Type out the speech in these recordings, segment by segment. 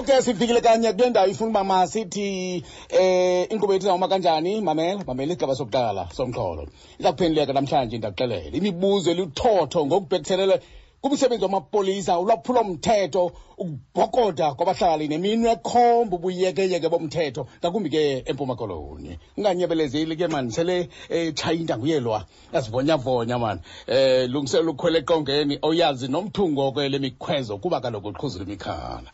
Ngoku ke sifikile kanye kule ndawo ifuna uba masithi inkqubo yethu izawuma kanjani. Mamela, mamela isigaba sokuqala somxholo. Iza kuphenduleka namhlanje, ndakuxelela. Imibuzo eluthotho ngokubhekiselele kumsebenzi wamapolisa, ulwaphulomthetho, ukubhokoda kwabahlali neminwe ekhomba ubuyekeyeke bomthetho, ngakumbi ke eMpuma Koloni. Unganyebelezeli ke mani, sele etshaya intanguyelwa, yazivonyavonya mani. Lungiselela ukhwela eqongeni, oyazi nomthungo ke le mikhwezo kuba kaloku uqhuzula imikhala.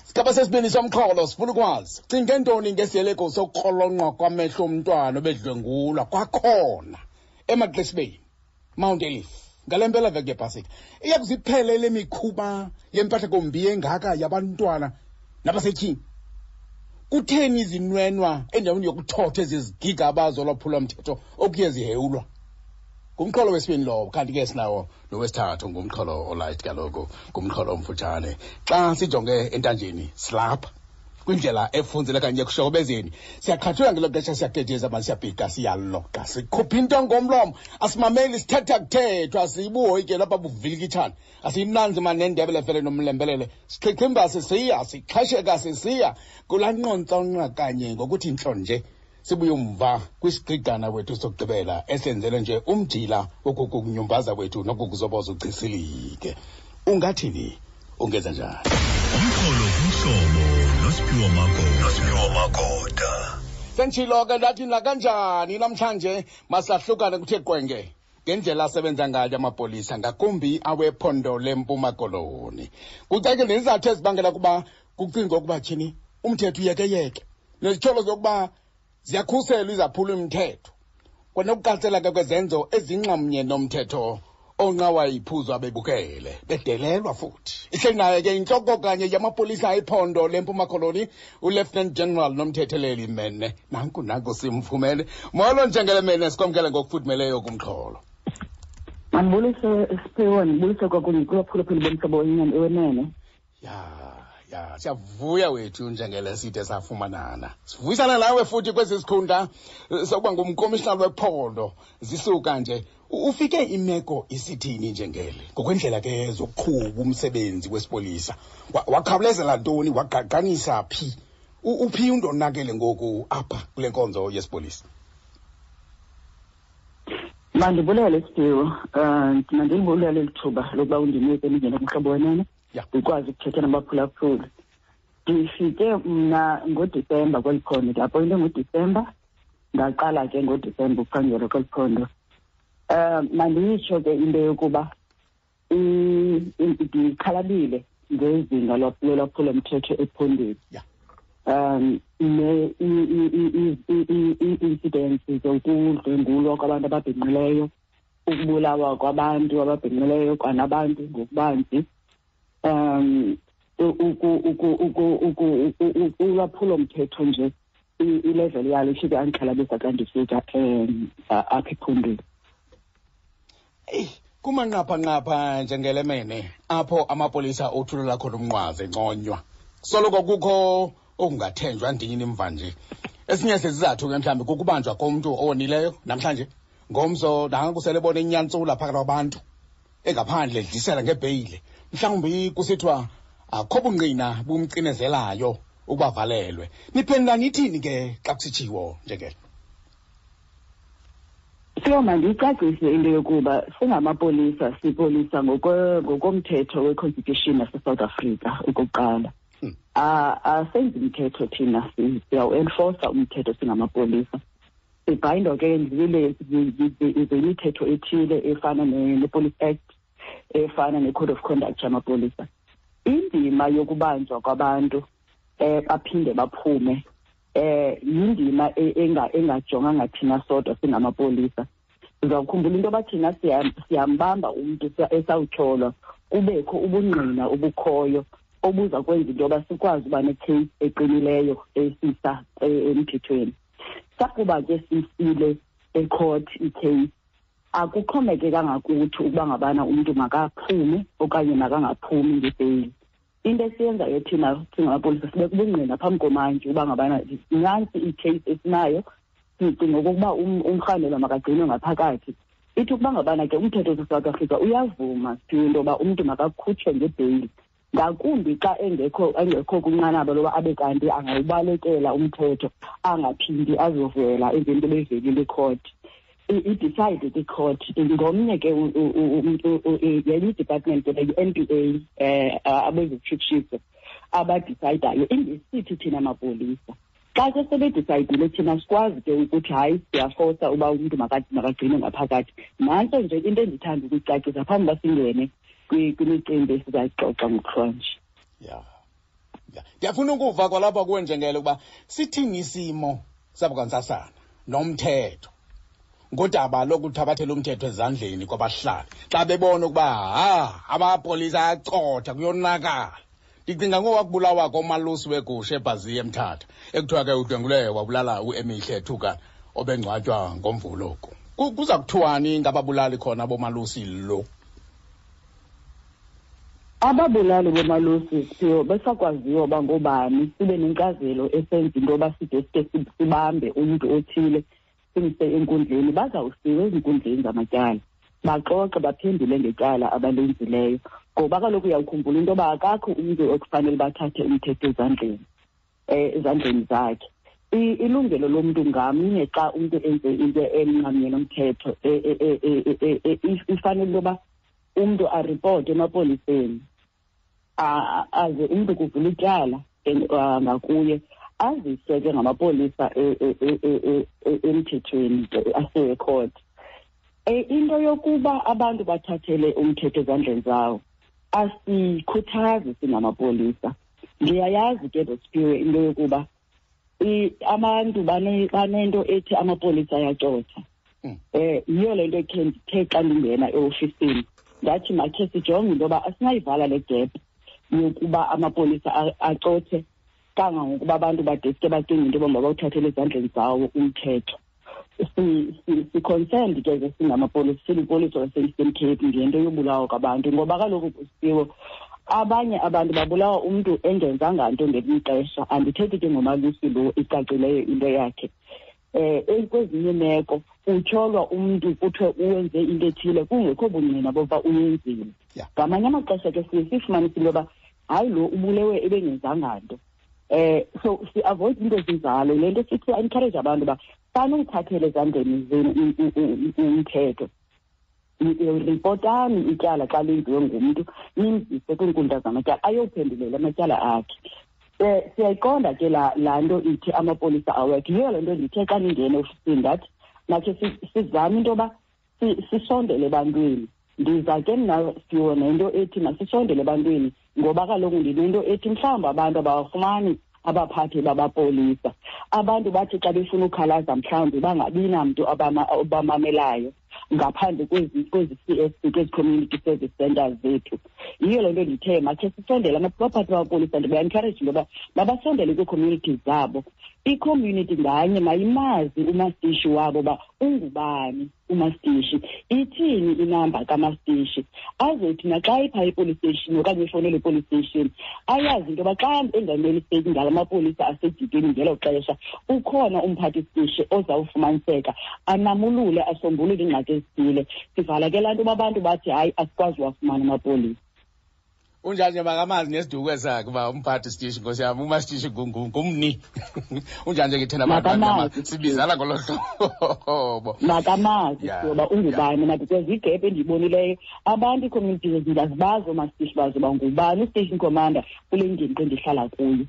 Sigaba sesibini somxholo sifuna ukwazi, cinge ntoni ngesiyeleko sokukrolonqwa kwamehlo omntwana obedlwengulwa kwakhona emaXesibeni, Mount Ayliff, ngale mpela veki yepasika? Iya kuziphele le mikhuba yempahlakombi engaka yabantwana nabasetyhini? Kutheni izinwenwa endaweni yokuthotha ezi zigigaba zolwaphulomthetho okuye zihewulwa? Ngumxholo wesibini lowo. Kanti ke sinawo nowesithathu, ngumxholo olight kaloku, ngumxholo omfutshane. Xa sijonge entanjeni silapha kwindlela efunzile kanye ekushokobezeni, siyaqhathula ngelo xesha, siyagejeza mani, siyabhika, siyaloqa, sikhupha into ngomlomo, asimameli, sithetha kuthethwa, sibuhoyike lapha buvilikitshana, asiyinanzi mani nendebele fele nomlembelele, sichichimba sisiya, sixhesheka sisiya kulaa nqontsonqa kanye ngokuthi ntlo nje. Sibuye umva kwisigqigqana wethu sokugqibela esenzele nje umjila wokukunyumbaza kwethu nokukuzoboza uchisilike. Ungathini? Ungenza njani? Umxholo kumhlobo noSiphiwo Magoda. Nosiphiwo Magoda. Senditshilo ke ndathi nakanjani namhlanje masahlukane kuthe qwenge ngendlela asebenza ngayo amapolisa, ngakumbi awephondo leMpuma Koloni. Kucacile nezizathu ezibangela ukuba kucingwe ukuba tyhini umthetho uyekeyeke, nezityholo zokuba ziyakhuselwa izaphula umthetho, kwanokuqatsela ke kwezenzo ezinxamnye nomthetho onqawa iphuzwa bebukele bedelelwa futhi. Ihleli naye ke intloko kanye yamapolisa ephondo leMpuma Koloni, uLieutenant General Nomthetheleli Mene. Nanku nanku simfumene. Molo Njengele Mene, sikwamkele ngokufudumeleyo kumxholo. Mandibulise Siphiwo, ndibulise kwakunye kubaphulaphuli bomhlobo wenene. Ya, siyavuya wethu Njengele side safumanana. Sivuyisana nawe futhi kwesi sikhundla sokuba ngumkomishinala wephondo. Zisuka nje ufike imeko isithini Njengele ngokwendlela ke zokuqhuba umsebenzi wesipolisa? Wakhawulezela ntoni, wagqagqanisa phi? Uphi undonakele ngoku apha kule nkonzo yesipolisa? Mandibulele Siphiwo, mandilibulele eli thuba lokuba undinike ndingene kumhlobo wenene. Ndikwazi ukuthetha nabaphulaphuli. Ndifike mna ngoDisemba kweli phondo, ndiapoyinte ngoDisemba, ndaqala ke ngoDisemba ukuphangela kweli phondo. Mandiyitsho ke into yokuba ndixhalabile ngezinga lolwaphulomthetho ephondweni. Ii-incidents zokudlwengulwa kwabantu ababhinqileyo, ukubulawa kwabantu ababhinqileyo kwanabantu ngokubanzi, ulwaphulomthetho nje ilevel yalo ifike andixhalabisa xa ndifika apha ephondweni. Eyi, kumanqaphanqapha njengelemene apho amapolisa othulela khona umnqwazi enconywa, soloko kukho okungathenjwa ndini mva nje. Esinye sezizathu ke mhlawumbi kukubanjwa komntu owonileyo namhlanje, ngomso nanku sele bona inyantsula phakathi kwabantu engaphandle edlisela ngebheyile, mhlawumbi kusithiwa akho bungqina bumcinezelayo ukuba valelwe. Niphendula nithini ke xa kusitshiwo njengelo? Sio, mandiyicacise into yokuba singamapolisa sipolisa ngokomthetho we-Constitution yase-South Africa okokuqala. Asenzi mthetho thina, siyawu-enforsa umthetho singamapolisa. Sibhayindwa ke zimithetho ethile efana ne-Police Act, efana ne-Code of Conduct yamapolisa. Indima yokubanjwa kwabantu baphinde baphume yindima engajonganga thina sodwa singamapolisa. Uzawukhumbula into yoba thina siyambamba umntu esawutyholwa, kubekho ubungqina obukhoyo obuza kwenza into yoba sikwazi uba ne-case eqinileyo esisa emthethweni. Sakuba ke sisile ecourt i-case, akuxhomekekanga kuthi ukuba ngabana umntu makaphume okanye makangaphumi ngebheyili. Into esiyenzayo thina singamapolisa sibeka ubungqina phambi komantyi uba ngabana nantsi i-case esinayo, sicinga okokuba umrhanelwa makagcinwe ngaphakathi. Ithi ukuba ngabana ke umthetho waseSouth Africa uyavuma into yoba umntu makakhutshwe ngebheyili. Ngakumbi xa engekho kwinqanaba loba abe kanti angawubalekela umthetho, angaphindi azovela emveni koba evelile ikhoti. I-decide kwicourt ngomnye ke yenye i-department ke i-N P A, abezokutshutshiso abadisayidayo, ingesithi thina mapolisa. Xa ke sebedisayidile, thina sikwazi ke ukuthi hayi, siyafosa uba umntu makagcinwe ngaphakathi. Nantso nje into endithanda ukuyicacisa phambi uba singene kwimicimbi esizayixoxa ngokuhlwanje. Ya, ndiyafuna ukuva kwalapha kuwe, Njengele, ukuba sithini isimo sabukwantsasana nomthetho ngodaba lokuthabathela umthetho ezandleni kwabahlali xa bebona ukuba ha, amapolisa ayacotha, kuyonakala. Ndicinga ngowakubulawa komalusi wegusha eBhaziya eMthatha, ekuthiwa ke udlwengule wabulala uEmihle Thuka obengcwatywa ngoMvulo oku. Kuza kuthiwani ngababulali khona bomalusi lo? Ababulali bomalusi, Siphiwo, besakwaziwa uba ngoobani, sibe nenkcazelo esenza into yoba side sike sibambe umntu othile simse enkundleni. Bazawusiwa ezinkundleni zamatyala, baxoxe, baphendule ngetyala abalenzileyo, ngoba kaloku uyawukhumbula into yoba akakho umntu ekufanele bathathe umthetho ezandleni zakhe. Ilungelo lomntu ngamnye, xa umntu enze into enxamnye nomthetho, ifanele into yoba umntu aripote emapoliseni, aze umntu kuvula ityala ngakuye, aziswe ke ngamapolisa emthethweni, asiwe ekhoti. Into yokuba abantu bathathele umthetho ezandleni zawo asikhuthazi singamapolisa. Ndiyayazi ke, Siphiwe, into yokuba abantu banento ethi amapolisa ayacotha. Yiyo le nto khe ndithe xa ndingena eofisini ndathi makhe sijonge into yoba asinayivala le gap yokuba amapolisa acothe kangangokuba abantu badeske bacinge into yoba mabawuthathele ezandleni zawo umthetho. Si-concerned ke ke singamapolisa, silipolisa lase-Eastern Cape, ngento yobulawa kwabantu, ngoba kaloku kusiwo abanye abantu babulawa umntu engenzanga nto ngelinye ixesha. Andithethi ke ngomalusi lo icacileyo into yakhe. Kwezinye imeko utyholwa umntu, kuthiwe uwenze into ethile kungekho bungqina bokuba uyenzile. Ngamanye amaxesha ke siye sifumanise into yoba hayi, lo ubulewe ebengenzanga nto. So si-avoid into ezinjalo. Le nto sithi encourage abantu uba sanuthathele ezandleni zenu umthetho. Ripotani ityala xa lenziwe ngumntu, nimzise kwiinkundla zamatyala ayophendulela amatyala akhe. Siyayiqonda ke laa nto ithi amapolisa awekho. Yiyo le nto ndithe xa ndingena eofisini ndathi makhe sizame into yoba sisondele ebantwini. Ndiza ke mna, Siphiwo, nento ethi masisondele ebantwini, ngoba kaloku ndinento ethi mhlawumbi abantu abawafumani abaphathi babapolisa. Abantu bathi xa befuna ukhalaza mhlawumbi bangabi namntu obamamelayo ngaphandle kwezi C S C, kwezi community service centers zethu. Yiyo le nto ndithe makhe sisondele abaphathi babapolisa. Ndiba-encourage into yoba mabasondele kwii-communities zabo. I-community nganye mayimazi umastishi wabo uba ungubani umastishi, ithini inamba kamastishi, azothi naxa ipha i-police station okanye ifowunele i-police station ayazi into yoba xa enganeliseki ngala mapolisa asedikeni ngelo xesha, ukhona umphathi sitishi ozawufumaniseka anamulule, asombulule iingxaki ezithile. Sivala ke laa nto uba abantu bathi hayi, asikwazi uwafumana amapolisa. Unjani nje, makamazi nesiduko sakhe uba umphathi sitishi, nkosi yam, umasitishi ngumni. Unjani nje ke thina bantu Makamazi. sibizana ngolo hlobo. Makamazi uba ungubani na, because igap endiyibonileyo, abantu ii-communities ndiyazibazi oomasitishi bazo uba ngubani u-station commander kule ngingqi endihlala kuyo.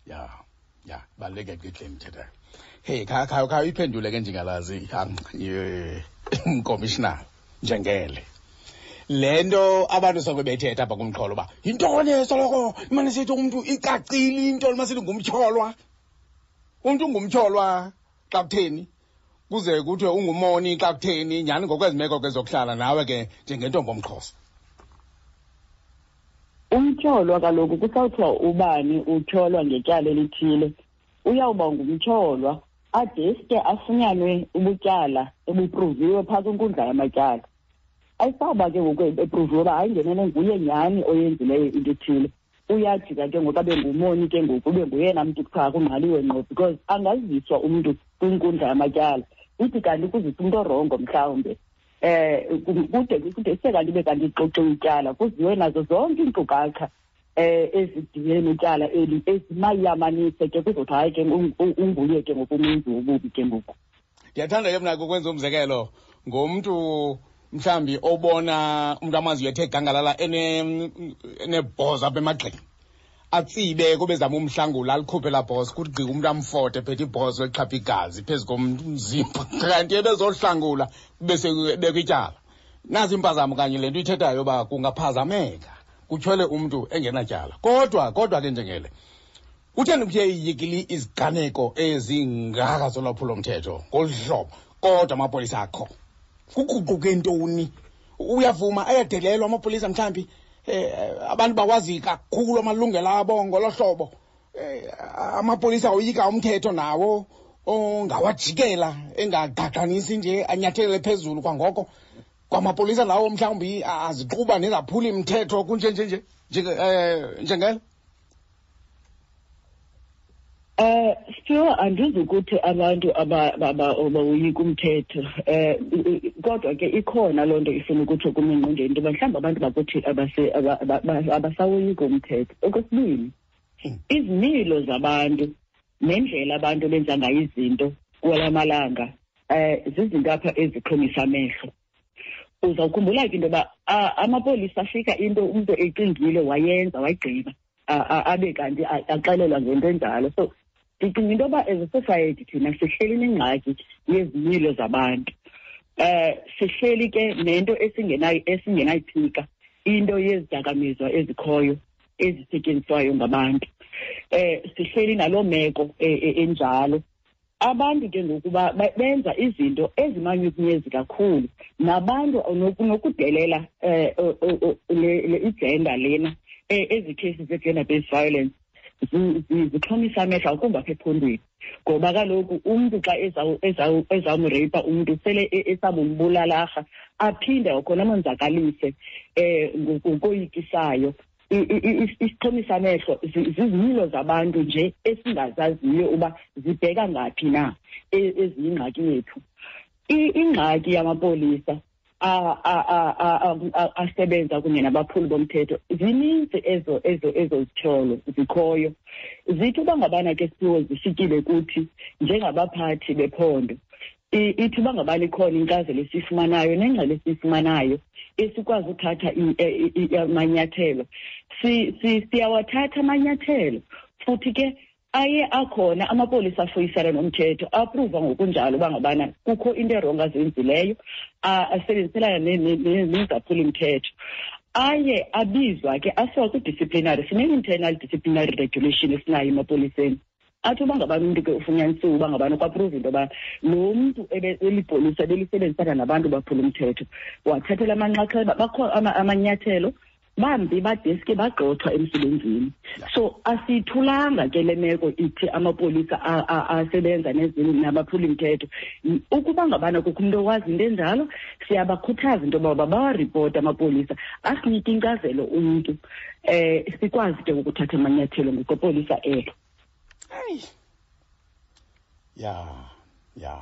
Ya, baluleke ke le ndithethayo. Hey, kha uyiphendule ke, njengalazi, mkomishinala Njengele. Le nto abantu soloko bethetha apha kumxholo uba yintoni, soloko imane sithi umntu icacile into masithi ngumtyholwa. Umntu ungumtyholwa xa kutheni? Kuze kuthiwe ungumoni xa kutheni? Nyhani ngokwezi meko ke zokuhlala nawe ke njengentombi omXhosa. Umtyholwa kaloku kusawuthiwa ubani utyholwa ngetyala elithile, uyawuba ngumtyholwa adeske afunyanwe ubutyala ebupruviwe phaa kwinkundla yamatyala. Ayisawuba ke ngoku epruviwe uba hayi, ngenene nguye nyhani oyenzileyo into ethile, uyajika ke ngoku abe ngumoni ke ngoku, ube nguyena mntu kuthiwa kungqaliwe ngqo, because angaziswa umntu kwinkundla yamatyala ithi kanti kuzisa umntu orongo mhlawumbe, kude kude sekanti ibe kanti ixoxiwe ityala, kuziwe nazo zonke iinkcukacha. Ezidibene netyala eli ezimayamanise ke kuzothi hayi ke unguye ke ngokumenzi wobubi ke ngoku. Ndiyathanda ke mna ukwenza umzekelo ngomntu mhlawumbi obona umntu amaziyo ethe gangalala enebhozo apha emagxeni, atsibe kube zama umhlangula, alikhuphe laa bhozo, kuthi gqi umntu amfote phethe ibhozo exhapha igazi phezu komzimba, kanti ebezohlangula kube sekubekwa ityala. Nazi impazamo kanye le nto ithethayo uba kungaphazameka kutyhole umntu engenatyala. Kodwa ke njengele, kutheni kuthe iyikili iziganeko ezingaka zolwaphulomthetho ngolu hlobo kodwa amapolisa akho? Kuguquke ntoni? Uyavuma ayadelelwa amapolisa mhlawumbi, abantu bawazi kakhulu amalungelo abo ngolo hlobo. Amapolisa oyika umthetho nawo ongawajikela engagqagqanisi nje anyathelele phezulu kwangoko. Kwamapolisa lawo mhlawumbi aziquba nezaphula imithetho kunje nje nje, njengelo? Siphiwo, andizukuthi abantu abawoyika umthetho, kodwa ke ikhona loo nto ifuna ukutsho kum engqondweni into yoba mhlawumbi abantu bakuthi abasawoyiki umthetho. Okwesibini, izimilo zabantu nendlela abantu benza ngayo izinto kwala malanga, zizinto apha ezixhomisa amehlo. Uzawukhumbula ke into yoba amapolisa afika into umntu ecingile wayenza wayigqiba, abe kanti axelelwa ngento enjalo. So ndicinga into yoba as a society thina sihleli nengxaki yezimilo zabantu. Sihleli ke nento esingenayiphika, into yezidakamizwa ezikhoyo ezisetyenziswayo ngabantu. Sihleli naloo meko enjalo. Abantu ke ngoku benza izinto ezimanyukunyezi kakhulu, nabantu nokudelela le igender lena, ezi cases ze-gender based violence zixhomisa amehlo akumbi apha ephondweni, ngoba kaloku umntu xa ezawumreyipa umntu sele esabumbulalарha, aphinde kwakhona amonzakalise ngokoyikisayo. Isixhomisa amehlo zizimilo zabantu nje esingazaziyo uba zibheka ngaphi na, eziyingxaki yethu. Ingxaki yamapolisa asebenza kunye nabaphuli bomthetho, zininzi ezo zityholo zikhoyo. Zithi uba ngabana ke Siphiwo zifikile kuthi njengabaphathi bephondo, ithi uba ngabana ikhona inkcazelo esiyifumanayo nengxelo esiyifumanayo esikwazi uthatha amanyathelo, siyawathatha amanyathelo. Futhi ke aye akhona amapolisa afuyisana nomthetho, apruva ngokunjalo uba ngabana kukho into erongo azenzileyo, asebenziselana nezaphuli-mthetho. Aye abizwa ke asiwa kwi-disciplinary. Sine-internal disciplinary regulation esinayo emapoliseni. Athi uba ngabana umntu ke ufunyanisiwe uba ngabana kwapruva into yoba lo mntu elipolisa belisebenzisana nabantu baphula umthetho, wathathela amanxaxheba, bakho amanyathelo, bambi badeske bagxothwa emsebenzini. So asiyithulanga ke le meko ithi amapolisa asebenza nabaphula imithetho. Ukuba ngabana kukho umntu owazi into enjalo, siyabakhuthaza into yoba bawaripota amapolisa, asinike inkcazelo umntu, sikwazi ke ukuthatha amanyathelo ngokwepolisa elo. Hayi. Ya, ya.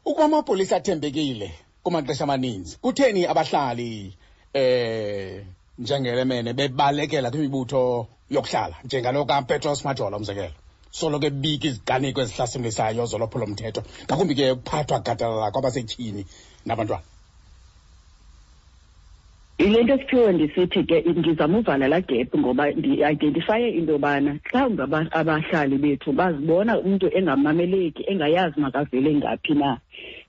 Ukuba amapolisa athembekile kumaxesha amaninzi, kutheni abahlali njengelemene bebalekela kwimibutho yokuhlala njengalo kaPetros Majola umzekelo, soloko ebika iziganeko ezihlasimlisayo zolwaphulomthetho, ngakumbi ke ukuphathwa gadalala kwabasetyhini nabantwana? Yile nto Siphiwe ndisithi ke ndizama uvala laa gap, ngoba ndi-identifaye into yobana mhlawumbi abahlali bethu bazibona umntu engamameleki, engayazi makavele ngaphi na.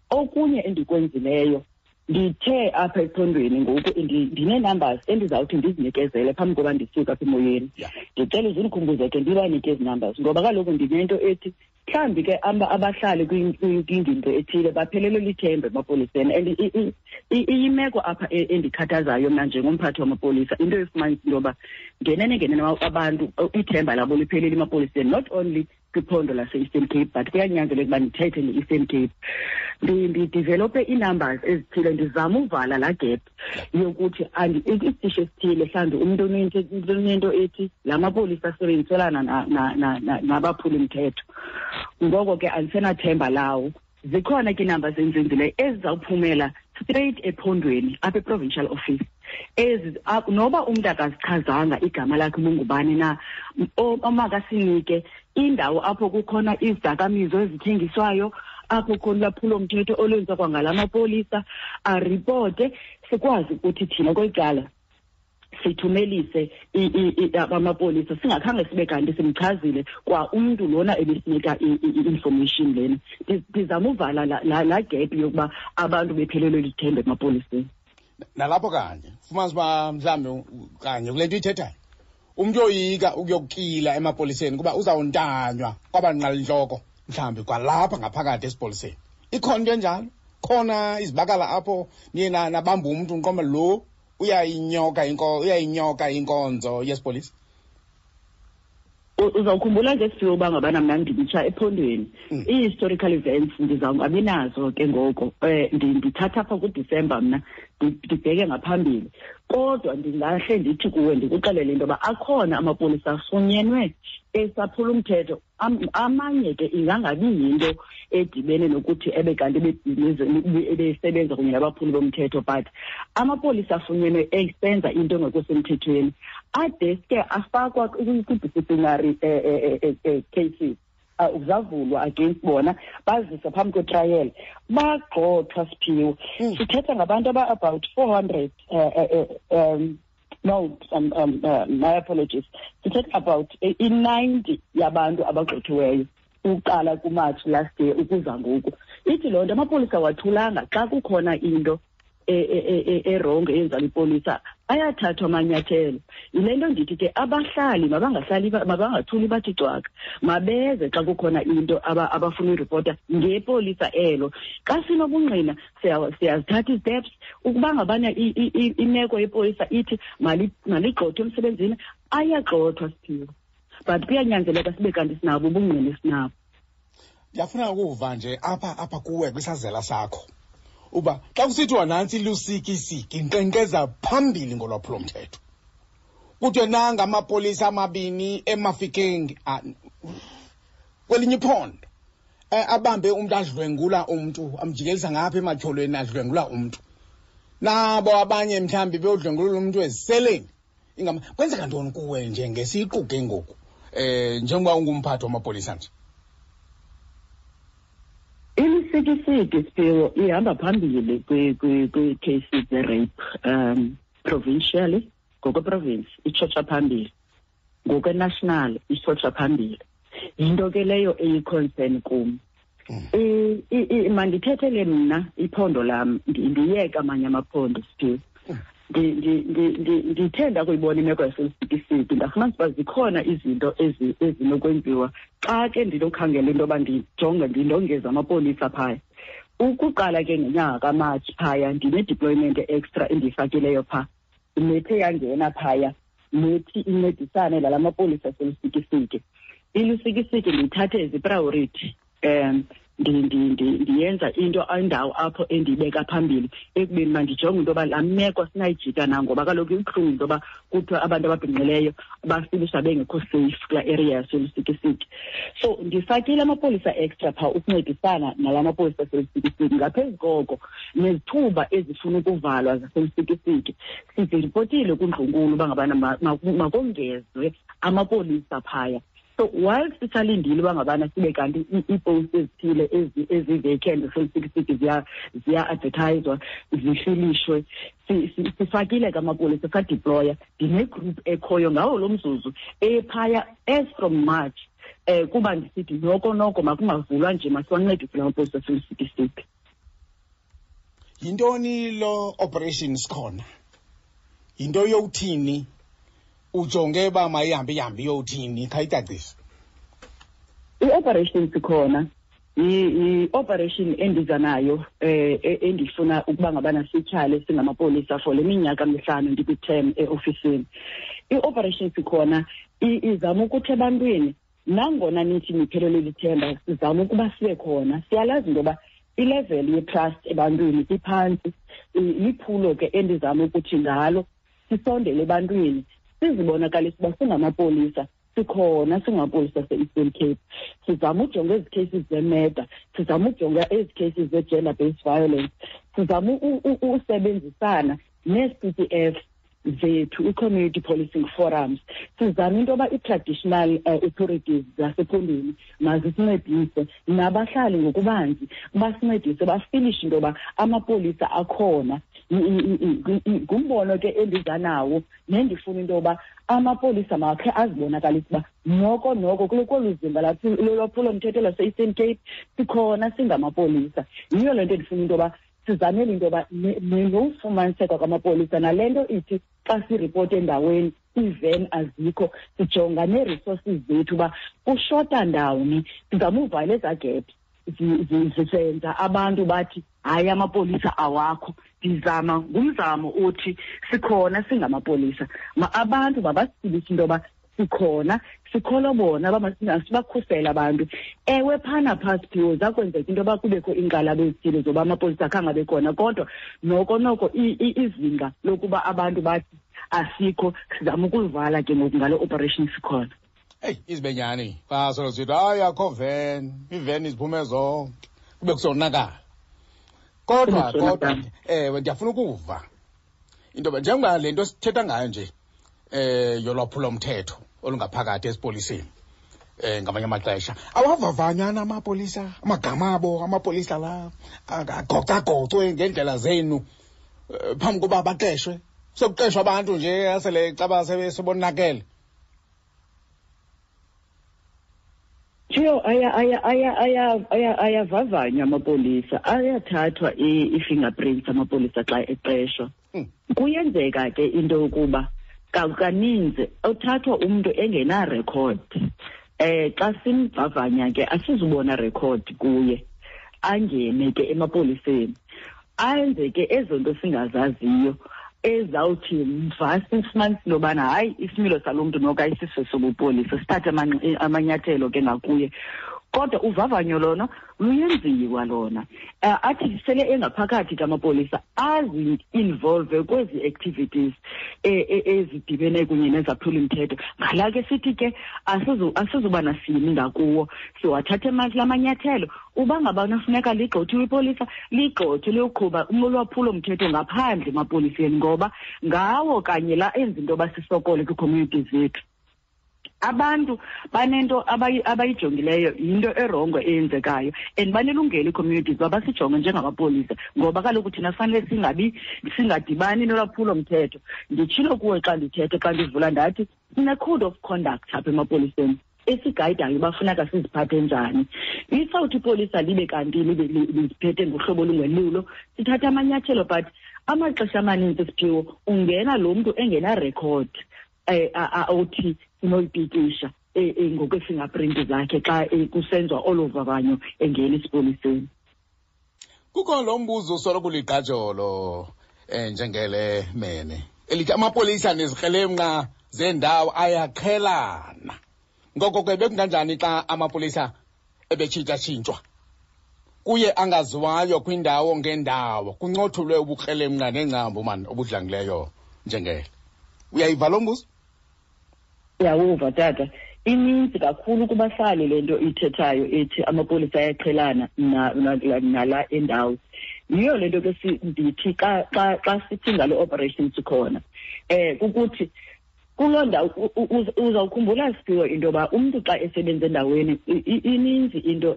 Okunye endikwenzileyo, ndithe apha ephondweni ngoku ndinee-numbers endizawuthi ndizinikezele phambi koba ndisuke apha emoyeni. Ndicela uze undikhumbuze ke ndibanike ezi numbers, ngoba kaloku ndinento ethi mhlawumbi ke abahlali kwingingqi ethile baphelelwe lithemba emapoliseni. And iyimeko apha endikhathazayo mna njengomphathi wamapolisa, into efumanisa into yoba ngenene ngenene abantu ithemba labo liphelile emapoliseni, not only kwiphondo lase-Eastern Cape, but kuyanyanzeleka uba ndithethe nge-Eastern Cape. Ndidevelope ii-numbers ezithile, ndizama uvala laa gap yokuthi isitishi esithile mhlawumbi umntu unento ethi la mapolisa asebenziselana nabaphuli-mthetho, ngoko ke andisenathemba lawo. Zikhona ke iinamba zenzenzileyo ezizawuphumela straight ephondweni apha e-provincial office. Ezi noba umntu akazichazanga igama lakhe ubungubani na, omakasinike indawo apho kukhona izidakamizwa ezithengiswayo, apho khona ulwaphulomthetho olwenziwa kwangala mapolisa, aripote, sikwazi ukuthi thina kweli cala sithumelise amapolisa singakhange sibe kanti simchazile kwa umntu lona ebesinika i-information lena. Ndizama uvala laa gap yokuba abantu bephelelwe lithemba emapoliseni. Nalapho kanye fumanisa uba mhlawumbi kanye kule nto uyithethayo, umntu oyoyika ukuyokukila emapoliseni kuba uzawuntanywa kwabanqalintloko mhlawumbi kwalapha ngaphakathi esipoliseni. Ikhona into enjalo? Khona izibakala apho niye nabamba umntu nqoma lo uyayinyoka inkonzo yesipolisa? Uzawukhumbula nje Siphiwe uba ngabana mna nditsha ephondweni. Ii-historical events ndizawungabi nazo ke ngoko. Ndithatha apha kuDisemba mna, ndibheke ngaphambili. Kodwa ndingahle ndithi kuwe, ndikuxelele into yoba akhona amapolisa afunyenwe esaphula umthetho. Amanye ke ingangabi yinto edibene nokuthi ebe kanti ebesebenza kunye nabaphuli bomthetho, but amapolisa afunyenwe esenza into engekho semthethweni adeske afakwa kwi-disciplinary cases. Zavulwa against bona, baziswa phambi kwetrial, bagxothwa Siphiwe. Sithetha ngabantu aba about 400, no, my apologies, sithetha about i-90 yabantu abagxothiweyo uqala kuMarch last year ukuza ngoku. Ithi loo nto amapolisa awathulanga xa kukhona into erongo eyenziwa lipolisa, ayathathwa amanyathelo. Yile nto ndithi ke abahlali mabangahlali, mabangathuli bathi cwaka, mabeze xa kukhona into abafuna uyiripota ngepolisa elo. Xa sinobungqina siyazithatha isteps. Ukuba ngabana imeko yepolisa ithi maligxothwe emsebenzini, ayagxothwa Siphiwe, but kuyanyanzeleka sibe kanti sinabo ubungqina esinabo. Ndiyafuna ukuva nje apha kuwe kwisazela sakho uba xa kusithiwa nantsi ilusikisiki inkqenkqeza phambili ngolwaphulomthetho, kuthiwe nanga amapolisa amabini eMafikeng, kwelinye iphondo, abambe umntu adlwengula umntu, amjikelisa ngapha ematyholweni adlwengula umntu, nabo abanye mhlawumbi beyodlwengulula umntu eziseleni. Ingama kwenzeka ntoni kuwe nje ngesiqu ke ngoku, njengoba ungumphathi wamapolisa nje? Ilusikisiki Siphiwe ihamba phambili kwi-cases ze-rape, provincially, ngokweprovince itshotsha phambili, ngokwe-national itshotsha phambili. Yinto ke leyo eyi-concern kum. Mandithethele mna iphondo lam, ndiyeka amanye amaphondo Siphiwe. Ndithe ndakuyibona imeko yaselusikisiki, ndafumanisa uba zikhona izinto ezinokwenziwa xa ke ndinokhangela into yoba ndijonge ndindongeze amapolisa phaya. Ukuqala ke ngenyanga kaMatshi phaya ndine-deployment extra endiyifakileyo phaa, nethe yangena phaya nethi incedisane nala mapolisa aselusikisiki. Ilusikisiki ndiyithathe as i-priority, ndiyenza into indawo apho endiyibeka phambili ekubeni mandijonge into yoba laa meko sinayijika na, ngoba kaloku ibuhlungu into yoba kuthiwa abantu ababhinqileyo bafilisha bengekho safe kulaa area yaselusikisiki. So ndifakile amapolisa extra phaa ukuncedisana nala mapolisa aselusikisiki. Ngaphezu koko nezithuba ezifuna ukuvalwa zaselusikisiki siziripotile kundlunkulu uba ngabana makongezwe amapolisa phaya. So while sisalindile uba ngabana sibe kanti iipost ezithile ezi-vacant zaselusikisiki ziya-advertiswa, zifilishwe, sifakile ke amapolisa, sadeploya. Ndinegroup ekhoyo ngawo lo mzuzu ephaya as from March, kuba ndisithi noko noko makungavulwa nje, masiwancedise la mapolisa aselusikisiki. Yintoni lo operation sikhona? Yinto yowuthini? Ujonge uba mayihambe ihambe iyowuthini? Khayicacise. I-operation sikhona i-operation endiza nayo, endifuna ukuba ngabana sityhale singamapolisa for le minyaka mihlanu ndikwi-term eofisini. I-operation sikhona izama ukuthi ebantwini, nangona nithi niphelelwe lithemba, sizama ukuba sibe khona. Siyalazi into yoba ilevel ye-trust ebantwini iphantsi. Liphulo ke endizama ukuthi ngalo sisondele ebantwini, sizibonakalise uba singamapolisa, sikhona singamapolisa ase-Eastern Cape. Sizama ujonga ezi cases zemurder, sizama ujonga ezi cases ze-gender based violence, sizama usebenzisana nee-C T F. zethu, i-community policing forums. Sizama into yoba i-traditional authorities zasephondweni mazisincedise, nabahlali ngokubanzi basincedise, bafilishe into yoba amapolisa akhona. Ngumbono ke endiza nawo nendifuna into yoba amapolisa makhe azibonakalise uba noko noko kolu zimba lolwaphulomthetho lwase-Eastern Cape sikhona singamapolisa. Yiyo le nto endifuna into yoba sizamele into yoba nofumaniseka kwamapolisa, nale nto ithi xa siripota endaweni iiven azikho, sijonga nee-resources zethu uba kushota ndawoni, sizama uvala ezaa gap zisenza abantu bathi hayi amapolisa awakho. Ndizama ngumzamo othi sikhona singamapolisa, abantu mabasibise into yoba sikhona, sikholwa bona, sibakhusele abantu. Ewe, phana phaa Siphiwo zakwenzeka into yoba kubekho iinkxalabo ezithile zoba amapolisa akhange abe khona, kodwa noko noko izinga lokuba abantu bathi asikho sizama ukulivala ke ngoku ngale operation sikhona. Eyi, izibenyani xa solo sithi hayi akho ven, iiveni ziphume zonke, kube kusonakala. Kodwa kodwa ewe, ndiyafuna ukuva into yoba njengoba le nto sithetha ngayo nje yolwaphulomthetho olungaphakathi esipoliseni, ngamanye amaxesha awavavanyana amapolisa, amagama abo amapolisa la agocagocwe ngeendlela zenu phambi koba baqeshwe. Sekuqeshwa abantu nje asele caba sebonakele. Thiyo, ayavavanywa amapolisa, ayathathwa i-fingerprints amapolisa xa eqeshwa. Kuyenzeka ke into yokuba kaninzi uthathwa umntu engenarekhodi. Xa simvavanya ke asizubona rekhodi kuye, angene ke emapoliseni, ayenze ke ezo nto singazaziyo ezawuthi mva sifumanise into yobana hayi isimilo salo mntu noko ayisiso sobupolisa, sithathe amanyathelo ke ngakuye. Kodwa uvavanyo lona luyenziwa lona. Athi sele engaphakathi kamapolisa azi-involve kwezi activities ezidibene kunye nezaphuli-mthetho. Ngala ke sithi ke asizuba nasini ngakuwo, siwathathe la manyathelo. Uba ngabana funeka ligxothiwe ipolisa, ligxothwe liyoqhuba ulwaphulo-mthetho ngaphandle emapoliseni, ngoba ngawo kanye la enza into yoba sisokole kwii-communities zethu. Abantu banento abayijongileyo, yinto erongo eyenzekayo, and banelungelo ii-communities uba basijonge njengamapolisa, ngoba kaloku thina fanele singadibani nolwaphulo-mthetho. Nditshilo kuwe xa ndithetha, xa ndivula ndathi sine-code of conduct apha emapoliseni esigayidayo uba funeka siziphathe njani. Isawuthi ipolisa libe kanti libe liziphethe ngohlobo olungelulo, sithatha amanyathelo, but amaxesha amaninzi Siphiwo ungena lo mntu engenarekhodi othi sinoyipikisha ngokwe-fingerprint zakhe xa kusenziwa olo vavanyo engena esipoliseni. Kukho lo mbuzo usoloko uligqajolo njengele mene elithi amapolisa nezikrelemnqa zendawo ayaqhelana. Ngoko ke bekunganjani xa amapolisa ebetshintshatshintshwa kuye angaziwayo kwindawo ngendawo, kuncothulwe ubukrelemnqa nengcambu mani obudlangileyo njengele? Uyayiva lo mbuzo? Uyawuva tata. Ininzi kakhulu kubahlali le nto ithethayo ethi amapolisa ayaqhelana nala endawo. Yiyo le nto ke ndithi xa sithi ngale operation sikhona, kukuthi kuloo ndawo uzawukhumbula Siphiwo into yoba umntu xa esebenza endaweni ininzi into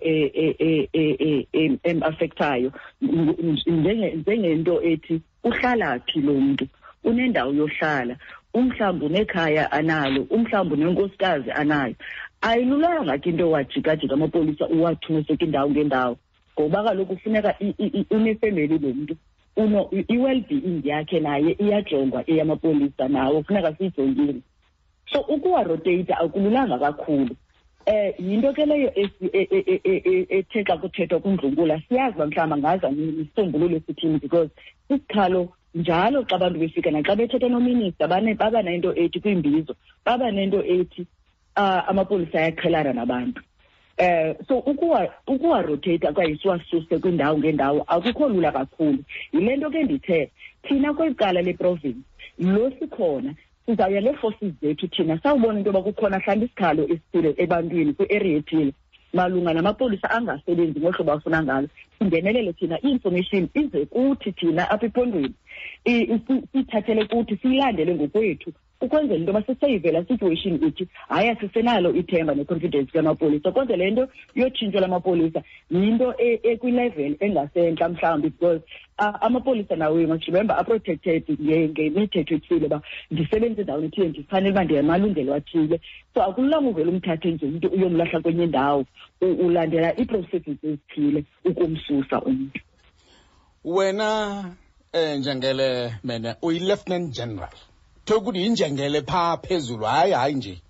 em-affectayo, njengento ethi uhlala phi lo mntu, unendawo yohlala, umhlawumbi unekhaya analo, umhlawumbi unenkosikazi anayo. Ayilulanga ke into wajikajika amapolisa uwathuse kwindawo ngendawo, ngoba kaloku kufuneka unefemeli lo mntu, i-well-being yakhe naye iyajongwa eyamapolisa, nawo kufuneka siyijongile. So ukuwaroteyita akululanga kakhulu. Yinto ke leyo ethe xa kuthethwa kundlunkula siyazi uba mhlawumbi angaza nesisombululo esithini, because isikhalo njalo xa abantu befika naxa bethetha nominista baba nento ethi kwiimbizo, baba nento ethi amapolisa ayaqhelana nabantu. So ukuwa-rotate okanye siwasuse kwindawo ngendawo akukho lula kakhulu. Yile nto ke ndithe thina kweli cala leprovince lo sikhona sizawuya nee-forces zethu thina sawubona into yoba kukhona mhlawumbi isikhalo esithile ebantwini kwi-area ethile malunga namapolisa angasebenzi ngohlobo afuna ngalo, singenelele thina, i-information ize kuthi thina apha ephondweni. Siyithathele kuthi, siyilandele ngokwethu, ukwenzela into yoba siseyive laa situation ithi hayi, asisenalo ithemba ne-confidence kamapolisa. Kodwa le nto yotshintsho lamapolisa yinto ekwilevel engasentla mhlawumbi, because amapolisa nawo, you must remember, aprotected ngemithetho ethile, uba ndisebenza endaweni ethile, ndifanele uba ndinamalungelo athile. So akululanga uvele umthathe nje umntu uyomlahla kwenye indawo. Ulandela ii-processes ezithile ukumsusa umntu. Wena Njengele Mene, uyi-Lieutenant General, ukuthi yinjengele phaa phezulu. Hayi, hayi nje,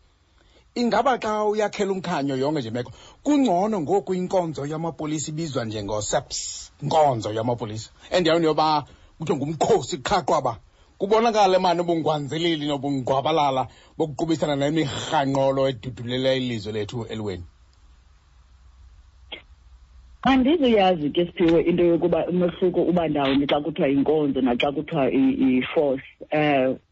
ingaba xa uyakhela umkhanyo yonke nje meko, kungcono ngoku inkonzo yamapolisa ibizwa njengo-SAPS, inkonzo yamapolisa, endaweni yoba kuthiwe ngumkhosi qha qwaba, kubonakale mani ubungwanzilili nobungqwabalala bokuqubisana nemirhanqolo edudulela ilizwe lethu eliweni? Andizuyazi ke, Siphiwe, into yokuba umehluko uba ndawoni xa kuthiwa yinkonzo naxa kuthiwa i-force,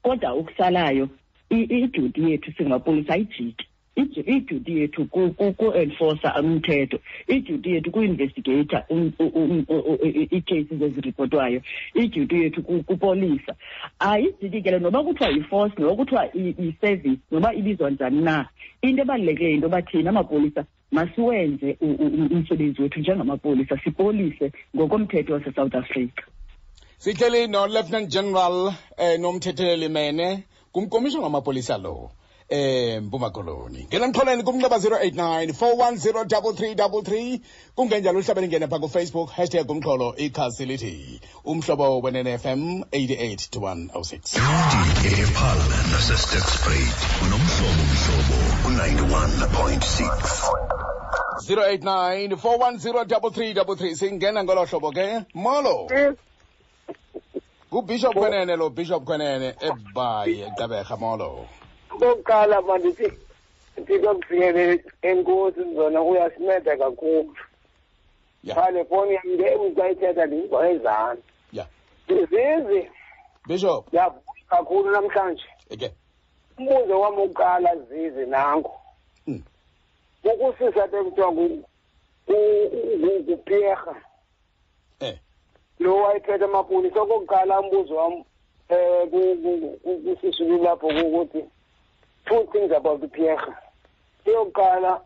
kodwa ukusalayo iduty yethu singapolisa ayijiki. Iduty yethu ku-enforcer umthetho, iduty yethu ku-investigata ii-cases eziripotwayo, iduty yethu kupolisa ayijiki ke le, noba kuthiwa yi-force, noba kuthiwa i-service, noba ibizwa njani na. Into ebalulekileyo yinto yoba thina amapolisa masiwenze umsebenzi wethu njengamapolisa, sipolise ngokomthetho waseSouth Africa. Sihleli no-Lieutenant General Nomthetheleli Mene, ngumkomishona wamapolisa lo Mpuma Koloni. Ngena mxholweni kumnxeba 089 410 3333, kungenjalo uhlabele ingene pha kuFacebook, hashtag umxholo, ikhasi lithi Umhlobo Wenene FM 88 to 106. Epaarl naseSterkspruit, unomhlobo Mhlobo u-91.6. 089 410 3333. Singena ngolo hlobo ke. Molo. NguBishop Kwenene lo, Bishop Kwenene eBhayi, eGqeberha. Molo. Okokuqala, mandithi ndikufikele, enkosi zona, uyasinceda kakhulu. Phaa le fowuni yam ke xa ithetha ndiyiva ezantsi. Zizi. Bishop. Ndiyavuya kakhulu namhlanje. Umbuzo wam wokuqala, Zizi, nanku. Ukusisa ke kuthiwa nguPierre. Lo wayephethe amapolisa. Okokuqala, umbuzo wam kusisulu lapho kukuthi two things about uPierre. Eyokuqala,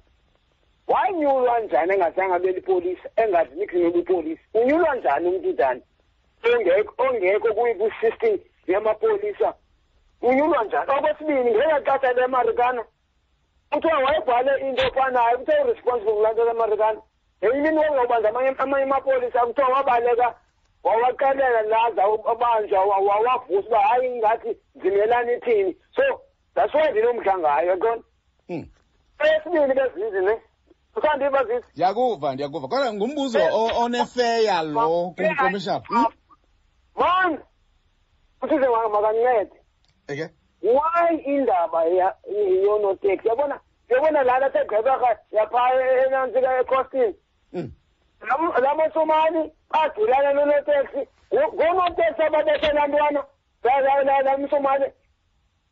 wanyulwa njani engazange abe lipolisa, engazi niks nobupolisa? Unyulwa njani umntu njani ongekho kwi-system yamapolisa? Unyulwa njani? Okwesibini, ngelaa xesha leMarikana kuthiwa wayebhale into efanayo, kuthiwa uresponsible kulaa nto leMarikana. Ngenye imini wawubanza amanye amapolisa, kuthiwa wabaleka, wawaxelela laza abanjwa, wawavusa uba hayi, ingathi zimelani ithini. So that's why ndinomdla ngayo, yaqona. Eyesibini, bezizi ne usandiva, Zizi? Ndiyakuva, ndiyakuva, kodwa ngumbuzo onefeya lo kumkomishana. Man, uthize makancede. Why indaba yonoteksi, yabona, yabona lana seGqeberha yaphaa enantsika eCostin, laa maSomali badulana nonoteksi, ngoonoteksi ababethe laa ntwana laa mSomali,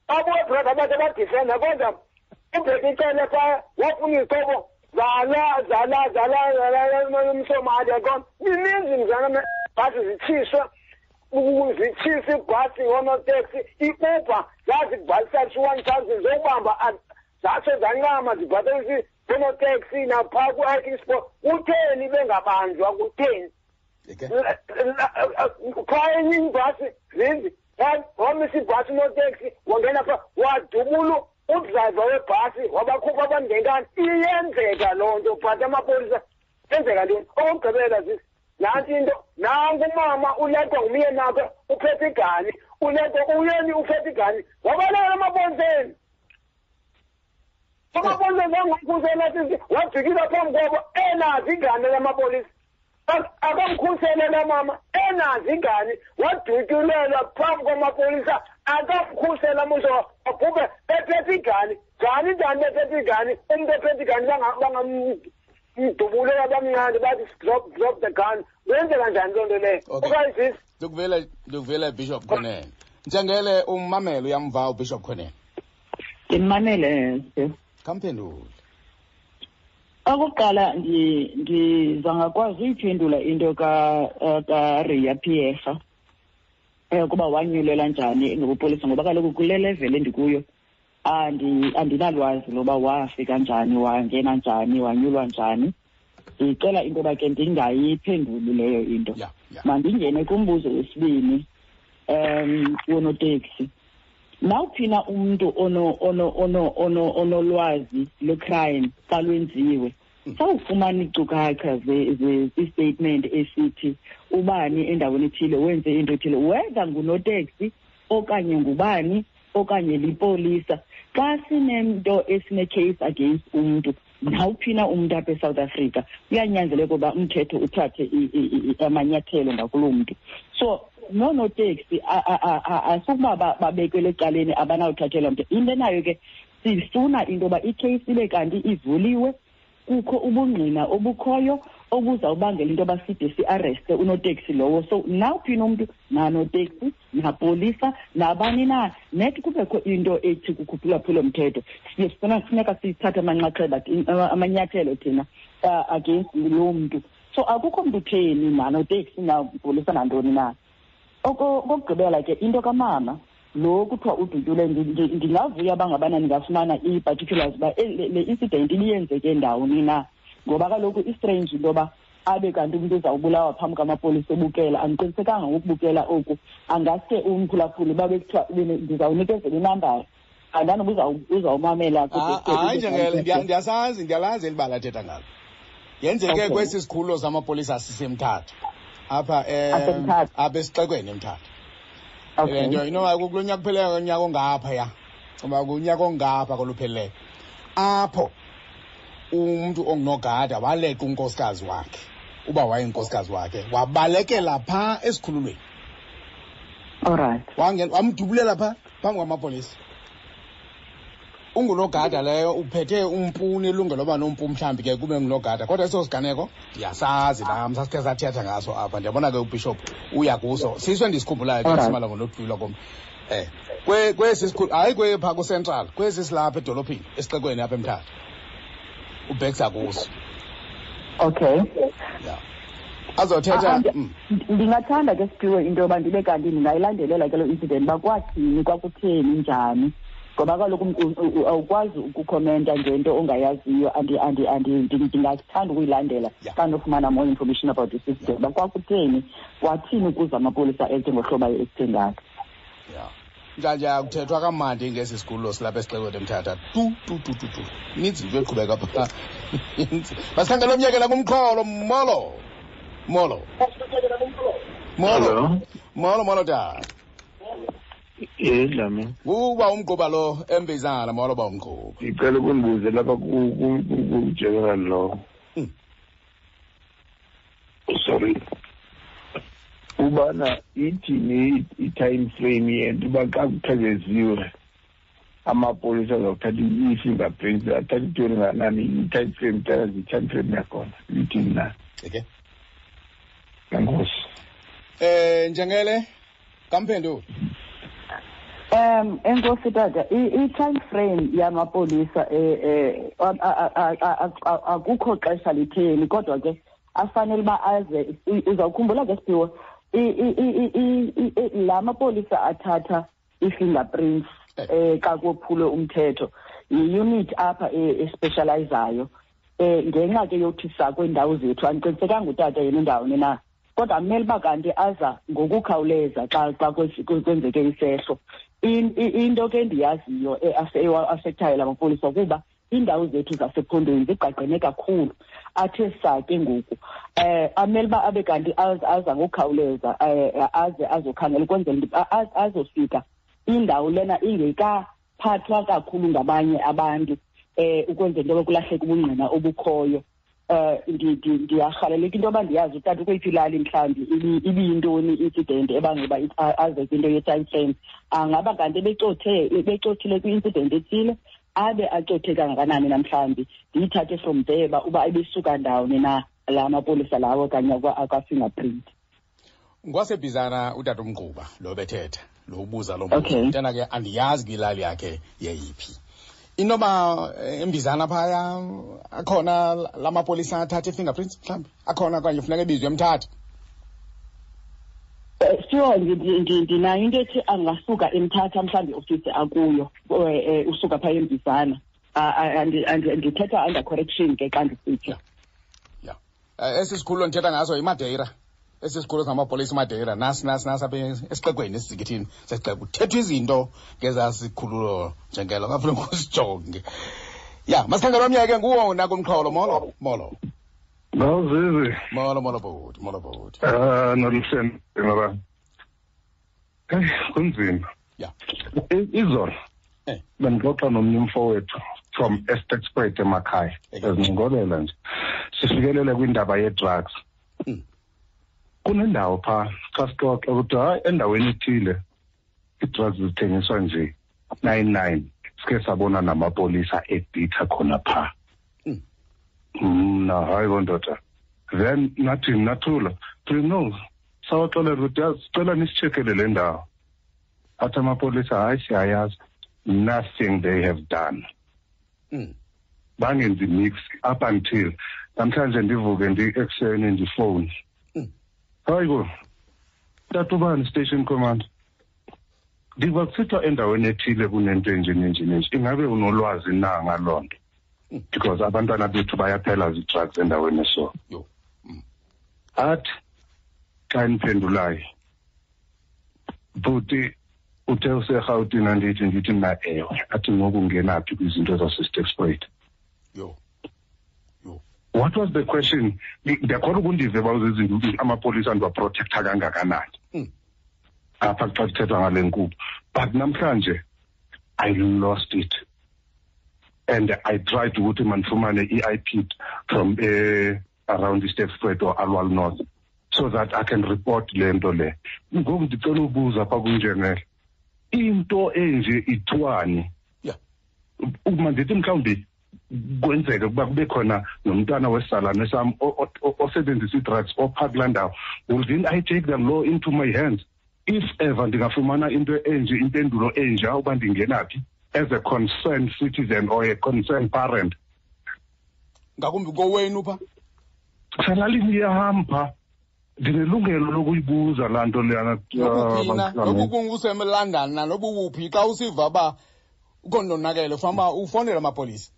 babuye brother bathe badifenda, kodwa uBheki Cele phaa wafuna izixhobo zala zala zala zala mSomali, yaqona. Mininzi mzana, bhasi zitshiswa, zitshisa ibhasi ngoonoteksi, i-Uber zazibhalisa 1000 zokubamba, zatsho zancama zibhatalisa oonoteksi naphaa ku-hiking sport. Kutheni bengabanjwa? Kutheni? Phaa enye ibhasi, zinzi, wamisa ibhasi unoteksi, wangena phaa, wadubula udrayiva webhasi, wabakhupha abantu ngenkani. Iyenzeka loo nto, but amapolisa yenzeka ntoni? Okokugqibela, sisi, nantsi into: nanku umama uleqwa ngumyeni wakhe, uphethe igani, uleqwa uyeni, uphethe igani, wabalekela emapoliseni. Amapolisa zangamkhusela, sisi, wajikisa phambi kwabo enazo igani lamapolisa. Akamkhusele la mama enazo igani, wadutyulelwa phambi kwamapolisa, akamkhusela muso, abhubhe ephethe igani. Njani, njani bephethe igani? Umntu ephethe igani bangamdubulela, bamncane bathi drop, drop the gun. Kwenzeka njani loo nto leyo? Okanye, sisi? Ndikuvela, ndikuvela, Bishop Kwenene. Njengele, ummamele, uyamva uBishop Kwenene? Ndimamele. Khamphendule. Okokuqala, ndiza ngakwazi uyiphendula into kaRiya Pierre. Ukuba wanyulelwa njani ngobupolisa, ngoba kaloku kule level endikuyo andinalwazi loba wafika njani, wangena njani, wanyulwa njani. Ndicela into yoba ke ndingayiphenduli leyo into. Mandingene kumbuzo wesibini, wonoteksi. Nawuphi na umntu onolwazi lwecrime xa lwenziwe, sawufumana iinkcukacha i-statement esithi ubani endaweni ethile wenze into ethile, whether ngunoteksi okanye ngubani okanye lipolisa. Xa sinento esine-case against umntu, nawuphi na umntu apha eSouth Africa, kuyanyanzeleka uba umthetho uthathe amanyathelo ngakuloo mntu. So noonoteksi asukuba babekelwe ecaleni, abanawuthathelwa mntu. Into enayo ke, sifuna into yoba ikheyisi ibe kanti ivuliwe, kukho ubungqina obukhoyo obuzawubangela into yoba side siareste unoteksi lowo. So nawuphi na umntu, nanoteksi, napolisa, nabani na, net kubekho into ethi kukhuphulwaphula mthetho, siye sifuna kufuneka sithathe amanxaxheba, amanyathelo thina against loo mntu. So akukho mntu utheni, nanoteksi, napolisa, nantoni na. Okokugqibela ke, into kamama lo kuthiwa udutyule, ndingavuya uba ngabana ndingafumana ii-particulars uba le incident ibiyenzeke ndawoni na, ngoba kaloku istrange into yoba abe kanti umntu uzawubulawa phambi kwamapolisa ebukela. Andiqinisekanga ngokubukela oku, angaske umphulaphuli uba bekuthiwa ndizawunikezela inambara, andanoba uzawumamela. Hayi, Njengele, ndiyasazi, ndiyalazi eli bala athetha ngalo. Yenzeke kwesi sikhululo samapolisa siseMthatha apha, Asemthatha. apha esixekweni eMthatha. Le nto inoba kulo nyaka upheleyo, unyaka ongaphaya, uba kunyaka ongapha koluphelileyo, apho umntu ongunogada waleqa unkosikazi wakhe, uba wayenkosikazi wakhe, wabalekela phaa esikhululweni. Wangena wamdubulela phaa phambi kwamapolisa. Ungunogada leyo, uphethe umpu, unelungelo loba nompu, mhlawumbi ke kube ngunogada, kodwa eso siganeko ndiyasazi nam, sasikhe sathetha ngaso apha. Ndiyabona ke ubishop uya kuso, siso endisikhumbulayo ke. Simala ngonodlula komntu kwesi sikhulu, hayi kwepha kucentral, kwesi silapha edolophini esixekweni apha eMthatha, ubhekisa kuso. Ya, azothetha. Ndingathanda ke, Siphiwe, into yoba ndibe kanti ndingayilandelela ke loo incident, uba kwathini, kwakutheni, njani, ngoba kaloku awukwazi ukukhomenta ngento ongayaziyo. Ndingathanda ukuyilandela xa ndinofumana more information about this incident, uba kwakutheni, kwathini ukuze amapolisa elte ngohlobo aye-ekte ngalo. Ya, njanje akuthethwa kamandi ngesi sikhululo silapha esixekweni eMthatha, tu tu tu tu tu. Ininzi into eqhubeka phaa. Masikhangele omyekela kumxholo. Molo, molo, molo. Hello. Molo, molo tata. Yes, Dlamini. Uba umgquba lo embizana. Molo, ba umgquba. Ngicela ukundibuze lapha ku-general lo. Sorry. Ubana ithini i-time frame yento uba xa kuthekeziwe amapolisa azawuthatha i-fingerprints, athatha itoni nganani, i-time frame, tell us i-time frame yakhona ithini na? Okay. Enkosi. Njengele kamphendulo. Enkosi tata, i-time frame yamapolisa, akukho xesha litheni, kodwa ke afanele uba aze. Uzawukhumbula ke, Siphiwe, la mapolisa athatha i-fingerprints xa kophulwe umthetho, yi-unit apha especializayo, ngenxa ke yokuthi sakwiindawo zethu. Andiqinisekanga utata yena indawoni na, kodwa amele uba kanti aza ngokukhawuleza xa kwenzeke isehlo. Into ke endiyaziyo ewa-affectayo la mapolisa kuba iindawo zethu zasephondweni zigqagqene kakhulu, athe saa ke ngoku amele uba abe kanti aza ngokukhawuleza, aze azokhangela ukwenzela into azofika indawo lena ingekaphathwa kakhulu ngabanye abantu, ukwenzela into yoba kulahleke ubungqina obukhoyo. Ndiyarhaleleka into yoba ndiyazi utata ukweyiphi ilali, mhlawumbi ibiyintoni i-incident ebangela uba aze kwinto ye-time frame. Angaba kanti ebecothile kwi-incident ethile, abe acothe kangakanani namhlawumbi, ndiyithathe from there uba ebesuka ndawoni na la mapolisa lawo okanye akwa-fingerprint. Ngwasebhizana utata umgquba lo bethetha, lo ubuza lo mbuzo. Mntana ke, andiyazi kwilali yakhe yeyiphi. Inoba embizana phaya akhona la mapolisa athatha i-fingerprints, mhlawumbi akhona, okanye funeka ebizwe eMthatha. Sure, ndinayo into ethi angasuka eMthatha mhlawumbi iofisi akuyo, usuka phaa eMbizana. Ndithetha under correction ke xa ndisitsho. Ya, esi sikhululo ndithetha ngaso yiMadeira. Esi sikhululo samapolisa iMadeira, nasi nasi nasi apha esixekweni, esizikithini sesixeko. Kuthethwa izinto ngezaa sikhululo njengelo, ngafuneka usijonge. Ya, masikhangela omnye ke nguwo nakumxholo. Molo, molo. Mawuzizi. Molo, molo bhuti, molo bhuti. Ah, noluhleni ngoba. Hey, kunzima. Ya. Izolo. Bendixoxa nomnye umfowethu from Sterkspruit emakhaya. Ezincokolela nje. Sifikelele kwindaba ye-drugs. Kunendawo pha xa sixoxa ukuthi hayi endaweni ethile ii-drugs zithengiswa nje 99, sike sabona namapolisa ebhitha khona pha. Mna hayi bondoda, then nathi nathula no sawaxelela ukuthi yazi sicela nisitshekele le ndawo. Athi amapolisa hayi siyayazi, nothing they have done. Bangenzi mix up until namhlanje ndivuke ndi-ekuseni ndifowuni. Hayi ko tata ubani station commander, ndiva kusithiwa endaweni ethile kunento enje nenje nenje, ingabe unolwazi na ngaloo nto? Because abantwana bethu bayaphela zii-drugs endaweni eso. Athi xa ndiphendulayo, bhuti uthe useRhawutini, andithi ndithi mna ewe. Athi ngoku ungena phi kwizinto zaseSterkspruit? Yho. Yho. What was the question? Ndiyakholwa ukundive uba uzizinto amapolisa ndiwaprotektha kangakanani apha xa kuthethwa ngale nkqubo. But namhlanje I lost it. And I tried ukuthi mandifumane i-IP from around iSterkspruit or Aliwal North so that I can report le nto le. Ngoku ndicela ubuza pha kunjengele, into enje ithiwani? Uma ndithi mhlawumbi kwenzeke ukuba kube khona nomntwana wesalane sam osebenzisa ii-drugs opha kulaa ndawo, will then I take the law into my hands if ever ndingafumana into enje, impendulo enja uba ndingena phi as a concerned citizen or a concerned parent? Ngakumbi kowenu pha? Selalini yam pha, ndinelungelo lokuyibuza laa nto leyana. Nokuphina, nokukunguseLondon na nobukuphi, xa usiva uba ukhona ufanele ufonele amapolisa.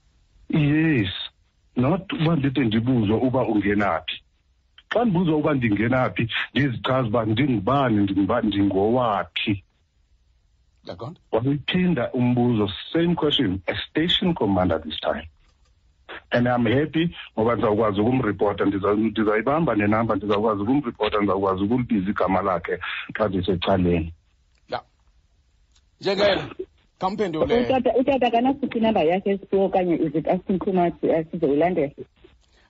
Yes, not uba ndide ndibuzwe uba ungena phi. Xa ndibuzwa uba ndingena phi, ndizichaze uba ndingubani, ndingubani, ndingowaphi. Yaqonda? Wayiphinda umbuzo, same question, a station commander this time. And I'm happy ngoba ndizawukwazi ukumripota, ndizayibamba nenamba, ndizawukwazi ukumripota, ndizawukwazi ukulibiza igama lakhe xa ndisecaleni. Ya. Njengele, khamphendule. Utata akanasiphi inamba yakhe esiphiwo okanye is it asking too much, sizoyilandela?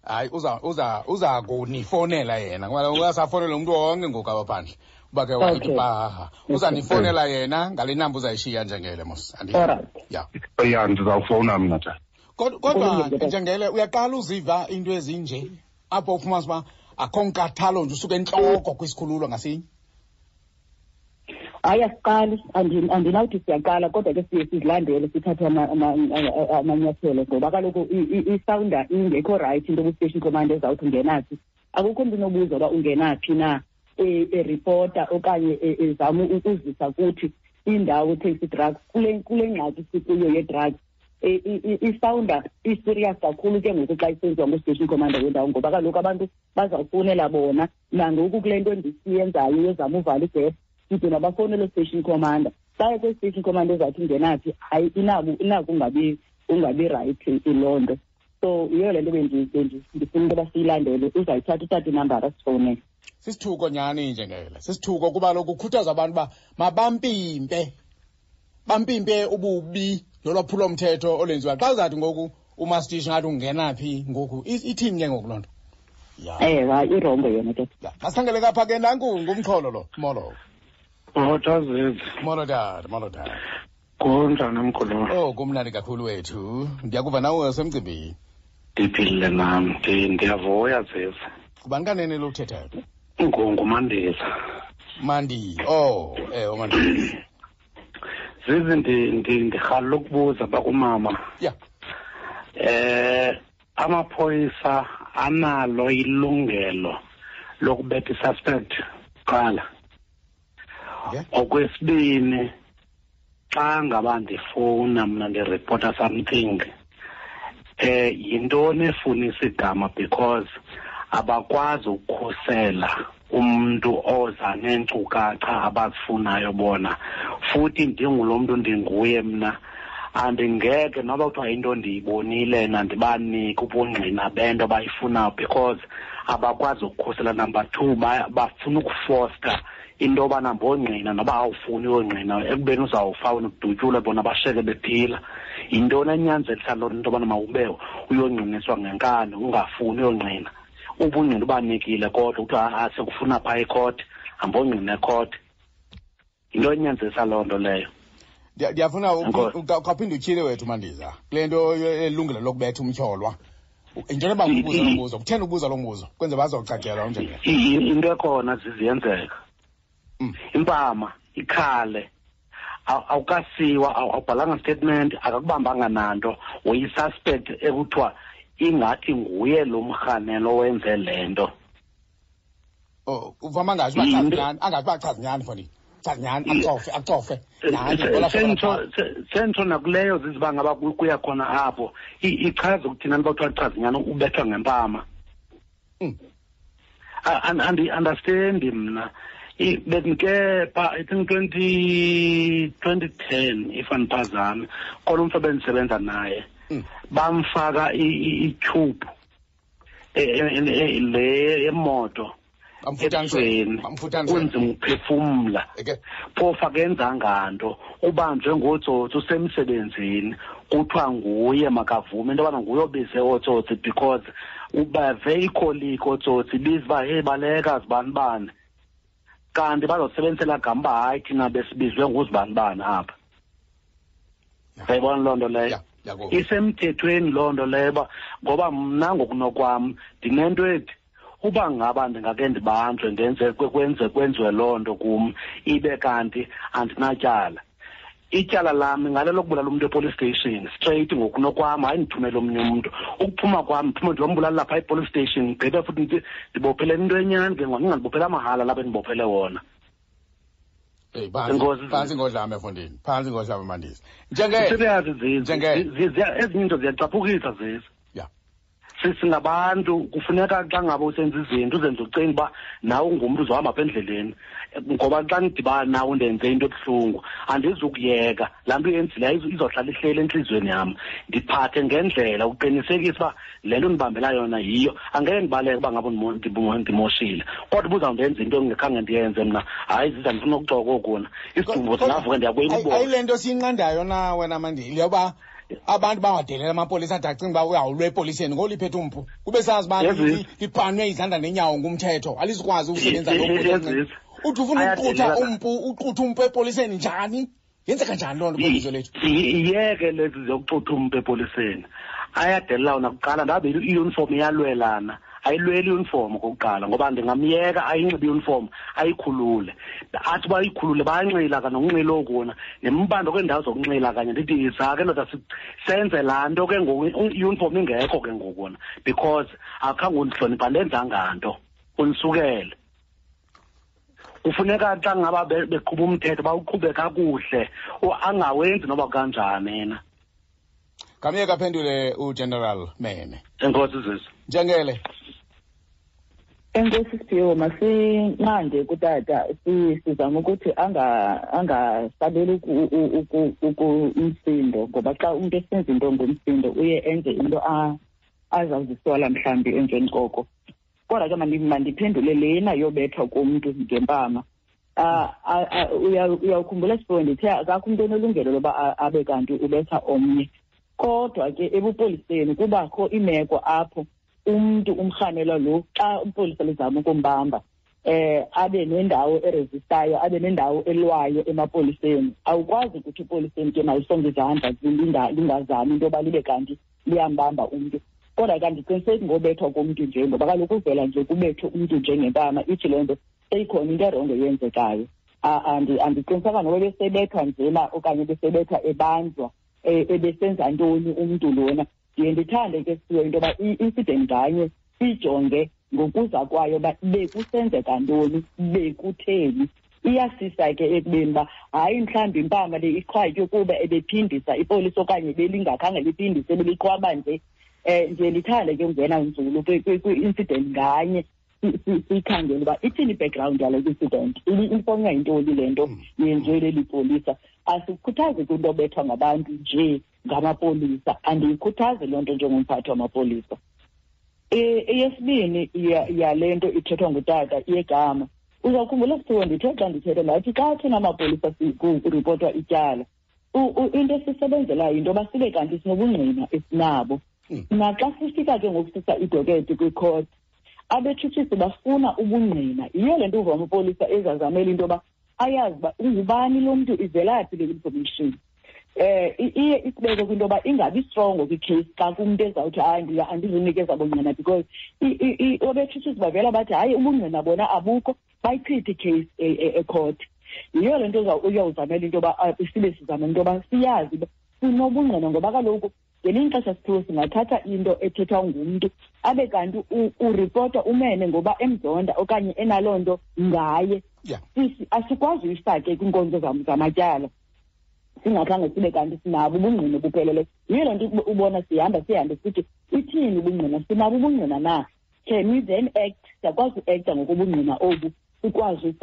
Hayi, uza kunifonela yena. Ngoba uyasafonela umuntu wonke ngoku apha phandle. Uba ke wathi paha. Uzanifonela yena ngale namba uzayishiya njengele mos. Alright. Ya. Ya, ndizawufowuna mna tata. Kodwa njengele uyaqala uziva into ezinje apho ufumanisa uba akho nkathalo nje usuke entloko kwisikhululo ngasinye. Hayi, asiqali, andinawuthi siyaqala, kodwa ke siye sizilandele sithathe amanyathelo ngoba kaloku isawunda ingekho right into kwi-station commander ezawuthi ungena phi. Akukho mntu unobuza uba ungena phi na, eripota okanye ezama ukuzisa kuthi indawo ethengisa ii-drugs kule ngxaki sikuyo ye-drugs. Isawunda i-serious kakhulu ke ngoku xa isenziwa ngu-station commander wendawo ngoba kaloku abantu bazawufowunela bona. Nangoku kule nto ndisiyenzayo yozama uvala igephu, side mabafowunele station commander. Xa kwi-station commander ezawuthi ungena phi, hayi inako ungabi right loo nto. So yiyo le nto ndifuna into yoba siyilandele. Uzayithatha uthathe inambara sifowunele. Sisithuko nyhani njengele, sisithuko kuba lokhu kukhuthaza abantu uba mabampimpe, bampimpe ububi nolwaphulomthetho olwenziwa. Xa uzathi ngoku umastishi ngathi ungena phi ngoku, ithini ke ngoku loo nto? Ya. Ewe, hayi, irongo yona ke. Ya, masikhangele kapha ke nanku ngumxholo lo. Molo. Molo, Tazezi. Molo tata, molo tata. Kunjani mkhulu? Oh, kumnandi kakhulu wethu. Ndiyakuva nawe usemcimbini. Ndiphilile nam, ndiyavuya Zizi. Ngubani kanene lo uthethayo? NguMandisa. Mandi. Oh, uMandisa. Zizi, ndirhalela ukubuza bakumama. Ya. Amaphoyisa analo ilungelo lokubetha i-suspect kuqala. Okwesibini, xa ngaba ndifowuna mna ndiripota something, yintoni efunisa igama, because abakwazi ukukhusela umuntu oza neenkcukacha abazifunayo bona. Futhi ndingulo mntu ndinguye mna, andingeke noba kuthiwa into ndiyibonile nandibanike ubungqina bento abayifunayo, because abakwazi ukukhusela. Number 2, bafuna ukufosta into yobana mbongqina noba awufuni uyongqina, ekubeni uzawufa wena udutyulwe, bona basheke bephila. Yintoni enyanzelisa loo nto yobana mawube uyongqiniswa ngenkani ungafuni uyongqina? Ubungqina ubanikile, kodwa kuthiwa sekufuna phaa ekhoti, hambongqina ekhoti. Yinto enyanzelisa loo nto leyo. Ndiyafuna ukaphinde utyhile wethu Mandiza kule nto elungelo lokubetha umtyholwa. Into yoba ubuza lo mbuzo, kutheni ubuza lo mbuzo? Kwenze bazocacelwa unjengelo. Into ekhona ziziyenzeka. Impama ikhale, awukasiwa, awubhalanga statement, akakubambanga nanto, uyi-suspect ekuthiwa ingathi nguye lo mrhanelo owenze le nto. Oh, uvama angazi uba chazi nyani, angazi uba chazi nyani, mfondini. Chazi nyani, acofe, acofe. Sentsho nakuleyo ziziba ngaba kuya khona apho. Ichaza ukuthi nani bakuthiwa chazi nyani ubethwa ngempama. Andi-understand mna. Bendike pha, I think 2010, if andiphazami, khona umntu ebendisebenza naye. Bamfaka i-tube le yemoto. Ebusweni, kunzima ukuphefumla. Phofu akenzanga nto, ubanjwe ngootsotsi usemsebenzini, kuthiwa nguye makavume into yobana nguye obize ootsotsi, because ubave ikholiki ootsotsi ibiza uba hey baleka zibanibani, kanti bazosebenzisela gama uba hayi thina besibizwe nguzibanibani apha. Uyayibona loo nto leyo? Isemthethweni loo nto leyo, uba ngoba mna ngokunokwam ndinento ethi uba ngaba ndingake ndibanjwe ndenze kwenziwe loo nto kum, ibe kanti andinatyala. Ityala lam ngale lokubulala umntu epolice station straight ngokunokwam, hayi ndithumele omnye umntu. Ukuphuma kwam ndiphume ndiyombulala lapha epolice station, ndigqibe futhi ndibophele into enyani ke ngoku, ndingandibophele amahala lapha endibophele wona. Hey, phantsi ngodlame mfondini, phantsi ngodlame Mandisa. Serious zizi. Ezinye iinto ziyacaphukisa zizi. Singabantu kufuneka xa ngaba usenza izinto uzenze ucinga uba nawe ungumntu uzohamba apha endleleni, ngoba xa ndidibana nawe ndenze into ebuhlungu andizukuyeka laa nto uyenzileyo, izohlala ihleli entliziyweni yam. Ndiphathe ngendlela uqinisekisa uba le nto ndibambela yona yiyo. Angeke ndibaleke uba ngaba ndimoshile, kodwa uba uzawundenza into engekhange ndiyenze mna, hayi ziza ndifuna ukuxoka okuna isidumbu singavuka ndiyakuyibona. Ayile nto siyinqandayo na wena Mandile, yoba abantu bangadelela amapolisa ade acinga uba uyawulwa epoliseni ngoliphethe umpu, kube sazi uba libhanwe izandla nenyawo ngumthetho, alizukwazi ukusebenza lo mpu. Uthi ufuna ukuqutha umpu, uqutha umpu epoliseni njani? Yenzeka njani loo nto kwilizwe lethu? Iyeke lezi zokuxutha umpu epoliseni. Ayadelela wona kuqala, ndabe i-uniform iyalwelana. Ayilweli i-uniform okokuqala, ngoba ndingamyeka ayinxibe i-uniform ayikhulule. Athi uba ayikhulule bayanxila kanye nokunxila okuna, nembando kweendawo zokunxila kanye. Ndithi yiza ke ndoda, senze laa nto ke ngoku, i-uniform ingekho ke ngoku wona, because akhange undihloniphe, andenzanga nto, undisukele. Kufuneka xa ngaba beqhuba umthetho bawuqhube kakuhle, angawenzi noba kanjani yena. Ngamyeka aphendule uGeneral Mene. Enkosi Zizi. Njengele. Enkosi Siphiwo, masinqande kutata, sizame ukuthi angasabeli umsindo, ngoba xa umntu esenza into ngomsindo uye enze into azawuzisola mhlawumbi emveni koko. Kodwa ke mandiphendule lena yobethwa komntu ngempama. Uyawukhumbula Siphiwo, ndithe akakho umntu onelungelo loba abe kanti ubetha omnye. Kodwa ke ebupoliseni kubakho imeko apho umntu umrhanelwa lo xa umpolisa lizama ukumbamba, abe nendawo eresistayo, abe nendawo elwayo emapoliseni. Awukwazi ukuthi epoliseni ke malisonge izandla lingazami into yoba libe kanti liyambamba umntu. Kodwa ke andiqiniseki ngobethwa komntu nje, ngoba kaloku uvela nje kubethwe umntu njengempama, ithi loo nto seyikhona into erongo eyenzekayo. Andiqinisekanga noba ebesebethwa njena okanye ebesebethwa ebanjwa, ebesenza ntoni umntu lona. Ndiye ndithande ke siwe into yoba i-incident nganye siyijonge ngokuza kwayo uba bekusenzeka ntoni, bekutheni. Iyasisa ke ekubeni uba hayi, mhlawumbi impama le iqhwatywe kuba ebephindisa ipolisa okanye belingakhange liphindise, beliqhwaba nje. Ndiye ndithande ke ungena nzulu kwi-incident nganye, siyikhangele uba ithini i-background yale incident, ifonywa yintoni le nto yenziwe leli polisa. Asikhuthazi kwinto obethwa ngabantu nje ngamapolisa, andiyikhuthazi loo nto njengomphathi wamapolisa. Eyesibini yale nto ithethwa ngutata yegama, uzawukhumbula sithiwe ndithe xa ndithetha ndathi xa thina amapolisa kuripotwa ityala, into esisebenzelayo yinto yoba sibe kanti sinobungqina esinabo. Naxa sifika ke ngoku sisa idoketi kwikhoti, abetshutshisi bafuna ubungqina. Yiyo le nto uva amapolisa ezazamela into yoba ayazi uba ungubani lo mntu, ivelaphi le information. Iye isibeke kwinto yoba ingabi strongo kwi-case xa kumntu ezawuthi hayi andizunikeza bungqina, because abetshutshisi bavela bathi hayi ubungqina bona abukho, bayichithe i-case ekhoti. Yiyo le nto uyawuzamela into yoba sibe sizamela into yoba siyazi uba sinobungqina, ngoba kaloku ngelinye ixesha sithiwe singathatha into ethethwa ngumntu abe kanti uripota umene ngoba emzonda okanye enaloo nto ngaye. Asikwazi uyifake kwiinkonzo zamatyala singakhange sibe kanti sinabo ubungqina obupheleleyo. Yiyo loo nto ubona sihamba sihambe sithi ithini ubungqina, sinabo ubungqina na? Can we then act? Siyakwazi uekta ngokobungqina obu, sikwazi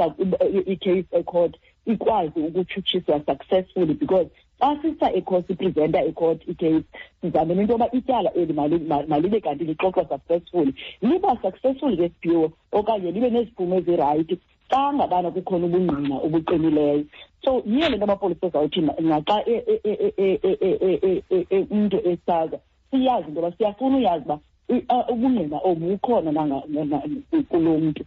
i-case ecourt ikwazi ukutshutshiswa successfully, because xa sisa ecourt, sipresenta ecourt i-case, sizamele into yoba ityala eli malibe kanti lixoxwa successfully. Liba successful ke siphiwo okanye libe neziphumo ezirayithi xa ngabana kukhona ubungqina obuqinileyo. So yiyo le nto amapolisa ezawuthi naxa umntu esaza, siyazi into yoba siyafuna uyazi uba ubungqina obu bukhona kulo mntu.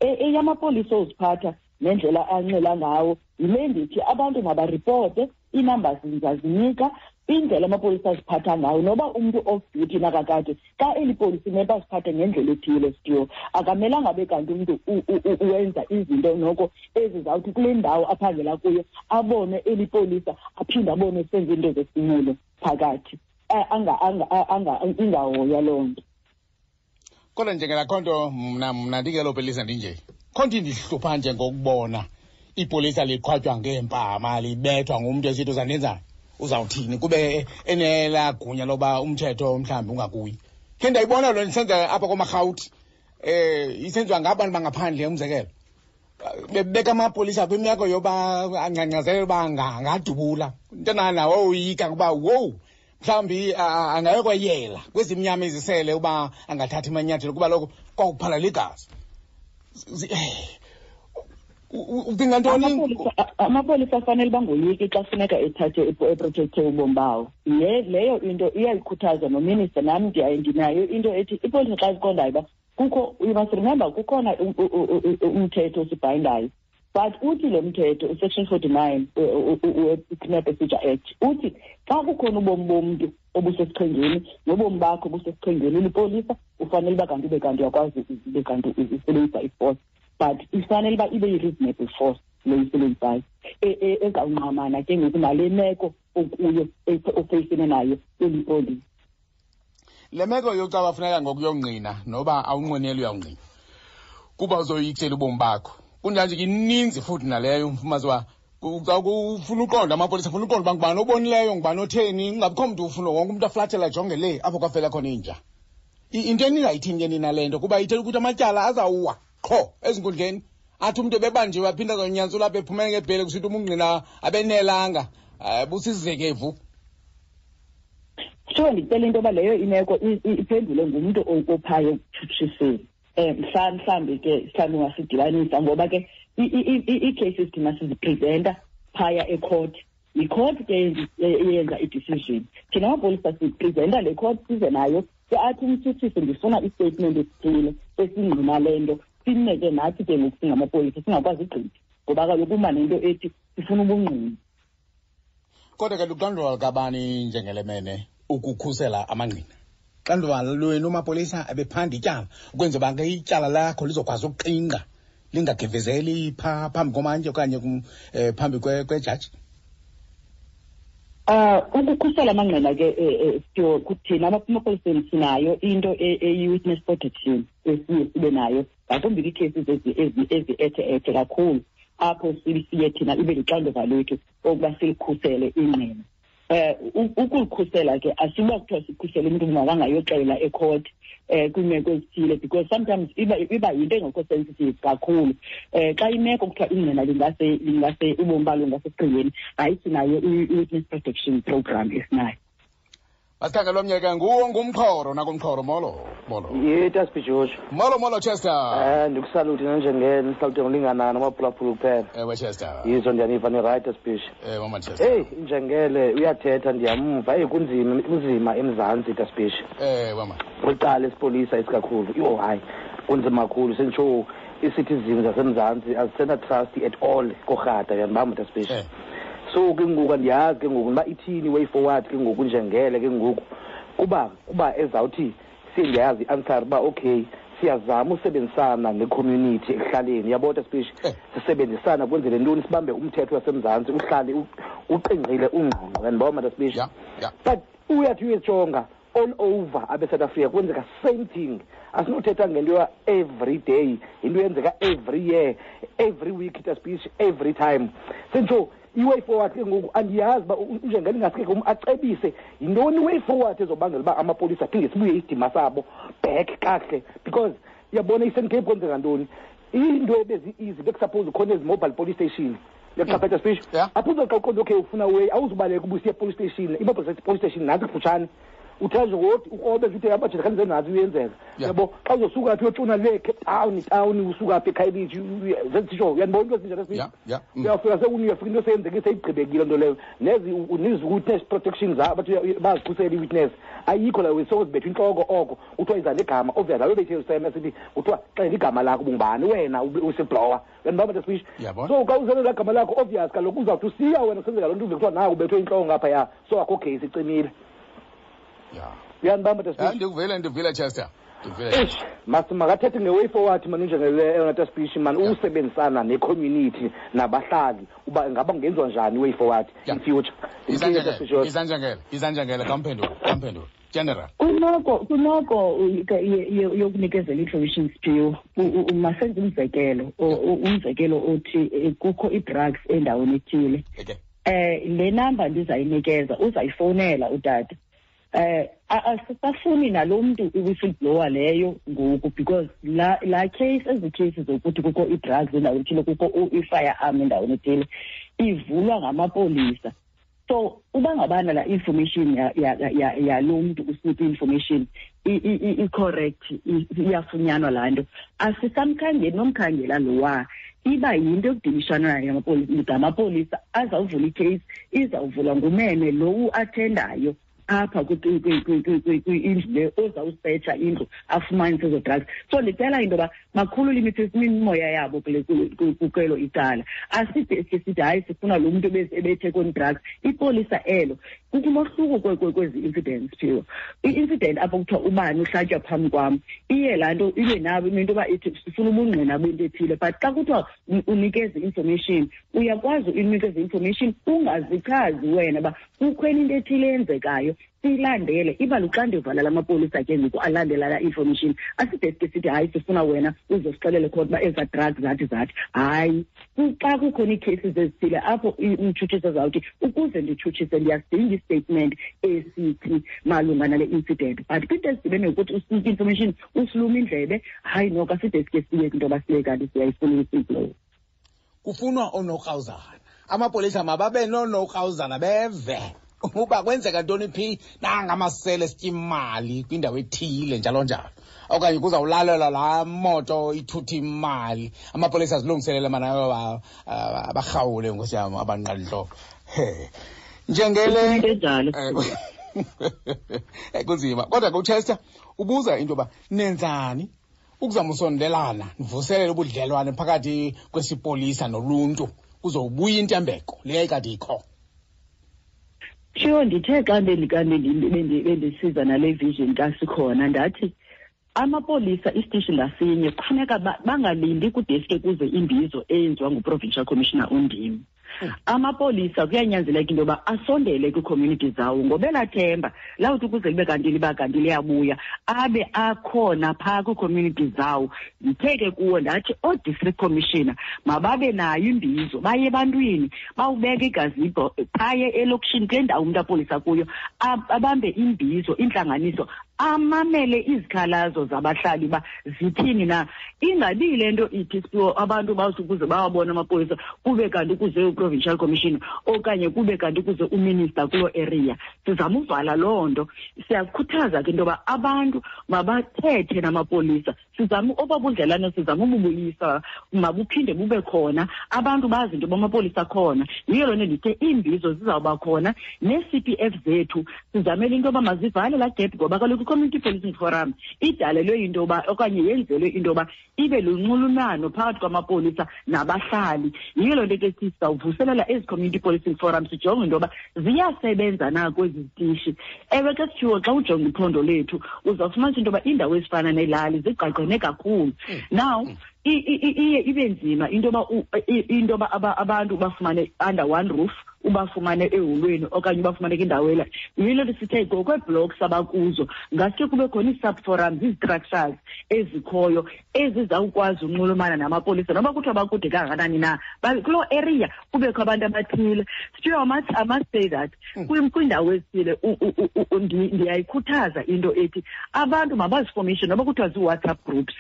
Eyamapolisa oziphatha nendlela anxila ngawo yile ndithi abantu mabaripote, ii-numbers ndizazinika, indlela amapolisa aziphatha ngawo. Noba umntu off duty nakakade, xa eli polisi imele baziphathe ngendlela ethile sityo, akamelanga abe kanti umntu wenza izinto noko ezizawuthi kule ndawo aphangela kuyo abone eli polisa, aphinde abone senza iinto zesimilo phakathi, ingahoywa loo nto. Kodwa njengelakho nto mna ndingelo polisa ndinje, kho nto indihlupha nje ngokubona ipolisa liqhwatywa ngeempama, libethwa ngumntu esithi uzandenzani, uzawuthini, kube enelaa gunya loba umthetho mhlawumbi ungakuyi. Khe ndayibona loo nto isenza apha komarhawuti, isenziwa ngabantu bangaphandle, umzekelo bebeka amapolisa kwimeko yoba angcangcazele uba angadubula into nawo woyika kuba wowu mhlawumbi angayokweyela kwezimnyama izisele uba angathathi amanyathelo, kuba lokho kwakuphalala igazi. Ucinga ntoni? Amapolisa afanele bangoyiki xa funeka ethathe eprotecthe ubomi bawo. Leyo into iyayikhuthaza nominister, nam ndinayo into ethi ipolisa xa ziqondayo uba kukho, you must remember kukhona umthetho osibhayindayo, but uthi lo mthetho usection 49 we-Criminal Procedure Act uthi xa kukhona ubomi bomntu obusesichengeni nobomi bakho obusesichengeni ulipolisa, ufanele uba kanti ube kanti uyakwazi ube kanti usebenzisa i-force, but ifanele uba ibe yi-reasonable force le uyisebenzisayo ezawungqamana ke ngoku nale meko okuyo ofeyisene nayo ulipolisa. Le meko yokucaba funeka ngokuyongqina noba awunqweneli uyawungqina kuba uzoyikisela ubomi bakho, kunjanje ke ininzi futhi naleyo umfumazi uba ufuna uqonda amapolisa, ufuna uqonda uba ngubani obonileyo, ngubani otheni, kungabikho mntu ufuna wonke umntu aflathela ajonge le apho kwafela khona inja. Into eningayithini ke nina le nto, kuba ithetha ukuthi amatyala azawuwa qho ezinkundleni, athi umntu ebebanjiwe aphinde azonyantsula apha ephumele ngebhele kusithi umungqina abenelanga, busizekevu. Sure, ndicela into yoba leyo imeko iphendule ngumntu ophayo ekutshutshiseni. Mhlawumbi ke mhlawumbi ungasidibanisa, ngoba ke ii-cases thina sizipresenta phaya ecourt. Yicourt ke eyenza i-decision. Thina amapolisa sipresenta le court size nayo, ke athi umtshutshisi ndifuna i-statement esithile esingqina le nto, sime ke nathi ke ngoku singamapolisa singakwazi ugqitha, ngoba kaloku uma nento ethi sifuna ubungqina. Kodwa ke luxanduva lukabani njengelemene ukukhusela amangqina? Xanduva lwenu mapolisa ebephanda ityala ukwenzela uba ke ityala lakho lizokwazi ukuqingqa lingagevezeli phaa phambi komantyi okanye phambi kwejaji? Ukukhusela amangqina ke sityo kuthina amapoliseni sinayo into eyi-witness protection esiye sibe nayo, ngakumbi kwiicases ezi-ethe-ethe kakhulu. apho siye thina ibe lixanduva lwethu okuba silikhusele ingqina. Ukulikhusela ke asiba kuthiwa sikhusele umntu makangayoxela ecourt kwiimeko ezithile, because sometimes iba yinto engekho sensitive kakhulu. Xa imeko kuthiwa ingqina lingase ubomi balo bungasesichengeni, hayi, sinayo i-witness protection program esinayo. Masikhangele omnye ke, nguwo ngumxhoro nakumxhoro. Molo, molo. Ye, Taspi George. Molo, molo, Chester. Ndikusalute nanjengele, ndisalute ngolinganana amaphulaphula kuphela. Ewe, Chester. Yizo, ndiyaniva ni-right, Taspi. Ewe, mama Chester. Hey, njengele uyathetha, ndiyamva. Hey, kunzima, kunzima eMzantsi, Taspi. Ewe, mama. Kwicala esipolisa isikakhulu. Yho, hayi, kunzima kakhulu. Senditsho ii-citizens zaseMzantsi azisena-trust at all korhata, uyandibamba, Taspi. So ke ngoku andiyazi ke ngoku uba ithini way forward ke ngoku njengele ke ngoku, kuba ezawuthi siye ndiyayazi i-answer uba okay, siyazama usebenzisana ne-community ekuhlaleni, uyabona, Taspi, sisebenzisana kwenzele ntoni, sibambe umthetho waseMzantsi uhlale uqingqile, ungqongqo, uyandibona, Taspi. But uyathi uyejonga all over abe-South Africa kwenzeka same thing. Asinothetha ngento ya every day, into eyenzeka every year, every week, Taspi, every time. Senditsho i-way forward ke ngoku andiyazi uba njengele ingaske ke acebise yintoni i-way forward ezobangela uba amapolisa aphinde sibuye isidima sabo back kakuhle, because uyabona i-Eastern Cape kwenzeka ntoni, into ebezi-easy bekusuppose khona ezi mobile police station, uyaqaphetha, Speech? Apho uzoxa uqonda okay ufuna way, awuzubaleka uba usiye police station, i-mobile police station nantsi kufutshane, uthe nje ngothi ukrobe nje uthe abajele khanze nazi uyenzeka. Yabo, xa uzosuka phi uyotshona le Cape Town town, usuka phi eKhayelitsha, zezitsho, uyandibona into ezinjalo, Speech? Yeah. Uyafika uyafika into seyenzeke, seyigqibekile nto leyo, nezi nezi witness protection zabo bathi bazikhusela i-witness, ayikho la, so zibethwa intloko oko kuthiwa iza negama, obvious abe bethe useme sithi kuthiwa xela igama lakho, bungubani wena whistleblower, uyandibamba, Speech? Yabona. So xa uzele laa gama lakho, obvious kaloku uzawuthi usiya wena kusenzeka loo nto, uve kuthiwa naku ubethwe intloko ngaphaya, so akho case, icimile. Uyandibamba, Speech? Yeah, ndikuvile, ndivile, Chester, ndivile. Eish, mas makathethe nge-way forward mani njengele eyona Taspeech mani, usebenzisana ne-community nabahlali, uba ngaba kungenziwa njani i-way forward in future. Izanjengele, izanjengele, izanjengele, kamphendule, kamphendule, general. Kwimeko yokunikezela i-information, Siphiwo, masenze umzekelo, umzekelo othi kukho ii-drugs endaweni ethile. Le number ndizayinikeza uzayifowunela utata. Asisafuni nalo mntu i-whistleblower leyo ngoku, because la case, ezi cases zokuthi kukho ii-drugs endaweni ethile, kukho i-firearm endaweni ethile, ivulwa ngamapolisa. So uba ngabana la information yalo mntu usinika i-information i-correct, iyafunyanwa laa nto, asisamkhangeli nomkhangela lowa, iba yinto ekudilishana nayo ngamapolisa azawuvula icase, izawuvulwa ngumene lo uathendayo apha kwindlu le, ozawusetsha indlu afumanise ezo drugs. So ndicela into yoba bakhulule imimoya yabo kwelo icala. Aside sike sithi hayi, sifuna lo mntu ebethe koni-drugs. Ipolisa elo, kukho umohluko kwezi incidents, Phiwo. I-incident apho kuthiwa ubani uhlatywa phambi kwam, iye laa nto ibe nabo into yoba ithi sifuna ubungqina bento ethile, but xa kuthiwa unikeze i-information, uyakwazi unikeza i-information ungazichazi wena uba kukhona into ethile eyenzekayo, siyilandele. Iba luxanduva lamapolisa ke ngoku alandela laa information. Aside sike sithi hayi, sifuna wena uzosixelele khona uba ezaa drugs zathi zathi. Hayi, xa kukhona ii-cases ezithile apho umtshutshisi azawuthi ukuze nditshutshise ndiyasidinga istatement esithi malunga nale incident, but kwinto ezidibene nokuthi usinike information usiluma indlebe, hayi noko aside sike siye kwinto yoba siye kanti siyayifuna i-whistleblower. Kufunwa oonokrawuzana, amapolisa mababe noonokrawuzana, beve uba kwenzeka ntoni phi, nangamasele esitya imali kwindawo ethile, njalo njalo, okanye kuzawulalelwa laa moto ithutha imali, amapolisa azilungiselele mana abarhawule, nkosi yam, abanqalintloko. He, njengele Into enjalo. Kunzima kodwa ke. UChester ubuza into yoba nenzani ukuzama usondelana, nivuselele ubudlelwane phakathi kwesipolisa noluntu, kuzowubuya intembeko le yayikade ikho. Sure, ndithe xa bendisiza nale vision kasikhona, ndathi amapolisa isitishi ngasinye kufuneka bangalindi kudeske kuze imbizo eyenziwa nguprovincial commissioner undim. Amapolisa kuyanyanzeleka into yoba asondele kwii-community zawo ngoba elaa themba lawuthi ukuze libe kanti liba kanti liyabuya abe akhona phaa kwii-community zawo. Ndithe ke kuwo ndathi oo-district commissioner mababe nayo imbizo, baye ebantwini, bawubeke igazibho phaye elokishini kule ndawo umntu apolisa kuyo, abambe imbizo, intlanganiso, amamele izikhalazo zabahlali uba zithini na. Ingabi le nto ithi Siphiwo abantu bawuthi ukuze bawabone amapolisa kube kanti kuze u-provincial commissioner okanye kube kanti kuze uminister kuloo area. Sizama uvala loo nto. Siyakhuthaza ke into yoba abantu mabathethe namapolisa. Sizama oba budlelane, sizama ububuyisa, mabuphinde bube khona, abantu bazi into yoba amapolisa akhona. Yiyo loo nto ndithe iimbizo zizawuba khona nee-C P F zethu sizamele into yoba mazivale laa gap, ngoba kaloku i-Community Policing Forum idalelwe into yoba okanye yenzelwe into yoba ibe lunxulumano phakathi kwamapolisa nabahlali. Yiyo loo nto ke sizawuvuselela ezi Community Policing Forum, sijonge into yoba ziyasebenza na kwezi zitishi. Ewe ke Siphiwo, xa ujonga iphondo lethu uzawufumanisa into yoba iindawo ezifana neelali zigqagqene kakhulu. Now, iye ibe nzima into yoba into yoba abantu bafumane under one roof, ubafumane eholweni okanye ubafumane kwindawo ela. Yiyo le nto sithe ngokweeblocks abakuzo ngaske kube khona ii-subforums, ii-structures ezikhoyo ezizawukwazi unxulumana namapolisa noba kuthiwa bakude kangakanani na, kuloo area kubekho abantu abathile. Siphiwo, I must say that kwiindawo ezithile ndiyayikhuthaza into ethi abantu mabazifomishe noba kuthiwa zii-WhatsApp groups,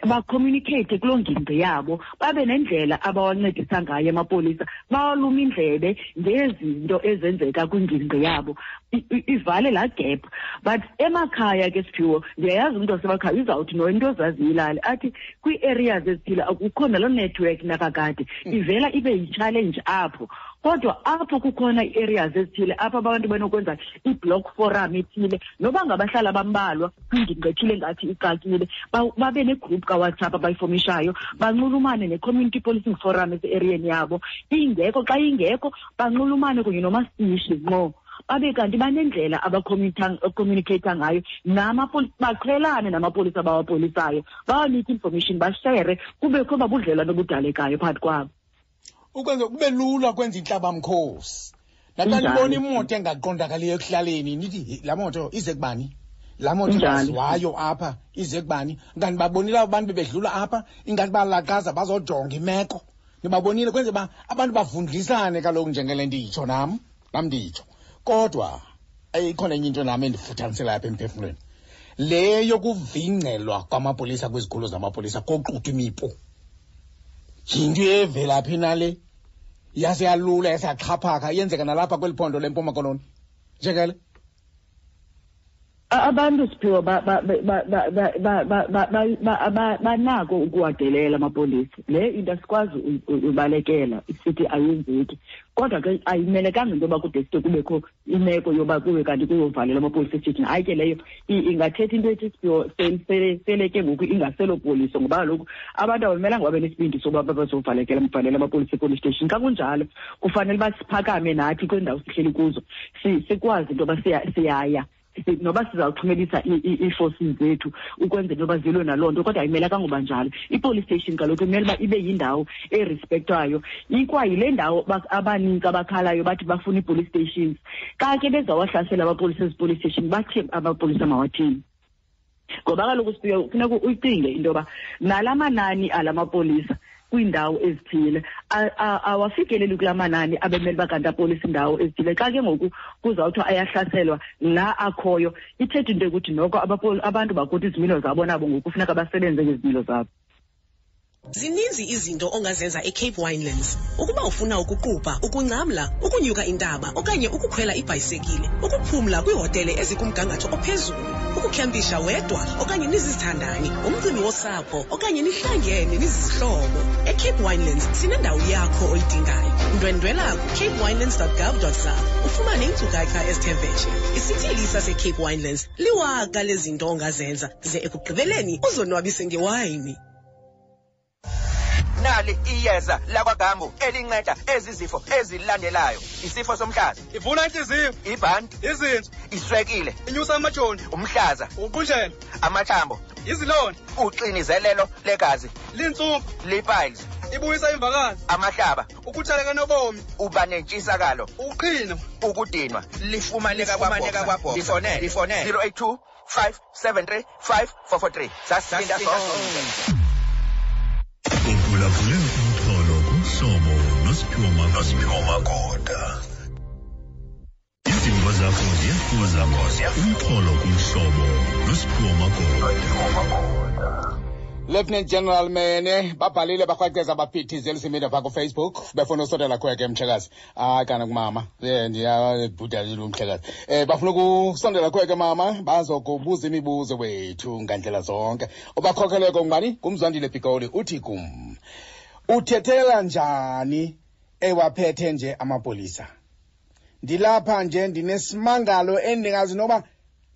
bacommunicate kuloo ngingqi yabo, babe nendlela abawancedisa ngayo amapolisa, bawalume indlebe ngezinto ezenzeka kwingingqi yabo, ivale laa gap. But emakhaya ke Siphiwo, ndiyayazi umntu wasemakhaya uzawuthi no into ozaziyo ilali, athi kwii-areas ezithile akukho naloo network nakakade, ivela ibe yi-challenge apho. Kodwa apho kukhona ii-areas ezithile apho abantu benokwenza i-block forum ethile, noba ngabahlali abambalwa kwingingqi ethile ngathi ixakile, babe negroup kaWhatsApp abayifomishayo, banxulumane ne-community policing forum ese-eriyeni yabo. Ingekho, xa ingekho banxulumane kunye nomasitishi ngqo, babe kanti banendlela abacommunicate ngayo namapolisa, baqhelane namapolisa abawapolisayo, bawanike information, bashere, kubekho babudlelwane obudalekayo phakathi kwabo. Ukwenza kube lula kwenza intlabamkhosi. Naxa nibona imoto engaqondakaliyo ekuhlaleni, nithi laa moto ize kubani? Laa moto ingaziwayo apha ize kubani? Kanti babonile abo bantu bebedlula apha, ingathi balaqaza bazojonga imeko. Nibabonile, kwenze uba abantu bavundlisane kaloku njengele nditsho nam, nam nditsho. Kodwa ikhona enye into nam endifuthaniselayo apha emphefumlweni. Le yokuvingcelwa kwamapolisa kwizikhululo zamapolisa koxuthwa imipu. Yinto evelaphi na le? Yase yalula, yase yaxhaphaka, yenzeka nalapha kweli phondo leMpuma Koloni. Njengele? Abantu Siphiwo banako ukuwadelela amapolisa. Le into asikwazi ubalekela sithi ayenzeki. Kodwa ke ayimelekanga into yoba kude side kubekho imeko yoba kube kanti kuyovalelwa amapolisa esithini. Hayi ke leyo ingathetha into ethi Siphiwo sele ke ngoku ingaselopoliso, ngoba kaloku abantu abamelanga babe nesibindi soba bazovalekela mvalela amapolisa epolice station. Xa kunjalo kufanele uba siphakame nathi kwiindawo sihleli kuzo, sikwazi into yoba siyaya. Noba sizawuxhumelisa ii-forces zethu ukwenzela into yoba zilwe naloo nto, kodwa ayimelekanga uba njalo. I-police station kaloku imele uba ibe yindawo erespektwayo. Ikwayile ndawo abanintsi abakhalayo bathi bafuna ii-police stations. Xa ke bezawahlasela amapolisa ezi-police station, bathi amapolisa mawathini? Ngoba kaloku Siphiwe, kufuneka uyicinge into yoba nala manani ala mapolisa kwiindawo ezithile awafikeleli kulaa manani abemele uba kanti apolisa iindawo ezithile. Xa ke ngoku kuzawuthiwa ayahlaselwa la akhoyo, ithetha into yokuthi noko abantu bakuthi izimilo zabo nabo ngoku kufuneka basebenze ngezimilo zabo. Zininzi izinto ongazenza eCape Winelands. Ukuba ufuna ukuqubha, ukungcamla, ukunyuka intaba okanye ukukhwela ibhayisekile, ukuphumla kwiihotele ezikumgangatho ophezulu, ukukhempisha wedwa okanye nizizithandani, umcimbi wosapho okanye nihlangene nizizihlobo. eCape Winelands sinendawo yakho oyidingayo. Ndwendwela ku-capewinelands.gov.za ufumane iinkcukacha ezithe vetshe. Isithili saseCape Winelands liwaka lezinto ongazenza ze ekugqibeleni uzonwabise ngewayini. Nali iyeza lakwaGambu elinceda ezi zifo ezilandelayo: isifo somhlaza, ivula inhliziyo, ibhanti, izinso, iswekile, inyusa amajoni, umhlaza, ukuqunjelwa, amathambo, izilonda, uxinizelelo legazi, lintsumpa, lipiles. Ibuyisa imvakazi. Amahlaba. Ukuthaleka nobomi. Uba nentshisakalo. Uqhino. Ukudinwa. Lifumaneka kwaBoxer. Lifonele. Lifonele. 082 573 5443. Sasinda sonke. Uphulaphule umxholo kumhlobo noSiphiwo Magoda. Izimvo zakho ziyafuza umxholo kumhlobo noSiphiwo Magoda. Lieutenant General Mene babhalile bakrwaqeza baphithizela isimida phaa kuFacebook befuna usondela khweke mhlekazi. Hayi kana kumama um ndiyabhuda umhlekazi. Um bafuna ukusondela khweke mama bazokubuza imibuzo wethu ngandlela zonke. Ubakhokheleko ngubani? Ngumzwandile Pikoli uthi kum. Uthethela njani ewaphethe nje amapolisa? Ndilapha nje ndinesimangalo endingazi noba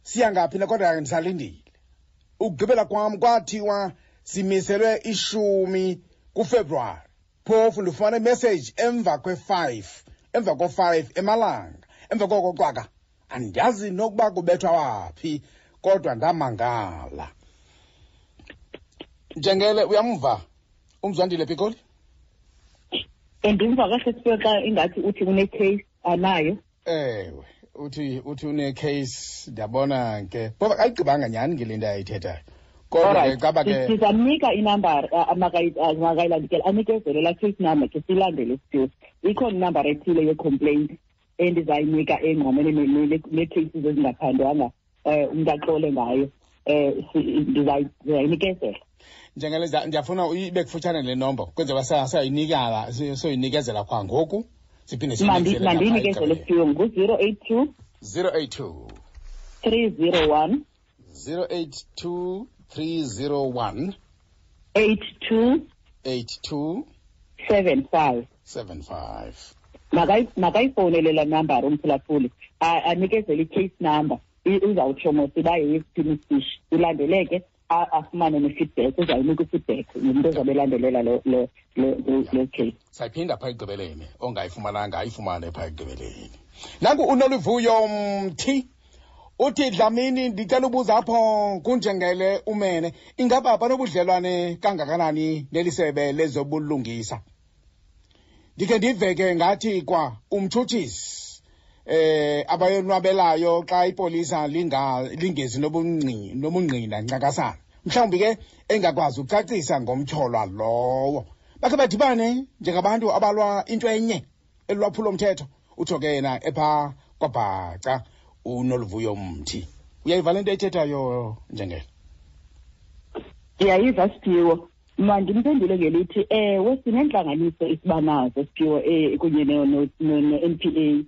siya ngaphi na kodwa ndisalindile. Ukugqibela kwam kwathiwa simiselwe ishumi kuFebruwari. Phofu ndifumana imessage emva kwe-5, emva ko-5 emalanga. Emva koko cwaka andiyazi nokuba kubethwa waphi kodwa ndamangala. Njengele uyamva uMzwandile Pikoli? Ndimva kahle Siphiwe xa ingathi uthi une-case anayo. Ewe, uthi une-case ndiyabona ke. Phofu akayigqibanga nyhani ke le nto ayithethayo. Kodwa ke caba ke sizamnika inambara makayilandikele anikezele laa case number ke silandele Siphiwe. Ikhona inambara ethile ye-complaint endizayinika engqamene nee-cases ezingaphandwanga umntu axole ngayo. Ndizayinikezela. Njengele ndiyafuna ibe kufutshane le nombo kwenzela sayinikala soyinikezela kwangoku siphinde siyinikezele. Mandiyinikezele Siphiwe ngu-082 082 301 082 301 82 82 75 75. Makayifowunele laa nambara umphulaphuli anikezele i-case number uzawutsho mos uba yeyesiphi isishi ilandeleke afumane ne-feedback uzayinika i-feedback ngumntu ozabe elandelela lo case. Sayiphinda phaa ekugqibeleni ongayifumananga ayifumane phaa ekugqibeleni. Nanku uNoluvuyo Mthi uthi Dlamini ndicela ubuza apho kunjengele umene ingaba banobudlelwane kangakanani nelisebe lezobulungisa? Ndikhe ndive ke ngathi kwa umtshutshisi abayonwabelayo xa ipolisa lingezi nobungqina ncakasana mhlawumbi ke engakwazi ukucacisa ngomtyholwa lowo. Bakhe badibane njengabantu abalwa into enye elwaphulo mthetho, utsho ke yena epha kwaBhaca uNoluvuyo Mthi. Uyayiva le nto ayithethayo Njengele? Ndiyayiva Siphiwo. Mandimphendule ngelithi ewe sinentlanganiso esibanazo Siphiwo kunye no-N P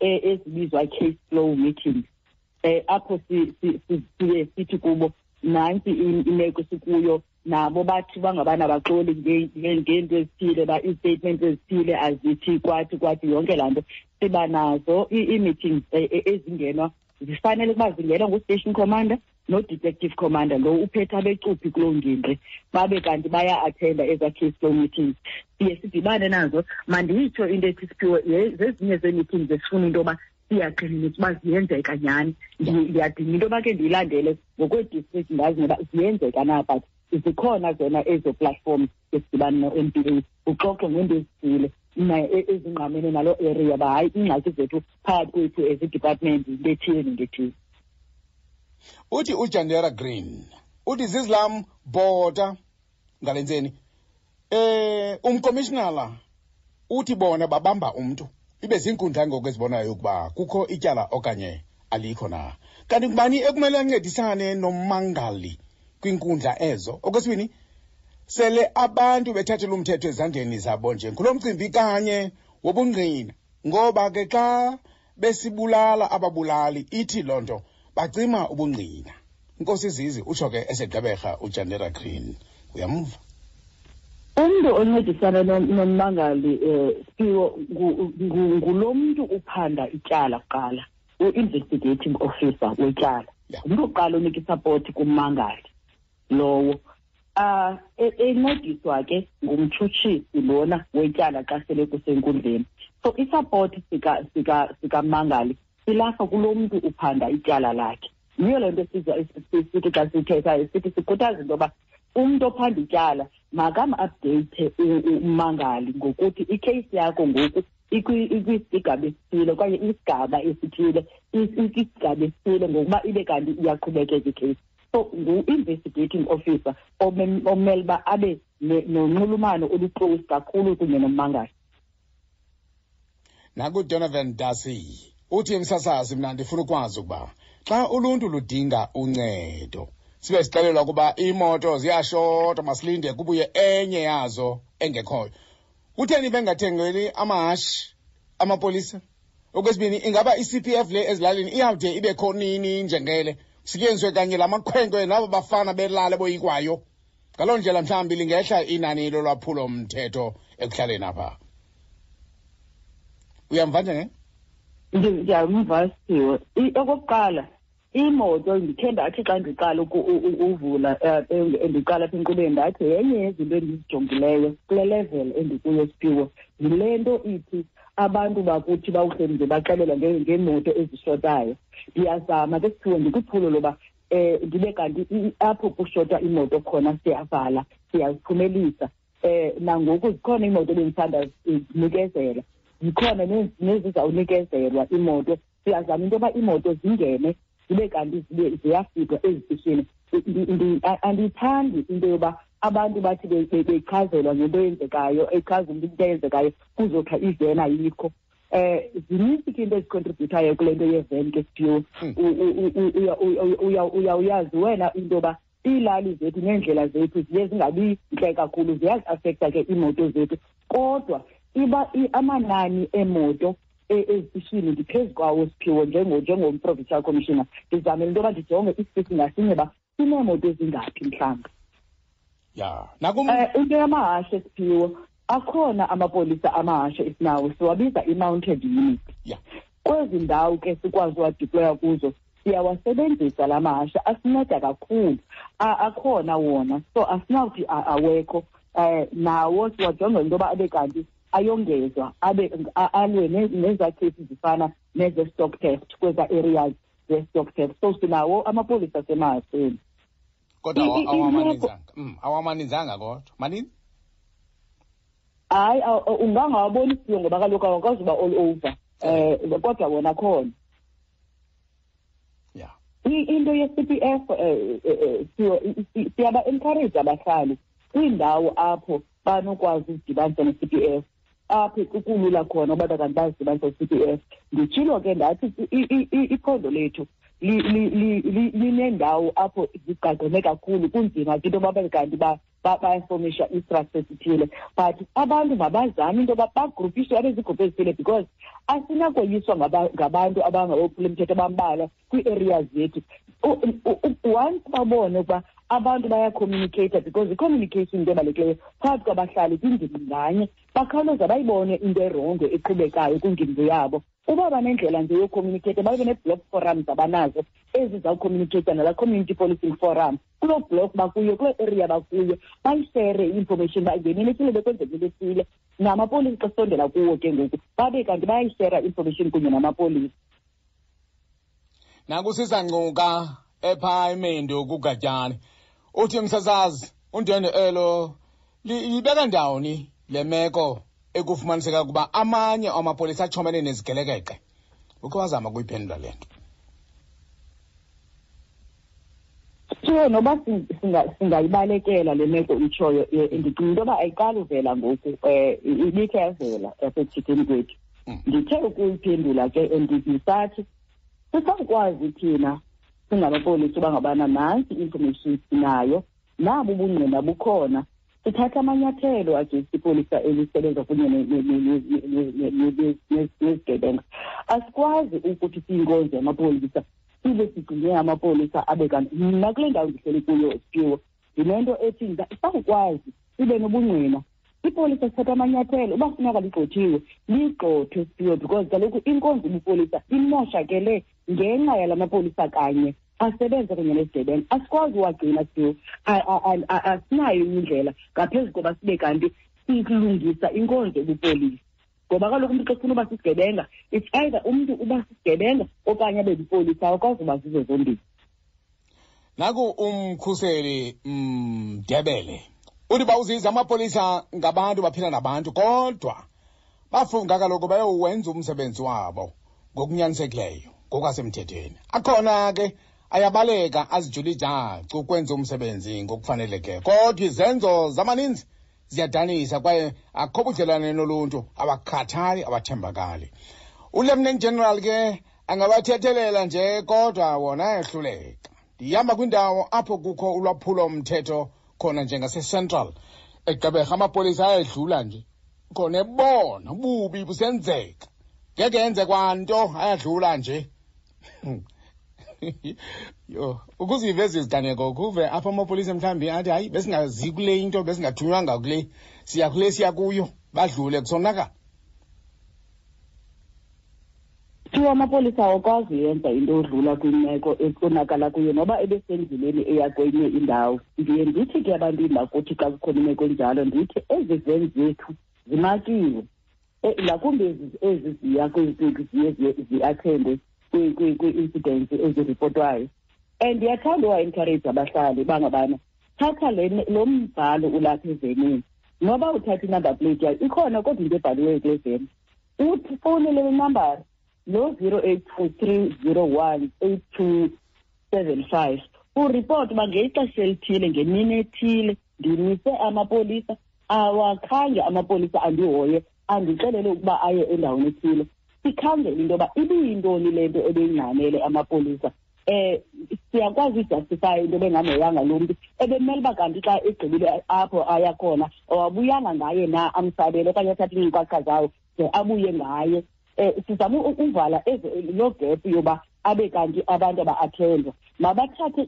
A ezibizwa case flow meetings apho siye sithi kubo nantsi imeko sikuyo nabo bathi bangabana baxoli ngeento ezithile ba ii-statements ezithile azithi kwathi kwathi yonke laa nto. Siba nazo ii-meetings ezingenwa zifanele ukuba zingenwa ngu-station commander no-detective commander lo uphethe abecuphi kuloo ngingqi babe kanti baya-athenda ezaa case flow meetings. Siye sidibane nazo. Mandiyitsho into ethi Siphiwe zezinye zee-meetings esifuna into yoba siyaqinisa uba ziyenzeka nyhani. Ndiyadinga into yoba ke ndiyilandele ngokwee-district ndazi noba ziyenzeka na, but zikhona zona ezo platforms esidibana no-N P A uxoxe ngeento ezithile ezingqamene naloo area uba hayi iingxaki zethu phakathi kwethu as i-department yinto ethile nento ethile. Uthi uJandera Green uthi zizlam bhota ngale ntseni umkomishinala uthi bona babamba umntu ibe ziinkundla ngoku ezibonayo ukuba kukho ityala okanye alikho na. Kanti ngubani ekumele ancedisane nommangali kwiinkundla ezo? Okwesibini, sele abantu bethathela umthetho ezandleni zabo nje ngulo mcimbi kanye wobungqina, ngoba ke xa besibulala ababulali ithi loo nto bacima ubungqina. Nkosi Zizi utsho ke esegqeberha uJandera Green. Uyamva? Umntu oncedisana nommangali Siphiwo ngulo mntu uphanda ityala kuqala, u-investigating officer wetyala. Ngumntu oqala onika isapoti kummangali lowo. Encediswa ke ngumtshutshisi lona wetyala xa sele kusenkundleni. So isapoti sikamangali silapha kulo mntu uphanda ityala lakhe. Yiyo le nto sithi xa sithethayo sithi sikhuthaza into yoba Umntu ophanda ityala makam-updeyithe ummangali ngokuthi ikheyisi yakho ngoku ikwisigaba esithile okanye isigaba esithile, ikwisigaba esithile ngokuba ibe kanti iyaqhubekeka ikheyisi. So ngu-investigating officer omele uba abe nonxulumano oluclose kakhulu kunye nommangali. NakuDonovan Dasi uthi, msasazi, mna ndifuna ukwazi ukuba xa uluntu ludinga uncedo sibe sixelelwa ukuba iimoto ziyashota, masilinde kubuye enye yazo engekhoyo, kutheni bengathengeli amahashi amapolisa? Okwesibini, ingaba i-CPF le ezilalini iyawude ibe kho nini, njengele kusetyenziswe kanye la makhwenkwe nabo bafana belale boyikwayo? Ngaloo ndlela mhlawumbi lingehla inani lolwaphulo mthetho ekuhlaleni apha. Uyamva njenge? Ndiyamva, Siphiwe. Okokuqala, imoto, ndikhe ndathi xa ndiqala uvula, ndiqala apha enkqubeni, ndathi yenye yezinto endizijongileyo kule level endikuyo, Siphiwe, yile nto ithi abantu bakuthi bawuhleli nje baxelelwa ngeemoto ezishotayo. Ndiyazama ke, Siphiwe, ndikwiphulo loba ndibe kanti apho kushota imoto khona siyavala, siyaziphumelisa. Nangoku zikhona iimoto ebendisanda zinikezela, zikhona nezizawunikezelwa iimoto. Siyazama into yoba iimoto zingene zibe kanti zibe ziyafika ezitishini. Andiyithandi into yoba abantu bathi bechazelwa ngento eyenzekayo, echaza umntu into eyenzekayo, kuzothiwa iveni ayikho. Zininzi ke into ezicontributayo kule nto yeveni ke, Siphiwe. Uyawuyazi wena into yoba iilali zethu neendlela zethu ziye zingabi ntle kakhulu, ziyaziafektha ke iimoto zethu. Kodwa iba amanani eemoto ezitishini ndiphezu kwawo, Siphiwe, njengom-provincial commissioner. Ndizamele into yoba ndijonge isitishi ngasinye uba sineemoto ezingaphi mhlawumbi. Ya, nakum. Into yamahashe, Siphiwe, akhona amapolisa amahashe esinawo, siwabiza i-mounted unit. Kwezi ndawo ke sikwazi uwadiploya kuzo, siyawasebenzisa la mahashe, asinceda kakhulu. Akhona wona, so asinawuthi awekho. Nawo siwajonga into yoba abe kanti ayongezwa, abe alwe nezaa kheyisi zifana neze-stock theft kwezaa areas ze-stock theft. So sinawo amapolisa asemahasheni. Kodwa awamaninzanga, kodwa maninzi. Hayi, ungangawaboni, Siphiwe, ngoba kaloku awakwazi uba all over, kodwa wona khona. Into ye-CPF, siyaba-encourage abahlali kwiindawo apho banokwazi uzidibanisa ne-CPF, apho kulula khona uba kanti bazidibanisa ne-CPF. Nditshilo ke ndathi iphondo lethu linendawo apho zigqagqene kakhulu, kunzima ke into yoba babe kanti bayafomisha i-structure esithile, but abantu mabazame into yoba bagrupishe babe ziigruphu ezithile, because asinakoyiswa ngabantu abangabophula abambalwa kwii-areas zethu. Once babone ukuba abantu bayacommunicata, because i-communication into ebalulekileyo phakathi kwabahlali kwingingqi nganye, bakhawuleza bayibone into erongo eqhubekayo kwingingqi yabo. Uba banendlela nje yocommunicata, babe nee-block forums abanazo ezizawucommunicata nalaa community policing forum kuloo block bakuyo, kuloo area bakuyo, bayishere i-information uba ngemini ethile bekwenzeka into ethile. Namapolisa xa sisondela kuwo ke ngoku, babe kanti bayayishera i-information kunye namapolisa. Nakusisangcuka epha eMendu kuGatyane, uthi, msasazi, undwendwe elo libeka ndawoni le meko ekufumaniseka ukuba amanye amapolisa achomene nezigelekeqe? Ukhe wazama kuyiphendula le nto? So noba singayibalekela le meko itshoyo, ndicinga into yoba ayiqali uvela ngoku, ibikhe yavela yasekuthetheni kwethu. Ndithe ukuyiphendula ke, ndisathi sisakwazi thina singamapolisa uba ngabana nantsi i-information sinayo, nabo ubungqina bukhona, sithatha amanyathelo against ipolisa elisebenza kunye nezigebenga. Asikwazi ukuthi siyinkonzo yamapolisa sibe sigcine amapolisa abe kanti. Mna kule ndawo ndihleli kuyo, Siphiwe, ndinento ethi sawukwazi sibe nobungqina, ipolisa sithatha amanyathelo. Uba funeka ligxothiwe, ligxothwe, Siphiwe, because kaloku inkonzo yobupolisa imoshakele ngenxa yala mapolisa kanye asebenza kunye nezigebenga. Asikwazi uwagcina, Siphiwe, asinayo indlela ngaphezu koba sibe kanti silungisa inkonzo yobupolisa, ngoba kaloku umntu xa ufuna uba sisigebenga, it's either umntu uba sisigebenga okanye abe lipolisa, awukwazi uba zizo zombini. Naku umkhuseli Mdebele. Mm, Uthi bawuziza amapolisa ngabantu baphila nabantu kodwa bafunga kaloku bayowenza umsebenzi wabo ngokunyanisekileyo ngokwasemthethweni. Akhona ke ayabaleka azijula ijacu ukwenza umsebenzi ngokufanelekileyo kodwa izenzo zamaninzi ziyadanisa kwaye akho budlelwane noluntu, awakhathali, awathembakali. Ulieutenant general ke angabathethelela nje kodwa wona ayehluleka. Ndihamba kwindawo apho kukho ulwaphulo mthetho khona njengasecentral eGqeberha, amapolisa ayedlula nje khona ebona ububi busenzeka, ngeke yenze kwanto, ayadlula nje. Yho, ukuziva ezi ziganeko kuve apho amapolisa mhlawumbi athi hayi, besingazi kule into, besingathunywanga kule, siya kule siya kuyo, badlule kusonakala. Kuthiwa amapolisa awakwazi yenza into odlula kwimeko ekonakala kuyo noba ebesendleleni eya kwenye indawo. Ndiye ndithi ke abantwini bakuthi xa kukhona imeko enjalo, ndithi ezi veni zethu zimakiwe, ngakumbi ezi ziya ziye zi-attende kwii-incidents eziripotwayo. And ndiyathanda uwa-encourage abahlali bangabana thatha lo mbhalo ulapha evenini, noba uthatha i-number plate yayo ikhona, kodwa into ebhaliweyo kule veni, uthi fowunele le nambara lo 082 301 8275, uripoti uba ngexesha elithile ngemini ethile ndimise amapolisa, awakhange amapolisa andihoye, andixelele ukuba aye endaweni ethile. Sikhangele into yoba ibiyintoni le nto ebeyingxamele amapolisa. Siyakwazi ujustify into bengamhoyanga lo mntu ebemele uba kanti xa egqibile apho aya khona awabuyanga ngaye na, amsabele okanye athathe iinkcukacha zawo de abuye ngaye. Sizama ukuvala loo gap yoba abe kanti abantu aba-attendwa mabathathe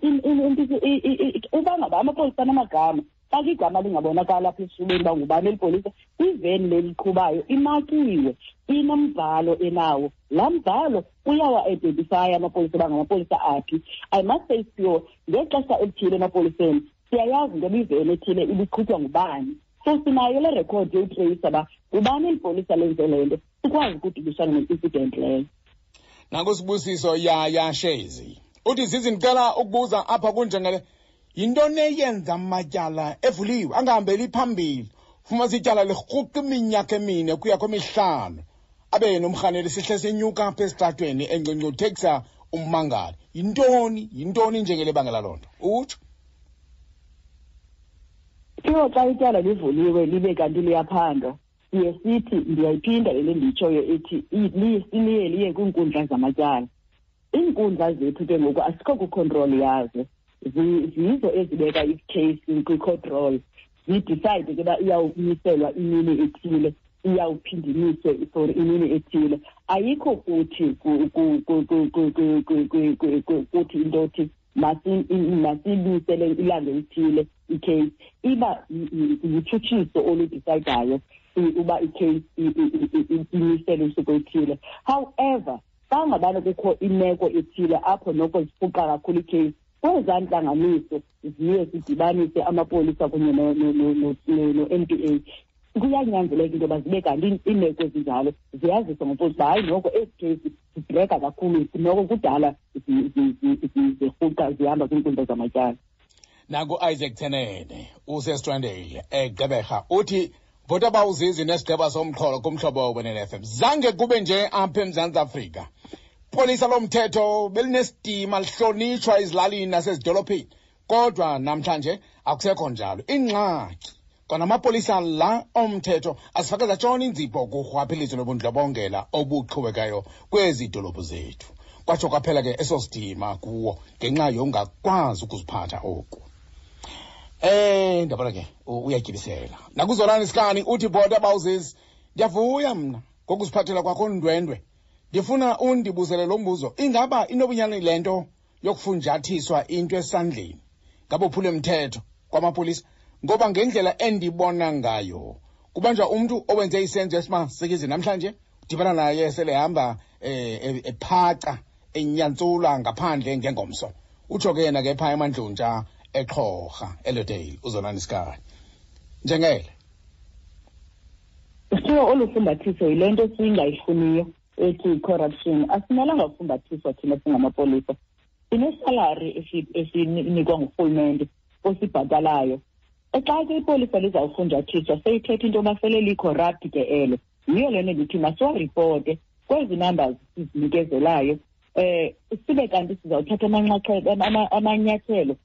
uba ngaba amapolisa anamagama, xa igama lingabonakala apha esifubeni uba ngubani eli polisa, iveni leliqhubayo imakiwe, inombhalo enawo, laa mbhalo uyawa-identifya amapolisa uba ngamapolisa aphi. I must say, sure, ngexesha elithile emapoliseni siyayazi into yoba iveni ethile ibiqhutywa ngubani, so sinayo le rekhodi yokutreyisa uba ngubani eli polisa lenze le nto, sikwazi ukudibisana ne-incident leyo. Nangusibusiso Yaya Shezi uthi, Zizi, ndicela ukubuza apha kunjengele, yintoni eyenza amatyala evuliwe angahambeli phambili? Fumanisa ityala lirhuqa iminyaka 4 kuya kwemihlanu, abe nomrhaneli sihle senyuka apha esitratweni engcungcuthekisa ummangali. Yintoni njengele bangela loo nto, utsho? Siwo, xa ityala livuliwe libe kanti liyaphandwa, siye sithi, ndiyayiphinda le ndiyitshoyo ithi liye liye kwiinkundla zamatyala. Iinkundla zethu ke ngoku asikho kwicontrol yazo, zizo ezibeka icase kwi-court roll, zidecide ke uba iyawumiselwa imini ethile, iyawuphinda imiswe for imini ethile. Ayikho kuthi kuthi into othi masibuyisele ilanga elithile icase, iba lutshutshiso oludecidayo uba icase imiselwe usuku oluthile. However, xa ngabana kukho imeko ethile apho noko zirhuqa kakhulu icase, kwezaa ntlanganiso ziye zidibanise amapolisa kunye no-NPA, kuyanyanzeleka into yoba zibe kanti iimeko ezinjalo ziyaziswa ngopolisa uba hayi, noko ezi kheyisi zidraga kakhulu, noko kudala zirhuqa zihamba kwiinkundla zamatyala. Nangu-Isaac Tenene useStrandale eGqeberha uthi, bhota bawuzizi nesigqeba somxholo kumhlobo wenene FM, zange kube nje apha eMzantsi Afrika. Polisa lomthetho belinesidima, lihlonitshwa ezilalini nasezidolophini, kodwa namhlanje akusekho njalo. Ingxaki kwanamapolisa la omthetho asifake zatshona inzipho kurhwaphilizo nobundlobongela obuqhubekayo kwezi dolophu zethu, kwatsho kwaphela ke eso sidima kuwo ngenxa yongakwazi ukuziphatha oku. Ndabona ke uyatyibisela. Nakuzolani Sikani uthi, bhota bawuzisi, ndiyavuya mna ngokuziphathela kwakho ndwendwe. Ndifuna undibuzele lo mbuzo: ingaba inobunyani le nto yokufunjathiswa into esandleni ngabophule mthetho kwamapolisa? Ngoba ngendlela endibona ngayo, kubanjwa umntu owenze isenzo esimasikizi namhlanje, udibana naye selehamba ephaca enyantsula ngaphandle ngengomso. Utsho ke yena ke phaa eMandluntsha eXhorha eLodale, uzonani Sikani njengele. Sithiwa olu fumbathiso yile nto singayifuniyo ethi corruption. Asimelanga kufumbathiswa thina singamapolisa. Sinesalari esinikwa ngurhulumente osibhatalayo. Xa ke ipolisa lizawufunjathiswa seyithetha into yoba sele li-corrupt ke elo. Yiyo le nto ndithi masiwaripote kwezi numbers sizinikezelayo, sibe kanti sizawuthatha amanyathelo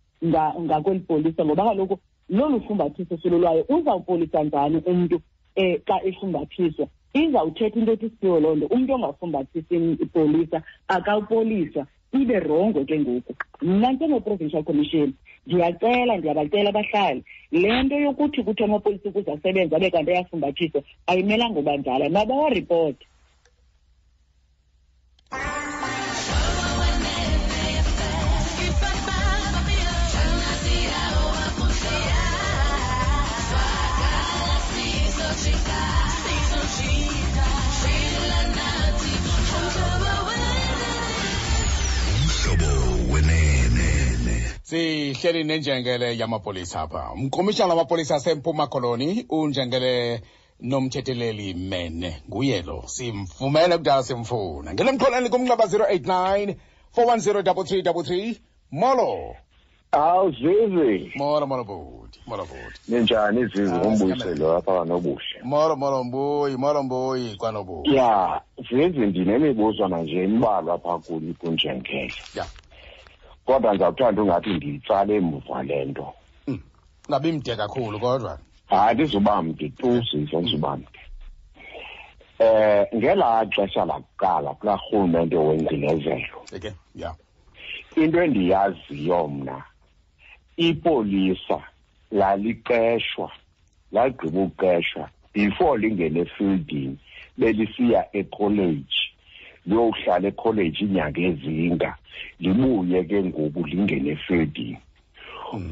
ngakweli polisa, ngoba kaloku lolu fumbathiso silulwayo uzawupolisa njani umntu xa efumbathiswa? Izawuthetha into ethi siyo loo nto, umntu ongafumbathisi ipolisa akawupoliswa, ibe rongo ke ngoku. Mna njengo-Provincial Commission ndiyacela, ndiyabacela abahlali, le nto yokuthi kuthi amapolisa ukuze asebenze abe kanti ayafumbathiswa ayimelanga uba njalo, mabawaripote. Sihleli nenjengele yamapolisa apha. Umkomishana wamapolisa aseMpuma Koloni unjengele Nomthetheleli Mene, nguye lo simfumene kudala simfuna. Ngena emxholweni kumnxeba 089 410 3333. Molo. Awu Zizi. Molo molo bhuti, molo bhuti. Ninjani Zizi? Umbuyiselo apha kwanobuhle. Molo molo mbuyi, molo mbuyi kwanobuhle. Ya, Zizi ndinemibuzwana nje imbalwa apha kuni kunjengele. Ya. Kodwa ndizawuthanda ungathi ndiyitsale emuva le nto. Ungabi mde kakhulu kodwa. Hayi, ndizoba mde tu Zizi, andizuba mde. Ngelaa xesha lakuqala kulaa rhulumente wengcinezelo. Okay, ya. Into endiyaziyo mna, ipolisa laliqeshwa, lagqiba ukuqeshwa before lingene efieldini, belisiya ekholeji, liyohlala ekholeji iinyanga ezinga, libuye ke ngoku lingene efieldini.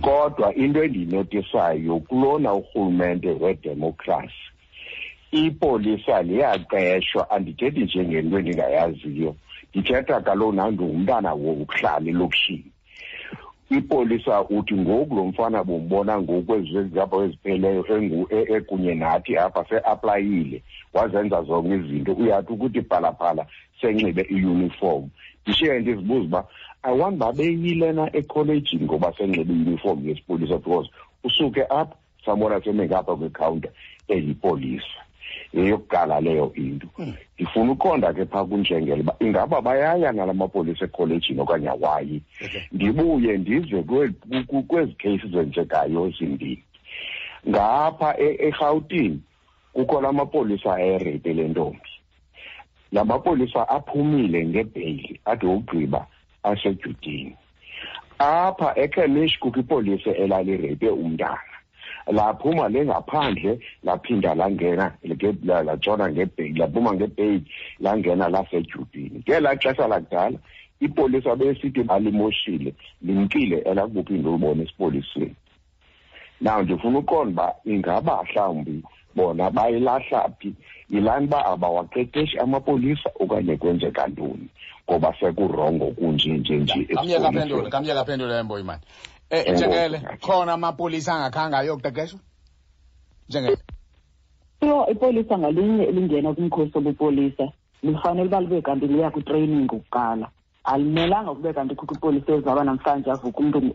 Kodwa into endiyinotisayo kulona urhulumente wedemokhrasi, ipolisa liyaqeshwa. Andithethi nje ngento endingayaziyo, ndithetha kaloku nangumntana wokuhlala elokishini. Ipolisa uthi ngoku lo mfana bombona ngoku kwezi apha ezipheleyo ekunye nathi apha seaplayile, wazenza zonke izinto, uyathi ukuthi phalaphala senxibe iuniform. Ndishiye ndizibuza uba awani babeyile na ekholejini ngoba senxibe iuniform yesipolisa, because usuke apha sambona seme ngapha kwikhawunta elipolisa. Yeyokuqala leyo into. Ndifuna uqonda ke phaa kunjengele uba ingaba bayaya nala mapolisa ekholejini okanye awayi. Ndibuye ndize kwezi kheyisi zenzekayo zimbini. Ngapha eRhawutini kukho la mapolisa ayerepe le ntombi. La mapolisa aphumile ngebheyili ade wokugqiba asedyudini. Apha eKhemish kukho ipolisa elalirepe umntana. Laphuma lengaphandle, laphinda langena, latshona ngebheyili, laphuma ngebheyili, langena lasedyudini. Ngelaa xesha lakudala ipolisa besithi balimoshile, limkile elakubuphinda ulibone esipoliseni. Now ndifuna uqonda uba ingaba mhlawumbi bona bayilahla phi, yilani uba abawaqeqeshi amapolisa okanye kwenzeka ntoni, ngoba sekurongo kunje nje nje. Kamyeka aphendule, kamyeka aphendule Mboyi mani. Njengele, khona amapolisa angakhange ayokuqeqeshwa? Njengele. Yho, ipolisa ngalinye elingena kumkhosi wobupolisa lifanele uba libe kanti liya kwitraining kuqala. Alimelanga kube kanti kukho ipolisa ezaba namhlanje avuke umntu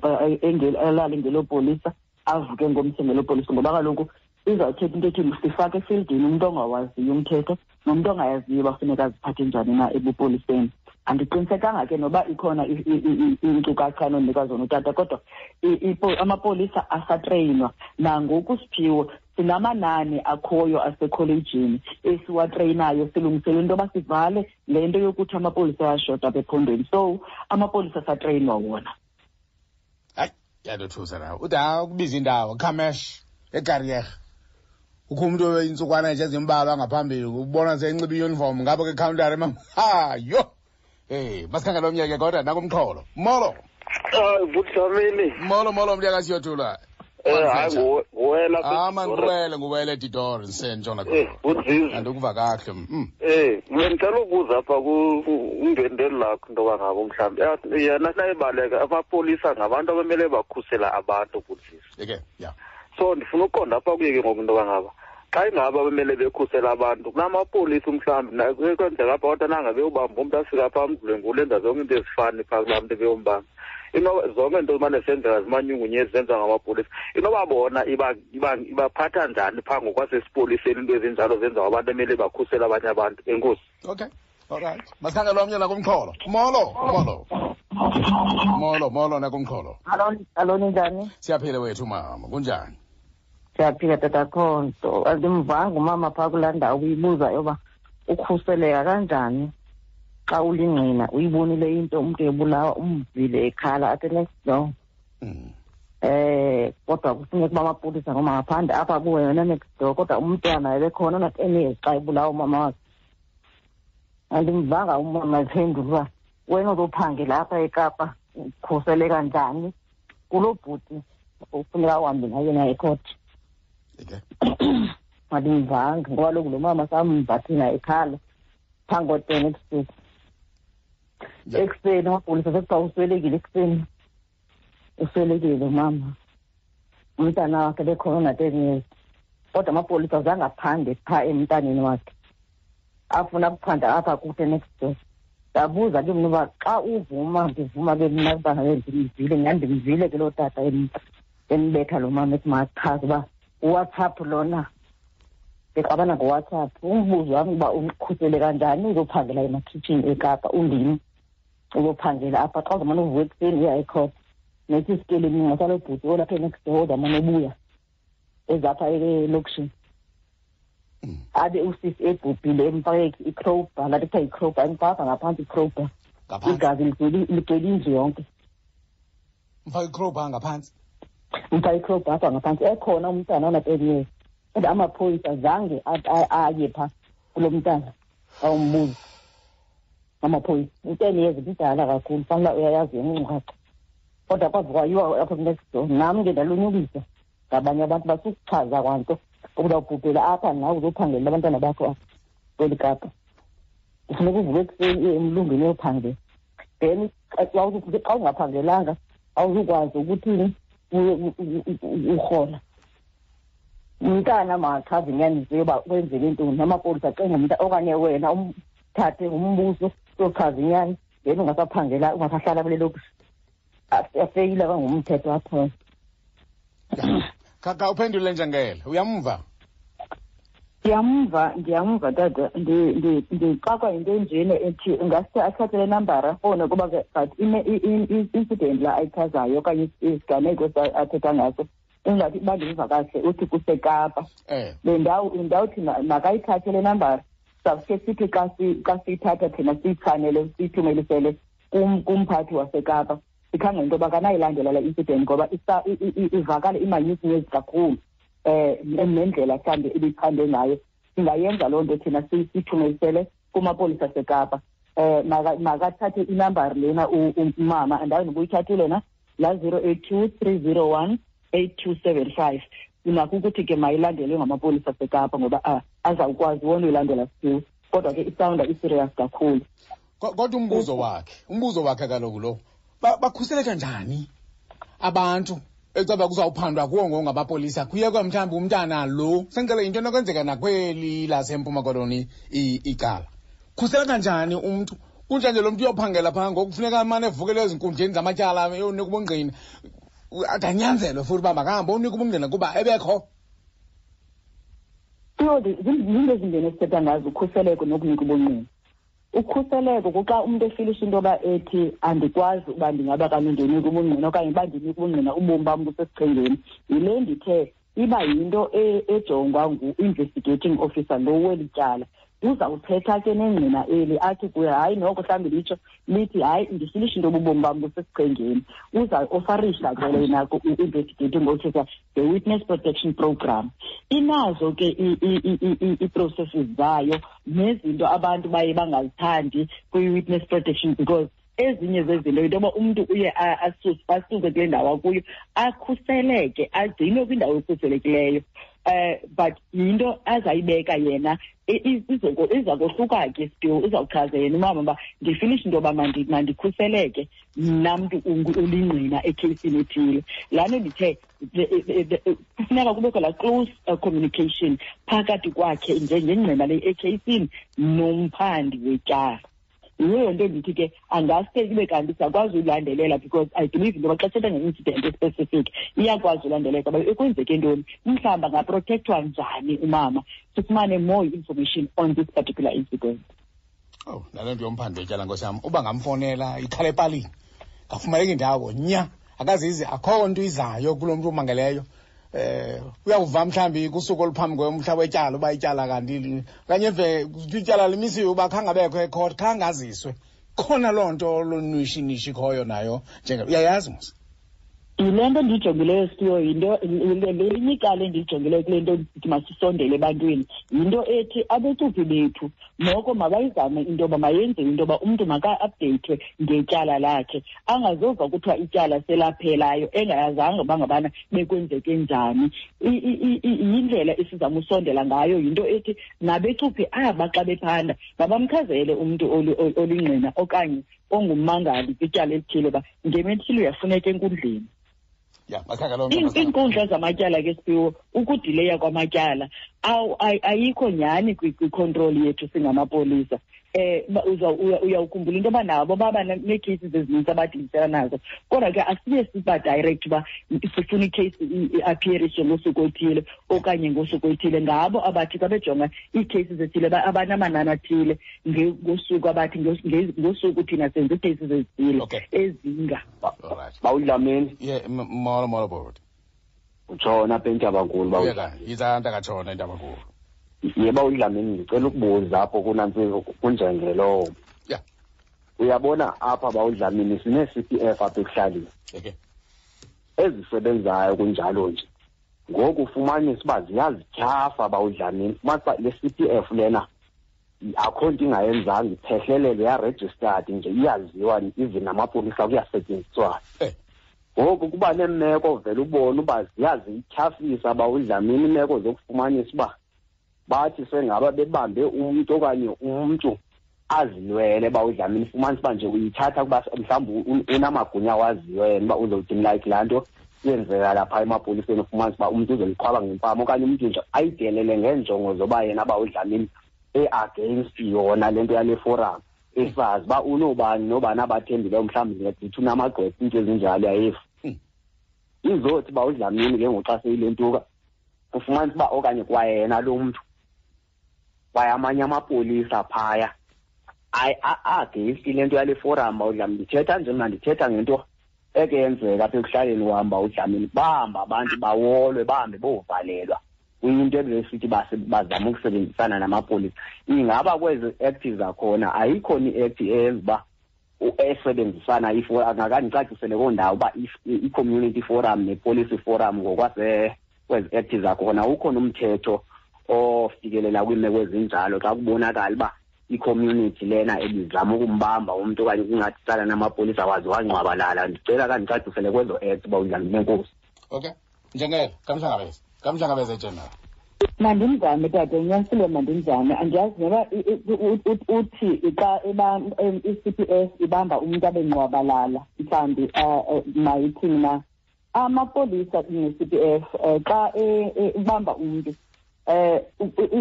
elale ngelopolisa, avuke ngomso ngelopolisa, ngoba kaloku izawuthetha into ethi sifake efieldini umntu ongawaziyo umthetho nomntu ongayaziyo uba funeka aziphathe njani na ebupoliseni. Andiqinisekanga ke noba ikhona iinkcukacha anonika zona utata, kodwa amapolisa asatreyinwa nangoku. Siphiwo, sinamanani akhoyo asekholejini esiwatreyinayo, silungisele into yoba sivale le nto yokuthi amapolisa ayashota apha ephondweni. So amapolisa asatreyinwa wona. Hayi, yandothusa nawe. Ude ukubiza indawo Khamesh eKariega, kukho umntu intsukwana nje ezimbalwa ngaphambili ubona senxiba iuniform ngapha kwikhawuntari mama. Ha, yho. Hey, masikhangele omnye ke kodwa nakumxholo. Molo. Hayi, Bhut'Dlamini. Molo molo mntaka siyothula. Hayi, nguwela. Ah man, nguwele, nguwele Didor ngisentshona khona. Bhut'Zizi. Andikuva kahle. Bengicela ukubuza apha kundwendweli lakho into yoba ngabo mhlawumbi yena nayibaleka amapolisa ngabantu abamele bakhusela abantu, Bhut'Zizi. Okay, yeah. So ndifuna uqonda apha kuye ke ngoku into yoba ngaba Xa ingaba bemele bekhusela abantu kunamapolisa umhlawumbi kwenzeka apha, kodwa nanga beyobamba umntu afika phaa amdlwengule, enza zonke into ezifani phaa kulaa mntu ebeyombamba. Inoba zonke into zimane zisenzeka zimanyungunyezi zenziwa ngamapolisa, inoba bona ibaphatha njani phaa ngokwasesipoliseni into ezinjalo zenziwa abantu emele bakhusele abanye abantu? Enkosi. Okay, alright, masikhangele omnye nakumxholo. Molo, molo, molo, molo nakumxholo. Alo, ninjani? Siyaphila wethu mama, kunjani? Siyaphila tata Khonto. Andimvanga umama phaa kulaa ndawo uyibuza yoba ukhuseleka kanjani xa ulingqina, uyibonile into, umntu ebulawa, umvile ekhala athi next door. Kodwa kufuneka uba amapolisa ngoba ngaphandle apha kuwe wena next door, kodwa umntwana ebekhona na-10 years xa ebulawa umama wakhe. Andimvanga umama ephendula uba wena uzophangela apha eKapa ukhuseleka njani kulo bhuti ufuneka uhambe naye naye ekhoti. Andimvanga ngoba kaloku lo mama samva thina ekhala phambi ko-10 ebusuku. Ekuseni amapolisa sekuthiwa uswelekile, ekuseni uswelekile umama, umntana wakhe bekhona na-10 years, kodwa amapolisa azange aphande phaa emntaneni wakhe, afuna ukuphanda apha kude next door. Ndabuza ke mna uba xa uvuma, ndivuma ke mna uba ndimvile, nyhani ndimvile ke loo tata embetha lo mama, ethi makachaze uba uWhatsApp lona, bexabana ngoWhatsApp. Umbuzo wam uba ukhusele kanjani uzophangela emakhitshini eKapa, undim uzophangela apha xa uzamane uvuka ekuseni uya ekhotha, nethi isikelemi ngasalo bhuti olapha enext door ozamane ubuya ezapha elokishini, abe usisi ebhubhile, emfake i-crowbar, laa nto kuthiwa yi-crowbar, emfaka ngaphantsi i-crowbar, igazi ligcwele indlu yonke. Mfake i-crowbar ngaphantsi? Mfake i-crowbar apha ngaphantsi, ekhona umntana ona-10 years, kodwa amaphoyisa zange aye phaa kulo mntana awumbuza. Amaphoyisa, u-10 years mdala kakhulu, fanele uyayazi inkcukacha, kodwa kwaze kwayiwa apha next door. Nam ke ndalunyukisa ngabanye abantu basukuchaza kwanto ukuba ubhubhela apha nawe uzophangelela abantwana bakho apha kweli Kapa, kufuneka uvuke ekuseni uye emlungwini uyophangela, then xa ungaphangelanga awuzukwazi ukuthini urhola. Umntana makachaze inyaniso yoba kwenzeke ntoni, amapolisa acinga umntu okanye wena umthathe umbuso uyochaza inyani, then ungasaphangela, ungasahlala kule lokishi. Afeyile kangumthetho apho. Kaka uphendule njengele, uyamva? Ndiyamva, ndiyamva tata. Ndixakwa yinto enjena ethi ingaske athathe le nambara afowune, kuba ke but incident la ayichazayo okanye isiganeko athetha ngaso ingathi uba ndimva kahle uthi kuseKapa. Le ndawo, ndawuthi makayithathe le nambara, sizawuske sithi xa siyithatha thina siyichanele siyithumelisele kumphathi waseKapa, sikhangele into yoba kanayilandela le incident ngoba ivakala imanyukunyezi kakhulu, nendlela mhlawumbi ibichande ngayo. Singayenza loo nto thina siyithumelisele kumapolisa aseKapa. Makathathe inambari lena umama, andazi noba uyithathile na, la 082 301 8275. Unakho ukuthi ke mayilandelwe ngamapolisa aseKapa ngoba azawukwazi wona uyilandela still, kodwa ke isawunda i-serious kakhulu. Kodwa umbuzo wakhe kaloku lo, bakhuseleka njani abantu ecaba kuzawuphandwa kuwo ngamapolisa, kuyekwa mhlawumbi umntana lo, sengicela into enokwenzeka nakweli laseMpuma Koloni icala. Khuseleka njani umntu? Kunjanje lo mntu uyophangela phaa ngoku kufuneka amane evukele ezinkundleni zamatyala eyonika ubungqina, adanyanzelwe futhi uba makahambe onika ubungqina kuba ebekho. Zinto ezimbini esithetha ngazo, ukhuseleko nokunika ubungqina. Ukhuseleko kuxa umntu efilisha into yoba ethi andikwazi uba ndingaba kanye ndinika ubungqina okanye uba ndinika ubungqina ubomi bam busesichengeni. Yile ndithe iba yinto ejongwa ngu-investigating officer lo weli tyala. Uzawuthetha ke nengqina eli athi kuye hayi noko mhlawumbi litsho lithi hayi ndifilisha into yoba ubomi bam busesichengeni. Uzawuofarisha ke lena ku-investigating officer the witness protection program. Inazo ke ii-processes zayo nezinto abantu baye bangazithandi kwi-witness protection, because ezinye zezinto yinto yoba umntu uye asuke kule ndawo akuyo, akhuseleke, agcinwe kwindawo ekhuselekileyo. But yinto azayibeka yena, iza kohluka ke still, uzawuchaza yena umama uba ndifinishe into yoba mandikhuseleke mna mntu ulingqina ekheyisini ethile. Laa nto ndithe kufuneka kubekho laa close communication phakathi kwakhe njengengqina le ekheyisini nomphandi wetyala. Yiyo nto endithi ke angaske ibe kanti siyakwazi uyilandelela, because I believe into yoba xa sithetha nge-incident especific iyakwazi ulandeleka uba ekwenzeke ntoni, mhlawumbi angaprotektwa njani umama, sifumane more information on this particular incident. Oh, nale nto yomphandi wetyala, nkosi yam, uba ngamfonela ikhala epalini, ngafumaneka indawo nya, akazizi, akho nto izayo kulo mntu umangeleyo. Uyawuva mhlawumbi kusuku oluphambi kwemhla wetyala uba ityala kanti okanye eve ityala limisiwe uba khange abekho ekhot, khange aziswe. Khona loo nto lonwishinishi ikhoyo nayo, njenge uyayazi mos. Yile nto ndiyijongileyo siyo, yinto lelinye icala endiyijongileyo kule nto ndithi masisondele ebantwini, yinto ethi abecuphi bethu noko mabayizame into yoba mayenziwe into yoba umntu maka-updeyithwe ngetyala lakhe, angazova kuthiwa ityala selaphelayo engayazanga uba ngabana bekwenzeke njani. Yindlela esizama usondela ngayo, yinto ethi nabecuphi aba xa bephanda mabamchazele umntu olingqina okanye ongummangali kwityala elithile uba ngemethile uyafuneka enkundleni. Ya, makhaka loo nto, makhaka. Iinkundla zamatyala ke Siphiwo, ukudileya kwamatyala ayikho nyhani kwi-control yethu singamapolisa. Uyawukhumbula into yoba nabo baba nee-cases ezininzi abadilisela nazo, kodwa ke asiye siba direct uba sifuna i-case i-appearishe ngosuku oluthile okanye ngosuku oluthile. Ngabo abathi xa bejonga ii-cases ezithile abanamanani athile ngosuku abathi ngosuku thina senze ii-cases ezithile ezinga. Bawudlamini. Yeah, molo, molo, bhuti. Utshona apha eNtabankulu, bawu. Yeka, yiza ntakatshona eNtabankulu. Yeba uDlamini, ndicela ukubuza apho kunantsi kunjengelowo. Uyabona apha bawudlamini sine-C P F apha ekuhlaleni. Ezisebenzayo kunjalo nje. Ngoku ufumanisa uba ziyazityhafa bawudlamini. Ufumanisa uba le C P F lena akho nto ingayenzanga, iphehlelele, yaregistered nje, iyaziwa even namapolisa kuyasetyenziswana. Ngoku kuba neemeko vele ubone uba ziyazityhafisa bawudlamini iimeko zokufumanisa uba bathi sengaba bebambe umntu okanye umntu azilwele bawudlamini, fumanisa uba nje uyithatha kuba mhlawumbi unamagunya awaziyo yena uba uzowuthini, like laa nto yenzeka lapha emapoliseni, ufumanisa uba umntu uzoliqhwaba ngempama okanye umntu nje ayidelele ngeenjongo zoba yena bawudlamini e-against yona le nto yale forum, esazi uba unobani nobani abathembileyo, mhlawumbi ndingathi unamagqwetha, iinto ezinjalo yayefu. Izothi uba udlamini ke ngoku xa seyilentuka, ufumanisa uba okanye kwayena lo mntu, kwaye amanye amapolisa phaya against le nto yale forum bawudlamini. Ndithetha nje mna, ndithetha ngento eke yenzeka apha ekuhlaleni wam bawudlamini, bahamba abantu bawolwe, bahambe bovalelwa kwinto ebesithi bazama ukusebenzisana namapolisa. Ingaba kwezi act zakhona ayikho ni-act eyenza uba esebenzisana angakandicacisele koo ndawo uba i-community forum ne-policy forum ngokwase kwezi act zakhona ukhona umthetho ofikelela kwiimeko ezinjalo xa kubonakala uba i-community lena ebizama ukumbamba umntu okanye kungathi tsala namapolisa waze wangqwabalala. Ndicela kandicacisele kwezo act uba unjani nenkosi. Okay, njengelo kamhlangabeze, kamhlangabeze general. Mandimzame tata, unyanisile, mandimzame. Andiyazi noba uthi xa i-C P S ibamba umntu abe ngqwabalala, mhlawumbi, mayithini na. Amapolisa ne-C P F, xa ibamba umntu,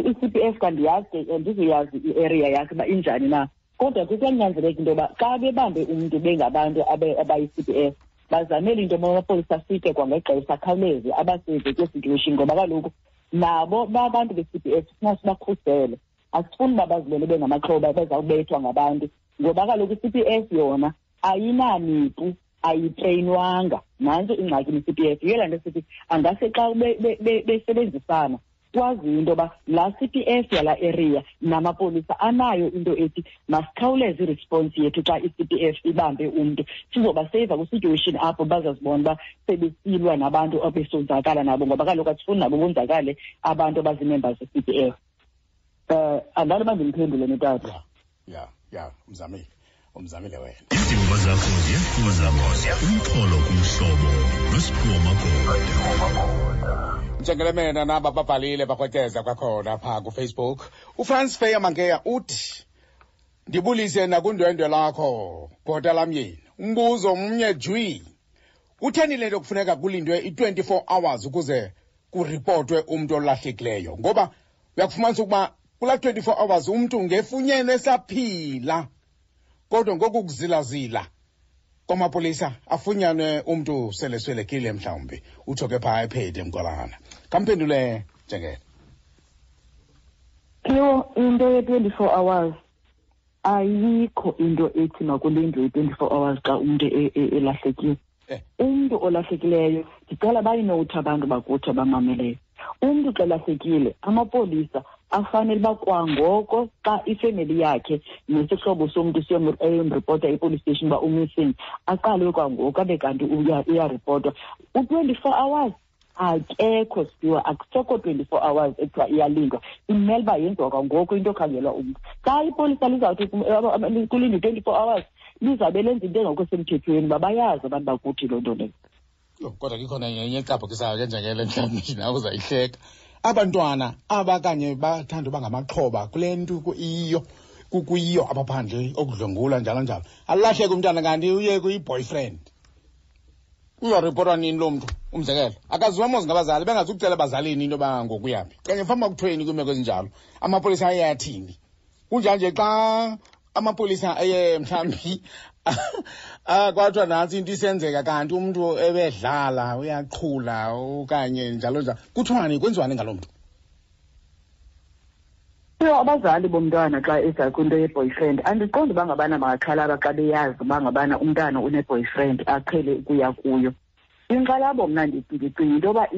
i-C P F kandiyazi ke, andizuyazi i-area yakhe uba injani na. Kodwa ke kuyanyanzeleka into yoba xa bebambe umntu bengabantu abayi-C P F, bazamele into yoba amapolisa afike kwangexesha, akhawuleze abaseve kule situation, ngoba kaloku nabo babantu be-C P F sifuna sibakhusele. Asifuni uba bazibone bengamaxhoba bezawubethwa ngabantu, ngoba kaloku i-C P F yona ayinamipu, ayitreyinwanga. Nantso ingxaki ne-C P F. Yiyo laa nto sithi angase xa besebenzisana kwaziyo into yoba laa C P F yalaa area namapolisa anayo into ethi masikhawuleze iresponse yethu xa i-C P F ibambe umntu, sizobaseyiva kwi-situation apho bazazibona uba sebesilwa nabantu abesonzakala nabo, ngoba kaloku asifuni nabo bonzakale abantu abazii-members ze-C P F. Andalo uba ndimphendule notata. Ya, ya, ya, umzamile. Umzamile wena. Izimvo zakho ziyafuza umxholo kumhlobo noSiphiwo Magoda. Njengelemena naba babhalile bakrweceza kwakhona phaa kufacebook. Ufrance Feya Mankeya uthi ndibulise nakundwendwe lakho bhota lamyeni. Umbuzo mnye jwi. Kutheni le nto kufuneka kulindwe i-24 hours ukuze kuripotwe umntu olahlekileyo? Ngoba uyakufumanisa ukuba kulaa 24 hours umntu ngefunyenwe esaphila, kodwa ngoku kuzilazila kwamapolisa afunyanwe umntu seleswelekile mhlawumbi. Utsho ke phaa ephede mgwalana. Kamphendule Njengele. Phiwo, into ye-24 hours ayikho into ethi makulindwe i-24 hours xa umntu elahlekile. Umntu olahlekileyo, ndicela bayinowuthi abantu bakuthi abamameleyo. Umntu xa elahlekile, amapolisa afanele uba kwangoko xa ifemeli yakhe nesihlobo somntu siyomripota epolice station uba umissing, aqalwe kwangoko abe kanti uyaripotwa. U-24 hours akekho siwa, akusekho 24 hours ekuthiwa iyalindwa. Imele uba yenziwa kwangoko into okhangelwa umntu. Xa ipolisa lizawuthi kulindwe 24 hours, lizawube lenza into engekho semthethweni, uba bayazi abantu bakuthi loo nto leyo. Yho, kodwa ke ikhona enye ecaphukisayo ke njengele, mhlawumbi nawe uzayihleka. Abantwana aba kanye bathanda uba ngamaxhoba kule nto iyiyo, kuyiyo apha phandle, okudlwengula njalo njalo. Alahleke umntana kanti uye kuyi-boyfriend. Uzawuripotwa nini loo mntu? Umzekelo, akaziwa mos ngabazali, bengazukucela abazalini into yoba ngokuyaphi. Kanye mhlawumbi kuthweni kwiimeko ezinjalo, amapolisa aye athini? Kunjanje xa amapolisa aye mhlawumbi kwathiwa nantsi into isenzeka kanti umntu ebedlala, uyaqhula okanye njalo njalo, kuthiwani, kwenziwani ngaloo mntu? Yho, abazali bomntwana xa eza kwinto ye-boyfriend, andiqondi uba ngabana bangaxhalaba xa beyazi uba ngabana umntana une-boyfriend aqhele ukuya kuyo. Inkxalabo mna ndicinga into yoba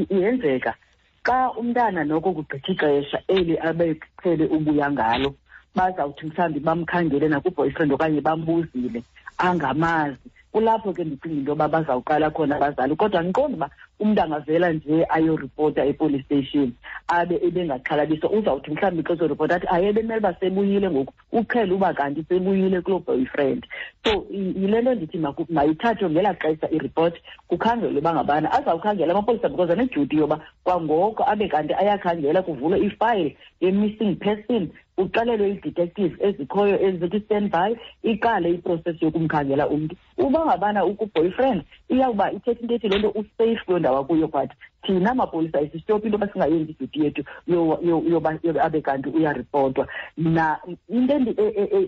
iyenzeka xa umntana noko kugqitha ixesha eli abeqhele ubuya ngalo, bazawuthi mhlawumbi bamkhangele nakwi-boyfriend okanye bambuzile angamazi. Kulapho ke ndicinga into yoba bazawuqala khona abazali. Kodwa andiqondi uba umntu angavela nje ayoripota epolice station abe ebengaxhalabiswa. Uzawuthi mhlawumbi xa ezoripota athi aye bemele uba sebuyile ngoku, uqhele uba kanti sebuyile kuloo boyfriend. So yile nto ndithi mayithathwe ngelaa xesha iripoti, kukhangelwe uba ngabana azawukhangela amapolisa, because anedyuti yoba kwangoko abe kanti ayakhangela, kuvulwe ifayile ye-missing person, kuxelelwe ii-detective ezikhoyo ezikwi-standby, iqale iprocess yokumkhangela umntu. Uba ngabana uku-boyfriend, iyawuba ithetha into ethi loo nto usafe kuloo ndawo akuyo, but thina mapolisa isistophi into yoba singayenzi idyuti yethu yoba abe kanti uyaripotwa. Na into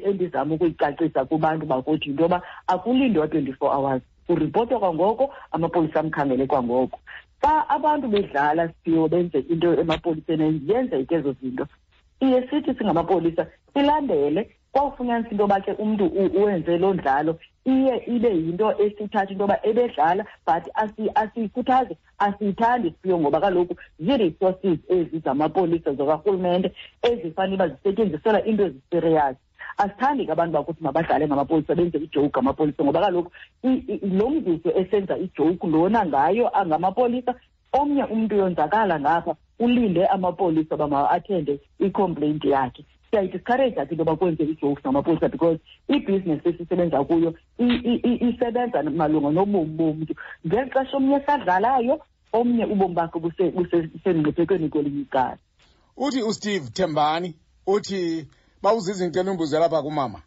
endizama ukuyicacisa kubantu bakuthi yinto yoba akulindwa 24 hours, uripotwa kwangoko, amapolisa amkhangele kwangoko. Xa abantu bedlala siphiwo benze into emapoliseni, yenzeke ezo zinto, siye sithi singamapolisa silandele. Kwawufunyanisa into yoba ke umntu uwenze loo ndlalo, iye ibe yinto esithatha into yoba ebedlala, but asiyikhuthazi, asiyithandi siphiwo, ngoba kaloku zii-resources ezi zamapolisa zakarhulumente ezifanele uba zisetyenziselwa into ezisiriyasi. Asithandi ke abantu bakuthi mabadlale ngamapolisa, benze ijoke ngamapolisa, ngoba kaloku lo mzuzu esenza ijoke lona ngayo angamapolisa, omnye umntu uyonzakala ngapha, ulinde amapolisa uba ma-athende i-complaint yakhe. Siyayidiscourage ke into yoba kwenze ii-jokes ngamapolisa, because ibhizinesi esisebenza kuyo isebenza malunga nobomi bomntu. Ngeli xesha omnye esadlalayo, omnye ubomi bakhe busemngciphekweni kwelinye icala. Uthi uSteve Thembani, uthi bawuziza into enumbuzo lapha kumama,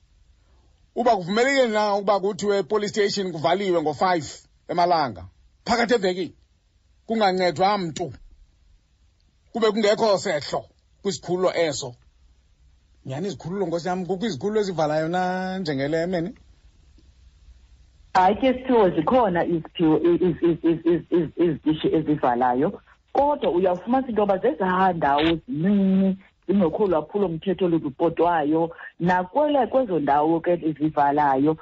uba kuvumelekile na ukuba kuthiwe police station kuvaliwe ngo-5 emalanga phakathi evekini, kungancedwa mntu, kube kungekho sehlo kwisikhululo eso. Nyhani izikhululo, nkosi yam, kukho izikhululo ezivalayo na njengele mene? Hayi ke siphiwo, zikhona iziphiwo izitishi ezivalayo, kodwa uyawufumanisa into yoba zezaa ndawo zincinci zingekho lwaphulomthetho luripotwayo. Nakwele kwezo ndawo ke zivalayo,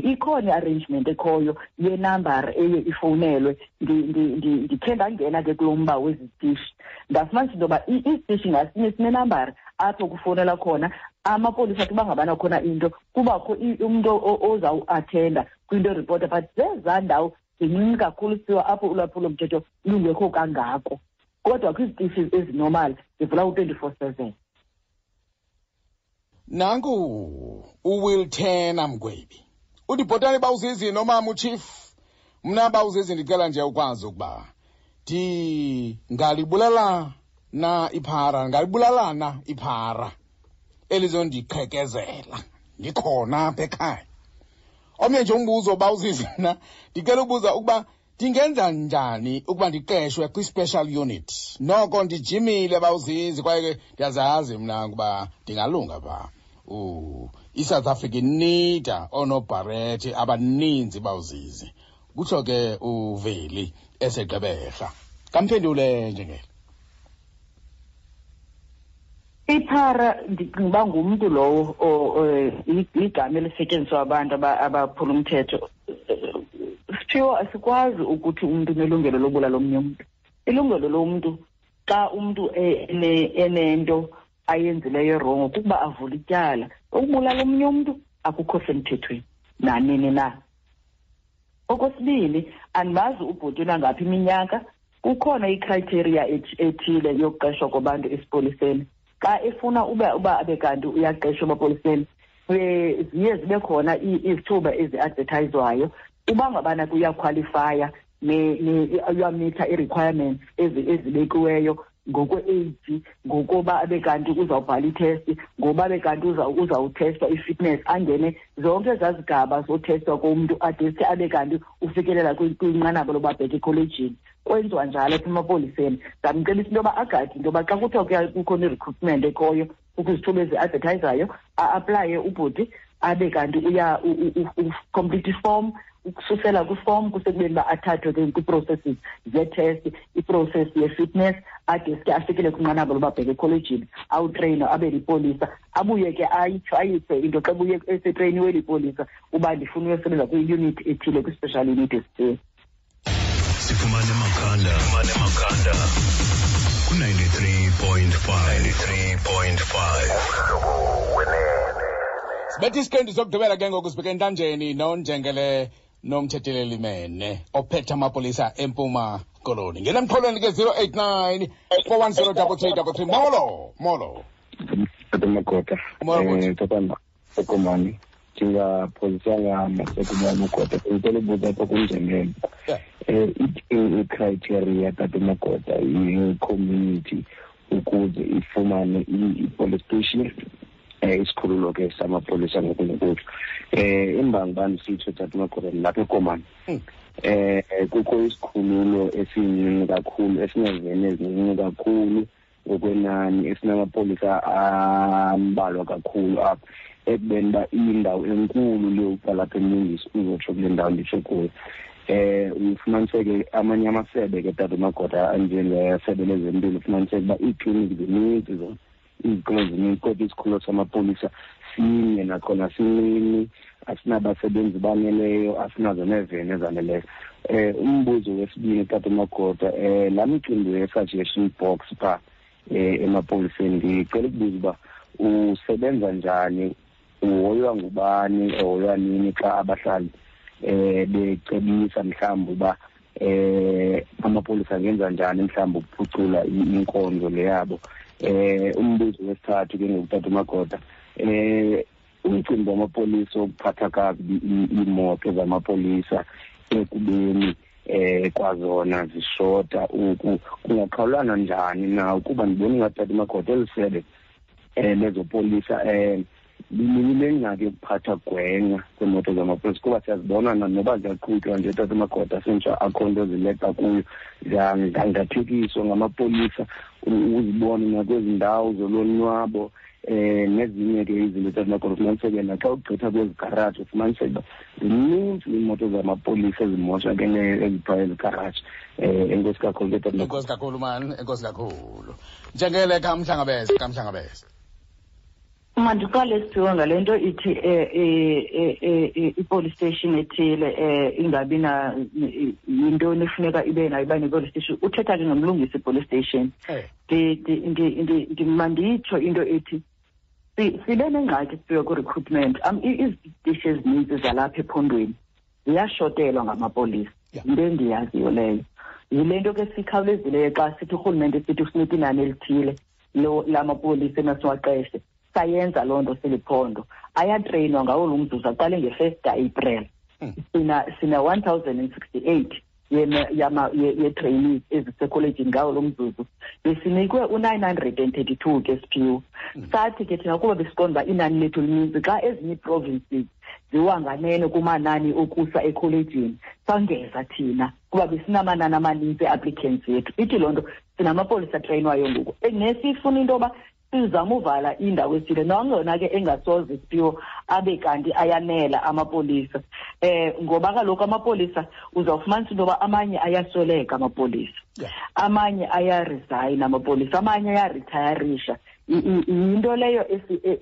ikhona i-arrangement ekhoyo yenambara eye ifowunelwe. Ndikhe ndangena ke kulo mba wezi zitishi, ndafumanisa into yoba isitishi ngasinye sinenambara apho kufowunelwa khona amapolisa athi uba ngabana khona into, kubakho umntu ozawuathenda kwinto eripota. But zezaa ndawo zincinci kakhulu siwa apho ulwaphulomthetho lungekho kangako, kodwa kwizitishi ezinormal zivula u-24/7. Nanku uWill Turner Mgwebi uthi, bhotani bawuzizi nomama uchief, mna bawuzizi ndicela nje ukwazi ukuba Ndingalibulala na iphara, ngalibulalana iphara elizondiqhekezela ndikhona apha ekhaya. Omnye nje umbuzo uba uzizina, ndicela ubuza ukuba ndingenza njani ukuba ndiqeshwe kwi-special unit. Noko ndijimile bawuzizi, kwaye ke ndiyazazi mna ukuba ndingalunga pha. ISouth Africa inida oonobharethi abaninzi bawuzizi, kutsho ke uVeli eseGqeberha. Kamphendule njengele. Iphara ndicinga uba ngumntu lowo, igama elisetyenziswa abantu abaphula umthetho. Siphiwo, asikwazi ukuthi umntu unelungelo lobulala omnye umntu. Ilungelo lomntu xa umntu enento ayenzileyo erongo kukuba avule ityala. Ukubulala omnye umntu akukho semthethweni nanini na. Okwesibini, andimazi ubhuti unangaphi iminyaka. Kukhona icriteria ethile yokuqeshwa kwabantu esipoliseni. Xa efuna uba abe kanti uyaqeshwa emapoliseni, ziye zibe khona izithuba ezi-advertayizwayo. Uba ngabana kuyakhwalifaya, uyamitha ii-requirements ezibekiweyo ngokwe-age, ngokuba abe kanti uzawubhala ithesti, ngoba abe kanti uzawuthestwa i-fitness, angene zonke ezaa zigaba zothestwa komntu adeske abe kanti ufikelela kwinqanaba loba abheke ekholejini. Kwenziwa njalo apha emapoliseni. Ndamcebisa into yoba agade into yoba xa kuthiwa kukhona i-recruitment ekhoyo, kukho izithuba ezi-advertayizayo, a-aplaye ubhuti abe kanti uya complete iform, ukususela kwiform kusekubeni uba athathwe ke kwii-processes zee-test, i-process ye-fitness, adeske afikele kwinqanaba loba abheke ekholejini, awutreyinwe abe lipolisa, abuye ke ayitsho ayise into xa buye esetreyiniwe lipolisa uba ndifuna uyosebenza kwi-unit ethile, kwi-special unit esithile. Sifumane emakhanda, sifumane emakhanda ku-93.5, 93.5. Sibethe isiqendu sokugqibela ke ngoku, sibheke entanjeni nonjengele nomthetheleli Mene ophethe amapolisa eMpuma Koloni. Ngena emxholweni ke 089 410 3333. Molo, molo. Tata Magoda. Molo, bhuti. Tata Sekomani, ndingaphozisanga masekumane Magoda, ndicela ubuza apha kunjengele. Ithini i-criteria, Tata Magoda, ye-community ukuze ifumane i-police station, isikhululo ke samapolisa ngokunokutsho? Imbangi uba ndisitsho, Tata Magoda, ndilapha eKomani. Kukho isikhululo esincinci kakhulu, esinezene ezincinci kakhulu ngokwenani, esinamapolisa ambalwa kakhulu apha, ekubeni uba iyindawo enkulu le uqala apha eMlungisi uzotsho kule ndawo nditsho kuyo. Ufumaniseke amanye amasebe ke, Tata Magoda, anjengesebe lezempilo, ufumaniseke uba iikliniki zininzi zona, izikolo zininzi, kodwa isikhululo samapolisa sinye, nakhona sincinci, asinabasebenzi baneleyo, asinazo neeveni ezaneleyo. Umbuzo wesibini, Tata Magoda, laa micimbi ye-suggestion box phaa emapoliseni, ndicela ukubuza uba usebenza njani, uhoywa ngubani, ehoywa nini xa abahlali becebisa mhlawumbi uba amapolisa angenza njani mhlawumbi ukuphucula inkonzo le yabo. Umbuzo wesithathu ke ngoku, Tata Magoda, umcimbi wamapolisa wokuphatha kakubi iimoto zamapolisa ekubeni kwazona zishota oku, kungaqhawulana njani na? Ukuba ndibona ingathi, Tata Magoda, eli sebe lezopolisa linengxaki yokuphatha gwenxa kweemoto zamapolisa, kuba siyazibona noba ziyaqhutywa nje, Tata Magoda, sentsha akho nto zileqa kuyo, ziyangangathekiswa ngamapolisa, uzibone nakwezi ndawo zolonwabo, nezinye ke izinto, Tata Magoda. Ufumaniseke naxa ugqitha kwezi garaji, ufumaniseke uba zininzi iimoto zamapolisa ezimoshakeleyo eziphaa ezi garaji. Enkosi kakhulu ke, Tata Magoda. Enkosi kakhulu, man, enkosi kakhulu. Njengele kamhlangabeze, kamhlangabeze. Mandiqale siphiwe ngale nto ithi i-police station ethile ingabi na yintoni efuneka ibe nayo, iba ne-police station. Uthetha ke ngomlungisi i-police station. Manditsho into ethi sibe nengxaki siphiwe kwi-recruitment. Izitishi ezininzi zalapha ephondweni ziyashotelwa ngamapolisa. Yinto endiyaziyo leyo. Yile nto ke sikhawulezileyo xa sithi urhulumente sithi usinika inani elithile lamapolisa emasiwaqeshe. Sayenza loo nto siliphondo. Ayatreyinwa ngawo lo mzuzu, aqale nge-1 ka-April. Sina 1068 ye-trainees ezisekholejini ngawo lo mzuzu. Besinikwe u-932 ke, Siphiwo. Sathi ke thina kuba besiqonda uba inani lethu lininzi xa ezinye ii-provinces ziwanganene kumanani okusa ekholejini, sangeza thina kuba besinamanani amaninzi e-applicants yethu. Ithi loo nto sinamapolisa atreyinwayo ngoku, nesifuna into yoba sizama uvala indawo ethile, nangona ke engasoze, Siphiwo, abe kanti ayanela amapolisa, ngoba kaloku amapolisa uzawufumanisa into yoba amanye ayasweleka amapolisa, amanye ayaresign amapolisa, amanye ayaritayarisha. Yinto leyo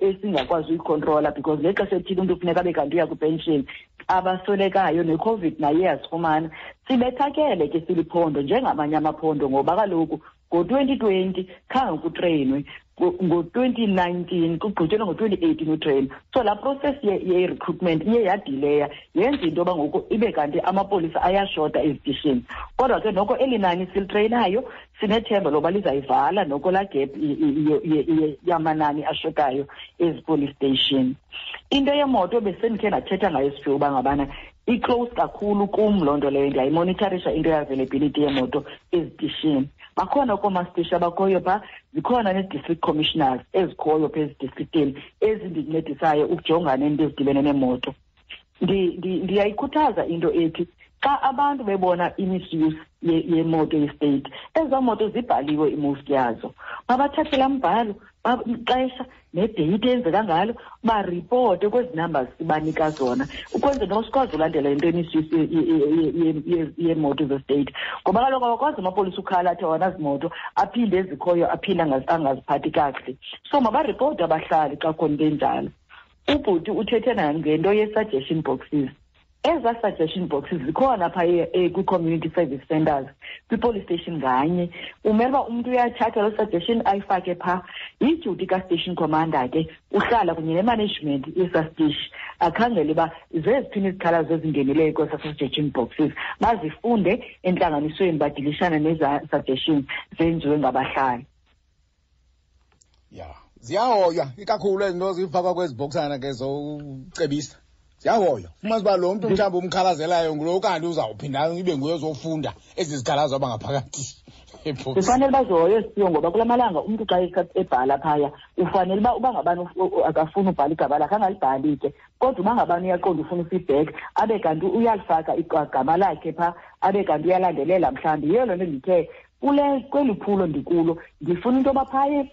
esingakwazi uyikhontrola, because ngexesha ethile umntu kufuneka abe kanti uya kwipenshini, abaswelekayo, neCOVID naye yasifumana sibethakele ke siliphondo njengamanye amaphondo, ngoba kaloku ngo-2020 khange kutreyinwe, ngo-2019 kugqityelwe, ngo-2018 utreyina. So laa process ye-recruitment iye yadileya, yenza into yoba ngoku ibe kanti amapolisa ayashota ezitishini. Kodwa ke noko eli nani silitreyinayo sinethemba loba lizayivala noko laa gap yamanani ashotayo ezi-police station. Into yemoto besendikhe ndathetha ngayo, Siphiwe, uba ngabana i-close kakhulu kum loo nto leyo. Ndiyayimonitharisha into ye-availability yemoto ezitishini. Bakhona koomastishi abakhoyo phaa, zikhona nee-district commissioners ezikhoyo phaa ezidistriktini ezindincedisayo ukujongana neento ezidibene neemoto. Ndiyayikhuthaza into ethi xa abantu bebona i-misuse yemoto ye-state, ezaa moto zibhaliwe i-most yazo, mabathathe laa mbhalo, ixesha nedeyiti eyenzeka ngalo, baripote kwezi numbers sibanika zona, ukwenzela noba sikwazi ulandela into ye-misuse yeemoto ze-state, ngoba kaloku awakwazi amapolisa ukhala athi awanazimoto, aphinde ezikhoyo aphinde angaziphathi kakuhle. So mabaripote abahlali xa kukhona into enjalo. Ubhuti uthethe nangento ye-suggestion boxes. Ezaa suggestion boxes zikhona phaa kwi-community service centers, kwi-police station nganye. Umele uba umntu uyathatha loo suggestion ayifake phaa. Yidyuti ka-station commander ke uhlala kunye ne-management yesaa sitishi, akhangele uba zeziphini izikhalazo ezingenileyo kwesaa suggestion boxes, bazifunde entlanganisweni, badilishane nezaa suggestions zenziwe ngabahlali. Ya, ziyahoywa ikakhulu ezi nto zifakwa kwezi bhoksana ke zocebisa, ziyahoywa. Fumanisa uba lo mntu mhlawumbi umkhalazelayo ngulo kanti uzawuphinda ibe nguye ozofunda ezi zikhalazo abangaphakathi ebhokisini. Zifanele bazihoye, Siphiwo, ngoba kula malanga umntu xa ebhala phaya ufanele uba ngabani akafuni ubhala igama lakhe angalibhali ke, kodwa uba ngabani uyaqonda ufuna ufeedback abe kanti uyalifaka igama lakhe phaa, abe kanti uyalandelela. Mhlawumbi yiyo loo nto ndithe kule kweli phulo ndikulo ndifuna into yoba phaya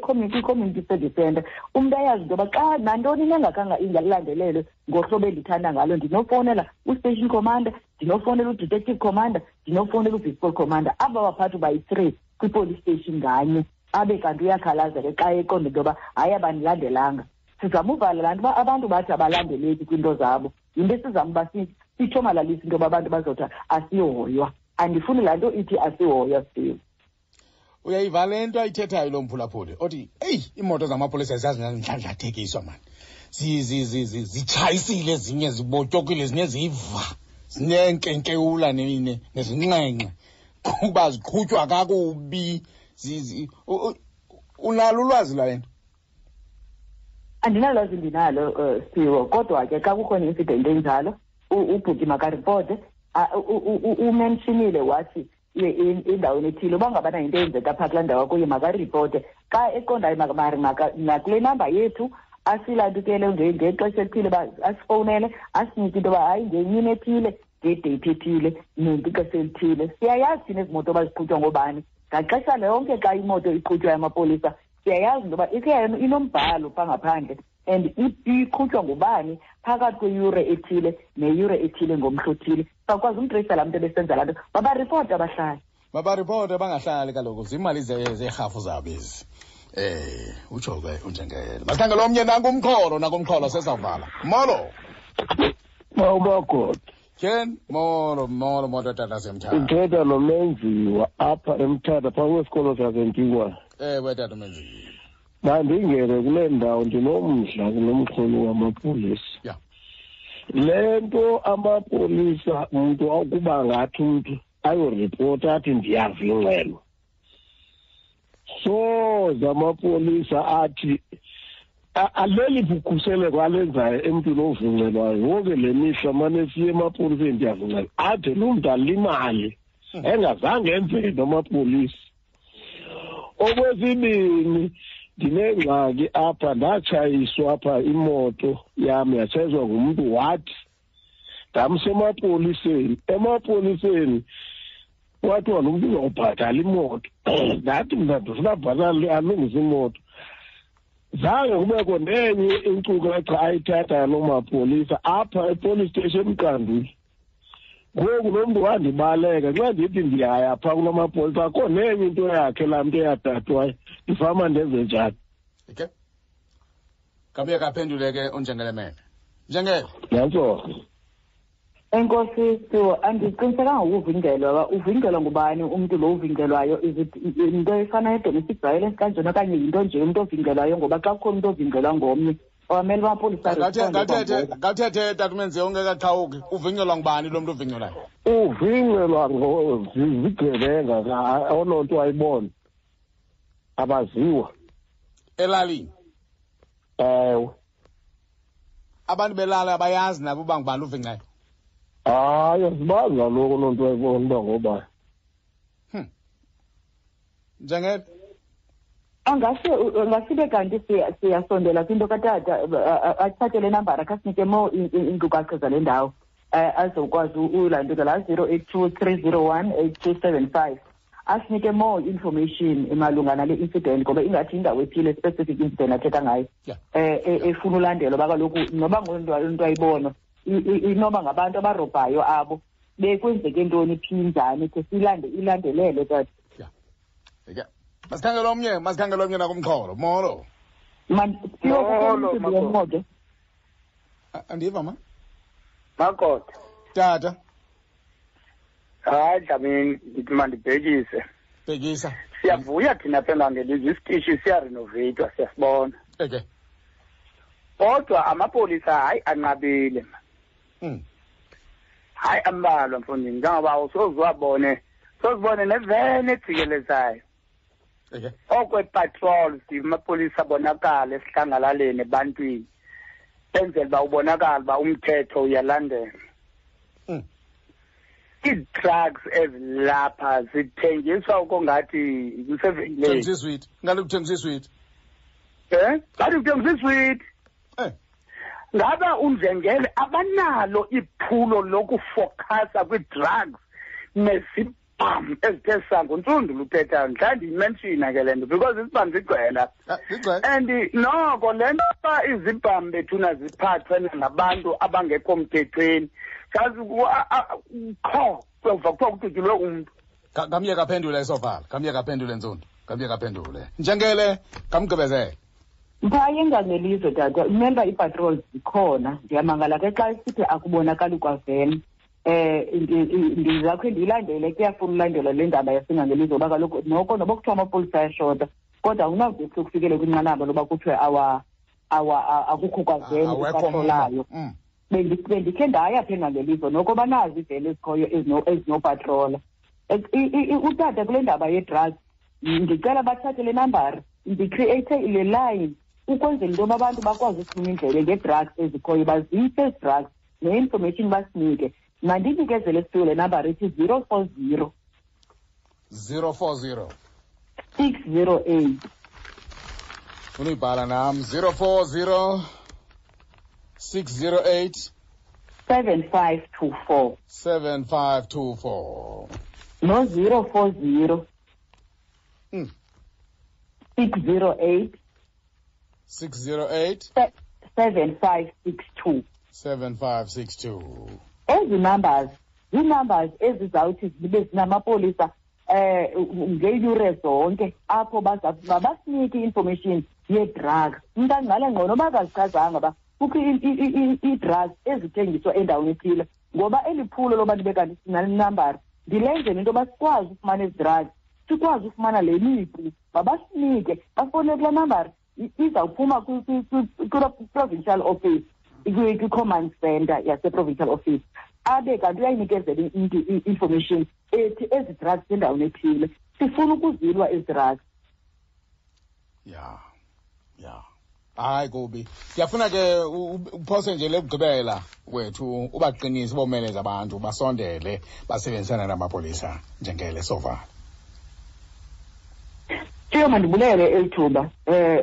kwi-community service center umntu ayazi into yoba xa nantoni nengakanga ingalandelelwe ngohlobo endithanda ngalo, ndinofowunela u-station commander, ndinofowunela u-detective commander, ndinofowunela u-vispol commander, aba baphathi bayi-3 kwi-police station nganye, abe kanti uyakhalaza ke xa eqonda into yoba hayi, abandilandelanga. Sizama uvala laa nto uba abantu bathi abalandeleki kwiinto zabo. Yinto esizama uba sithomalalise into yoba abantu bazothi asihoywa. Andifuni laa nto ithi asihoywa, Siphiwe. Uyayiva le nto ayithethayo lo mphulaphuli othi eyi, iimoto zamapolisa ziyazindlandlathekiswa mani, zitshayisile ezinye, zibotyokile ezinye, ziva zineenkenkewula nezinxenxe kuba ziqhutywa kakubi. Unalo ulwazi lwale nto? Andinalwazi ndinalo, Siphiwo, kodwa ke xa kukhona i-incident enjalo ubhuti makaripote. Umentionile wathi endaweni ethile uba ngabana yinto eyenzeka phaa kulaa ndawo kuye makaripote xa eqondayo, nakule namba yethu asilandukele ngexesha elithile uba asifowunele, asinike into yoba hayi, ngemini ethile, ngedeyithi ethile, nexesha elithile. Siyayazi thina ezi moto baziqhutywa ngoobani ngaxesha lonke. Xa imoto iqhutywa yamapolisa siyayazi into yoba ikhe inombhalo phaa ngaphandle and iqhutywa ngubani phakathi kweyure ethile neyure ethile ngomhla othile. Sakwazi umtreyisa laa mntu ebesenza laa nto. Mabaripoti abahlali. Mabaripoti, bangahlali kaloku, ziimali zeerhafu zabo ezi. Utsho ke unjengele. Masikhangele omnye nankumxholo, nankumxholo sesawuvala. Molo. Mawumagoda. Ken, molo, molo, molo tata semthatha. Uthetha noMenziwa apha eMthatha phaa kwesikolo saseNtinkwane. Ewe tata uMenziwa. Mandingene kule ndawo, ndinomdla kulo wamapolisa. Le nto amapolisa, umntu akuba ngathi umntu ayoripota athi ndiyava ingxelo, soze amapolisa athi Aleli bukhuseleko alenzayo emntwini ovuncelwayo yonke le mihla mane siye emapoliseni ndiyavuncelwa ade loo mntu alimale engazange enze nto amapolisa. Okwesibini, ndinengxaki apha, ndatshayiswa apha imoto yam, yatshayiswa ngumntu wathi ndamsa emapoliseni. Emapoliseni kwathiwa lo mntu uzawubhatala imoto. Ndathi mna ndifuna abhatale alungise imoto. Zange kubekho nenye inkcukacha ayithathayo loo mapolisa apha epolice station eMqanduli. Ngoku lo mntu wandibaleka, xa ndithi ndiyaya phaa kuloo mapolisa akho nenye into yakhe laa mntu eyathathwayo. Ndifama ndenze njani? Okay, kabuye kaphendule ke unjengelemene. Njengele. Nantso. Enkosi Siwo, andiqinisekanga ngokuvinjelwa. Uba uvinjelwa ngubani umntu lo uvinjelwayo? Is it into efana ne-domestic violence kanjena okanye yinto nje umntu ovinjelwayo? Ngoba xa kukhona umntu ovinjelwa ngomnye, awamele uba amapolisa aresponde kwangoko. Ngathethe tata uMenziwa ungekaqhawuki, uvinjelwa ngubani lo mntu uvinjelwayo? Uvinjelwa zigebenga, ononto ayibona abaziwa. Elalini? Ewe. Abantu belala abayazi nabo uba ngubani uvincayo? Hayi, asibazi kaloku loo nto ayibona uba ngobani. Njengele? Angasibe kanti siyasondela kwinto katata, athathe le nambara, khasinike more iinkcukacha zale ndawo, azokwazi ulantuka laa 082 301 8275, asinike more information malunga nale incident, ngoba ingathi indawo ethile, specific incident athetha ngayo, efuna ulandelwa, uba kaloku noba ngento ayibona inoba ngabantu abarobhayo abo, bekwenzeke ntoni, phi, njani, khe silande ilandelele tata. Okay. Masikhangele omnye, masikhangele omnye nakumxholo. Molo. Molo, Makoti. Andiva ma? Makoti. Tata. Hayi Dlamini, ndithi mandibhekise. Bhekisa. Siyavuya thina apha eNgangelizwe, isitishi siyarenoveyithwa, siyasibona. Okay. Kodwa amapolisa hayi anqabile. Hayi ambalwa mfondini, njengoba awusoze sozibone neveni ejikelezayo. Okay. Okwe-patrol, amapolisa abonakala esihlangalaleni ebantwini, enzela uba ubonakala uba umthetho uyalandela. Ii-drugs ezilapha zithengiswa ukongathi kusevenkileni. Kuthengiswa iswiti. Ngathi kuthengiswa iswiti. Eh? Ngathi kuthengiswa iswiti. Ngaba unjengele abanalo iphulo lokufokhasa kwii-drugs nezibham ezithe sango ntsundu luthethayo. Mhlawumbi ndiyimenshina ke le nto because izibham zigcwele apha. Zigcwele. And noko le nto uba izibham bethuna ziphathwe ngabantu abangekho mthethweni, sazi qho kuyova kuthiwa kudutyulwe umntu. Ngamye kaphendule esovala, ngamye kaphendule Ntsundu, ngamye kaphendule. Njengele ngamgqibezele. Phaa eNgangelizwe tata, remember ii-patrols zikhona. Ndiyamangala ke xa isithi akubonakali kwaveni. Ndizakhe ndiyilandele, kuyafuna ulandelwa le ndaba yaseNgangelizwe, ngoba kaloku noko noba kuthiwa amapolisa ayashota, kodwa awunawude kufikele kwinqanaba loba kuthiwe akukho kwaveni Awekho epatrolayo. Bendikhe ndaya pha eNgangelizwe, noko banazo iiveni ezikhoyo ezinopatrola. Utata kule ndaba ye-drugs, ndicela bathathe le nambara, ndicreate le line ukwenzela into yoba abantu bakwazi ukufuna indlebe ngee-drugs ezikhoyo, bazise ezi drugs ne-information basinike. Mandinikezele siphiwe le nambara ithi 040. 040. 608. Funa uyibhala nam. 040 608. 7524. 7524. No 040. 608. 608. 7562. 7562. Ezi numbers, zii-numbers ezizawuthi zibe zinamapolisa ngeeyure zonke apho basinike i-information yee-drugs. Umntu angqale ngqo noba akazichazanga uba kukho ii-drugs ezithengiswa endaweni ethile, ngoba eli phulo loba ndibe kanti sinale nambara ndilenzele into yoba sikwazi ufumana ezi drugs, sikwazi ufumana le mipu, mabasinike, bafowunele kulaa nambara. Izawuphuma kwi-provincial office, kwi-command center yase-provincial office, abe kanti uyayinikezela umntu i-information ethi ezi drugs endaweni ethile, sifuna ukuzilwa ezi drugs. Ya, ya. Hayi kubi. Ndiyafuna ke uphose nje lekugqibela wethu ubaqinise bomeleze abantu basondele basebenzisana namapolisa njengele sovala. Thiyo, mandibulele eli thuba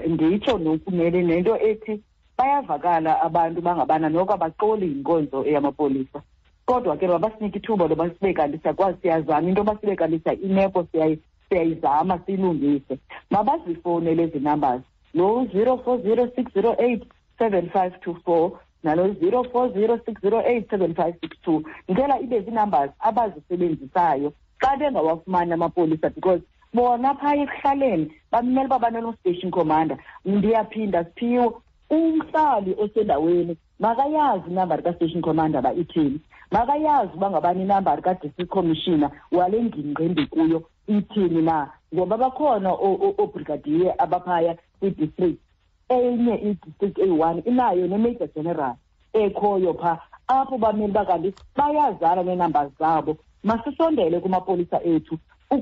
nditsho nokumele nento ethi bayavakala abantu bangabana noko abaxoli yinkonzo eyamapolisa, kodwa ke mabasinike ithuba loba sibe kanti siyakwazi, siyazama into yoba sibe kanti imeko siyayizama siyilungise. Mabazifowunele ezi numbers, lo 040 608 7524 nalo 040 608 7562. Ndicela ibe zii-numbers abazisebenzisayo xa bengawafumani amapolisa, because bona phaya ekuhlaleni bamele uba baneno-station commander. Ndiyaphinda, Siphiwo, umhlali osendaweni makayazi inambari ka-station commander uba ithini, makayazi uba ngabani inambari ka-district commissioner wale ngingqi ndikuyo ithini na, ngoba bakhona oobrigadier abaphaya kwi-district. Enye i-district eyi-1 inayo ne-major general ekhoyo phaa apho bamele uba kanti bayazana neenamba zabo. Masisondele kumapolisa ethu,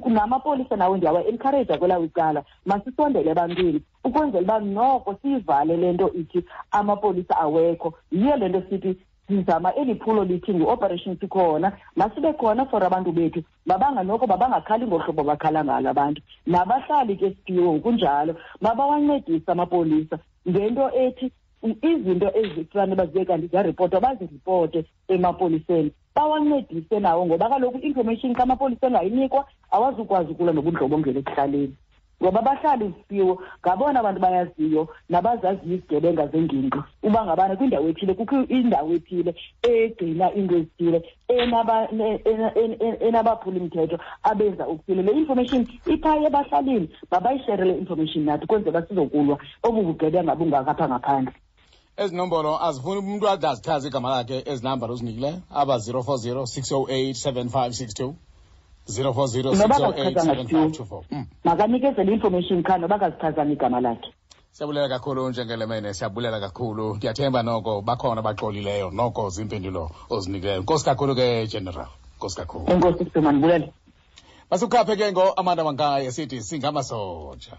namapolisa nawo ndiyawa-encourage kwelawo icala, masisondele ebantwini ukwenzela uba noko siyivale le nto ithi amapolisa awekho. Yiyo le nto sithi sizama eli phulo lithi ngu-Operation Sikhona. Masibe khona for abantu bethu, mabanganoko mabangakhali ngohlobo bakhala ngalo abantu. Nabahlali ke, Siphiwo, ngokunjalo mabawancedise amapolisa ngento ethi izinto ezifane bazibe kanti ziyaripotwa baziripote emapoliseni, bawancedise nawo, ngoba kaloku i-information xa amapolisa engayinikwa awazukwazi ukulwa nobundlobongela ekuhlaleni, ngoba abahlali, Siphiwo, ngabona bantu bayaziyo nabazaziyo izigebenga zengingqi uba ngabana kwindawo ethile kukho indawo ethile egcina iinto ezithile enabaphulimthetho abenza okuthile. Le information iphaya ebahlalini, mabayishere le information nathi kwenzela uba sizokulwa obu bugebenga bungaka apha ngaphandle. Ezi nombolo azifuni umntu ade azichaze igama lakhe, ezi nambara uzinikileyo aba 040 608 7562, 040 Noba 608 akazichazanga, 7524. Makanikezele i-information qha noba akazichazanga igama lakhe. Siyabulela kakhulu njengelemene, siyabulela kakhulu. Ndiyathemba noko bakhona abaxolileyo noko ziimpendulo ozinikileyo. Nkosi kakhulu ke, General, nkosi kakhulu. Enkosi, Siphiwo, mandibulele. Masikhaphe ke ngo-Amanda Mankayi esithi singamasoja.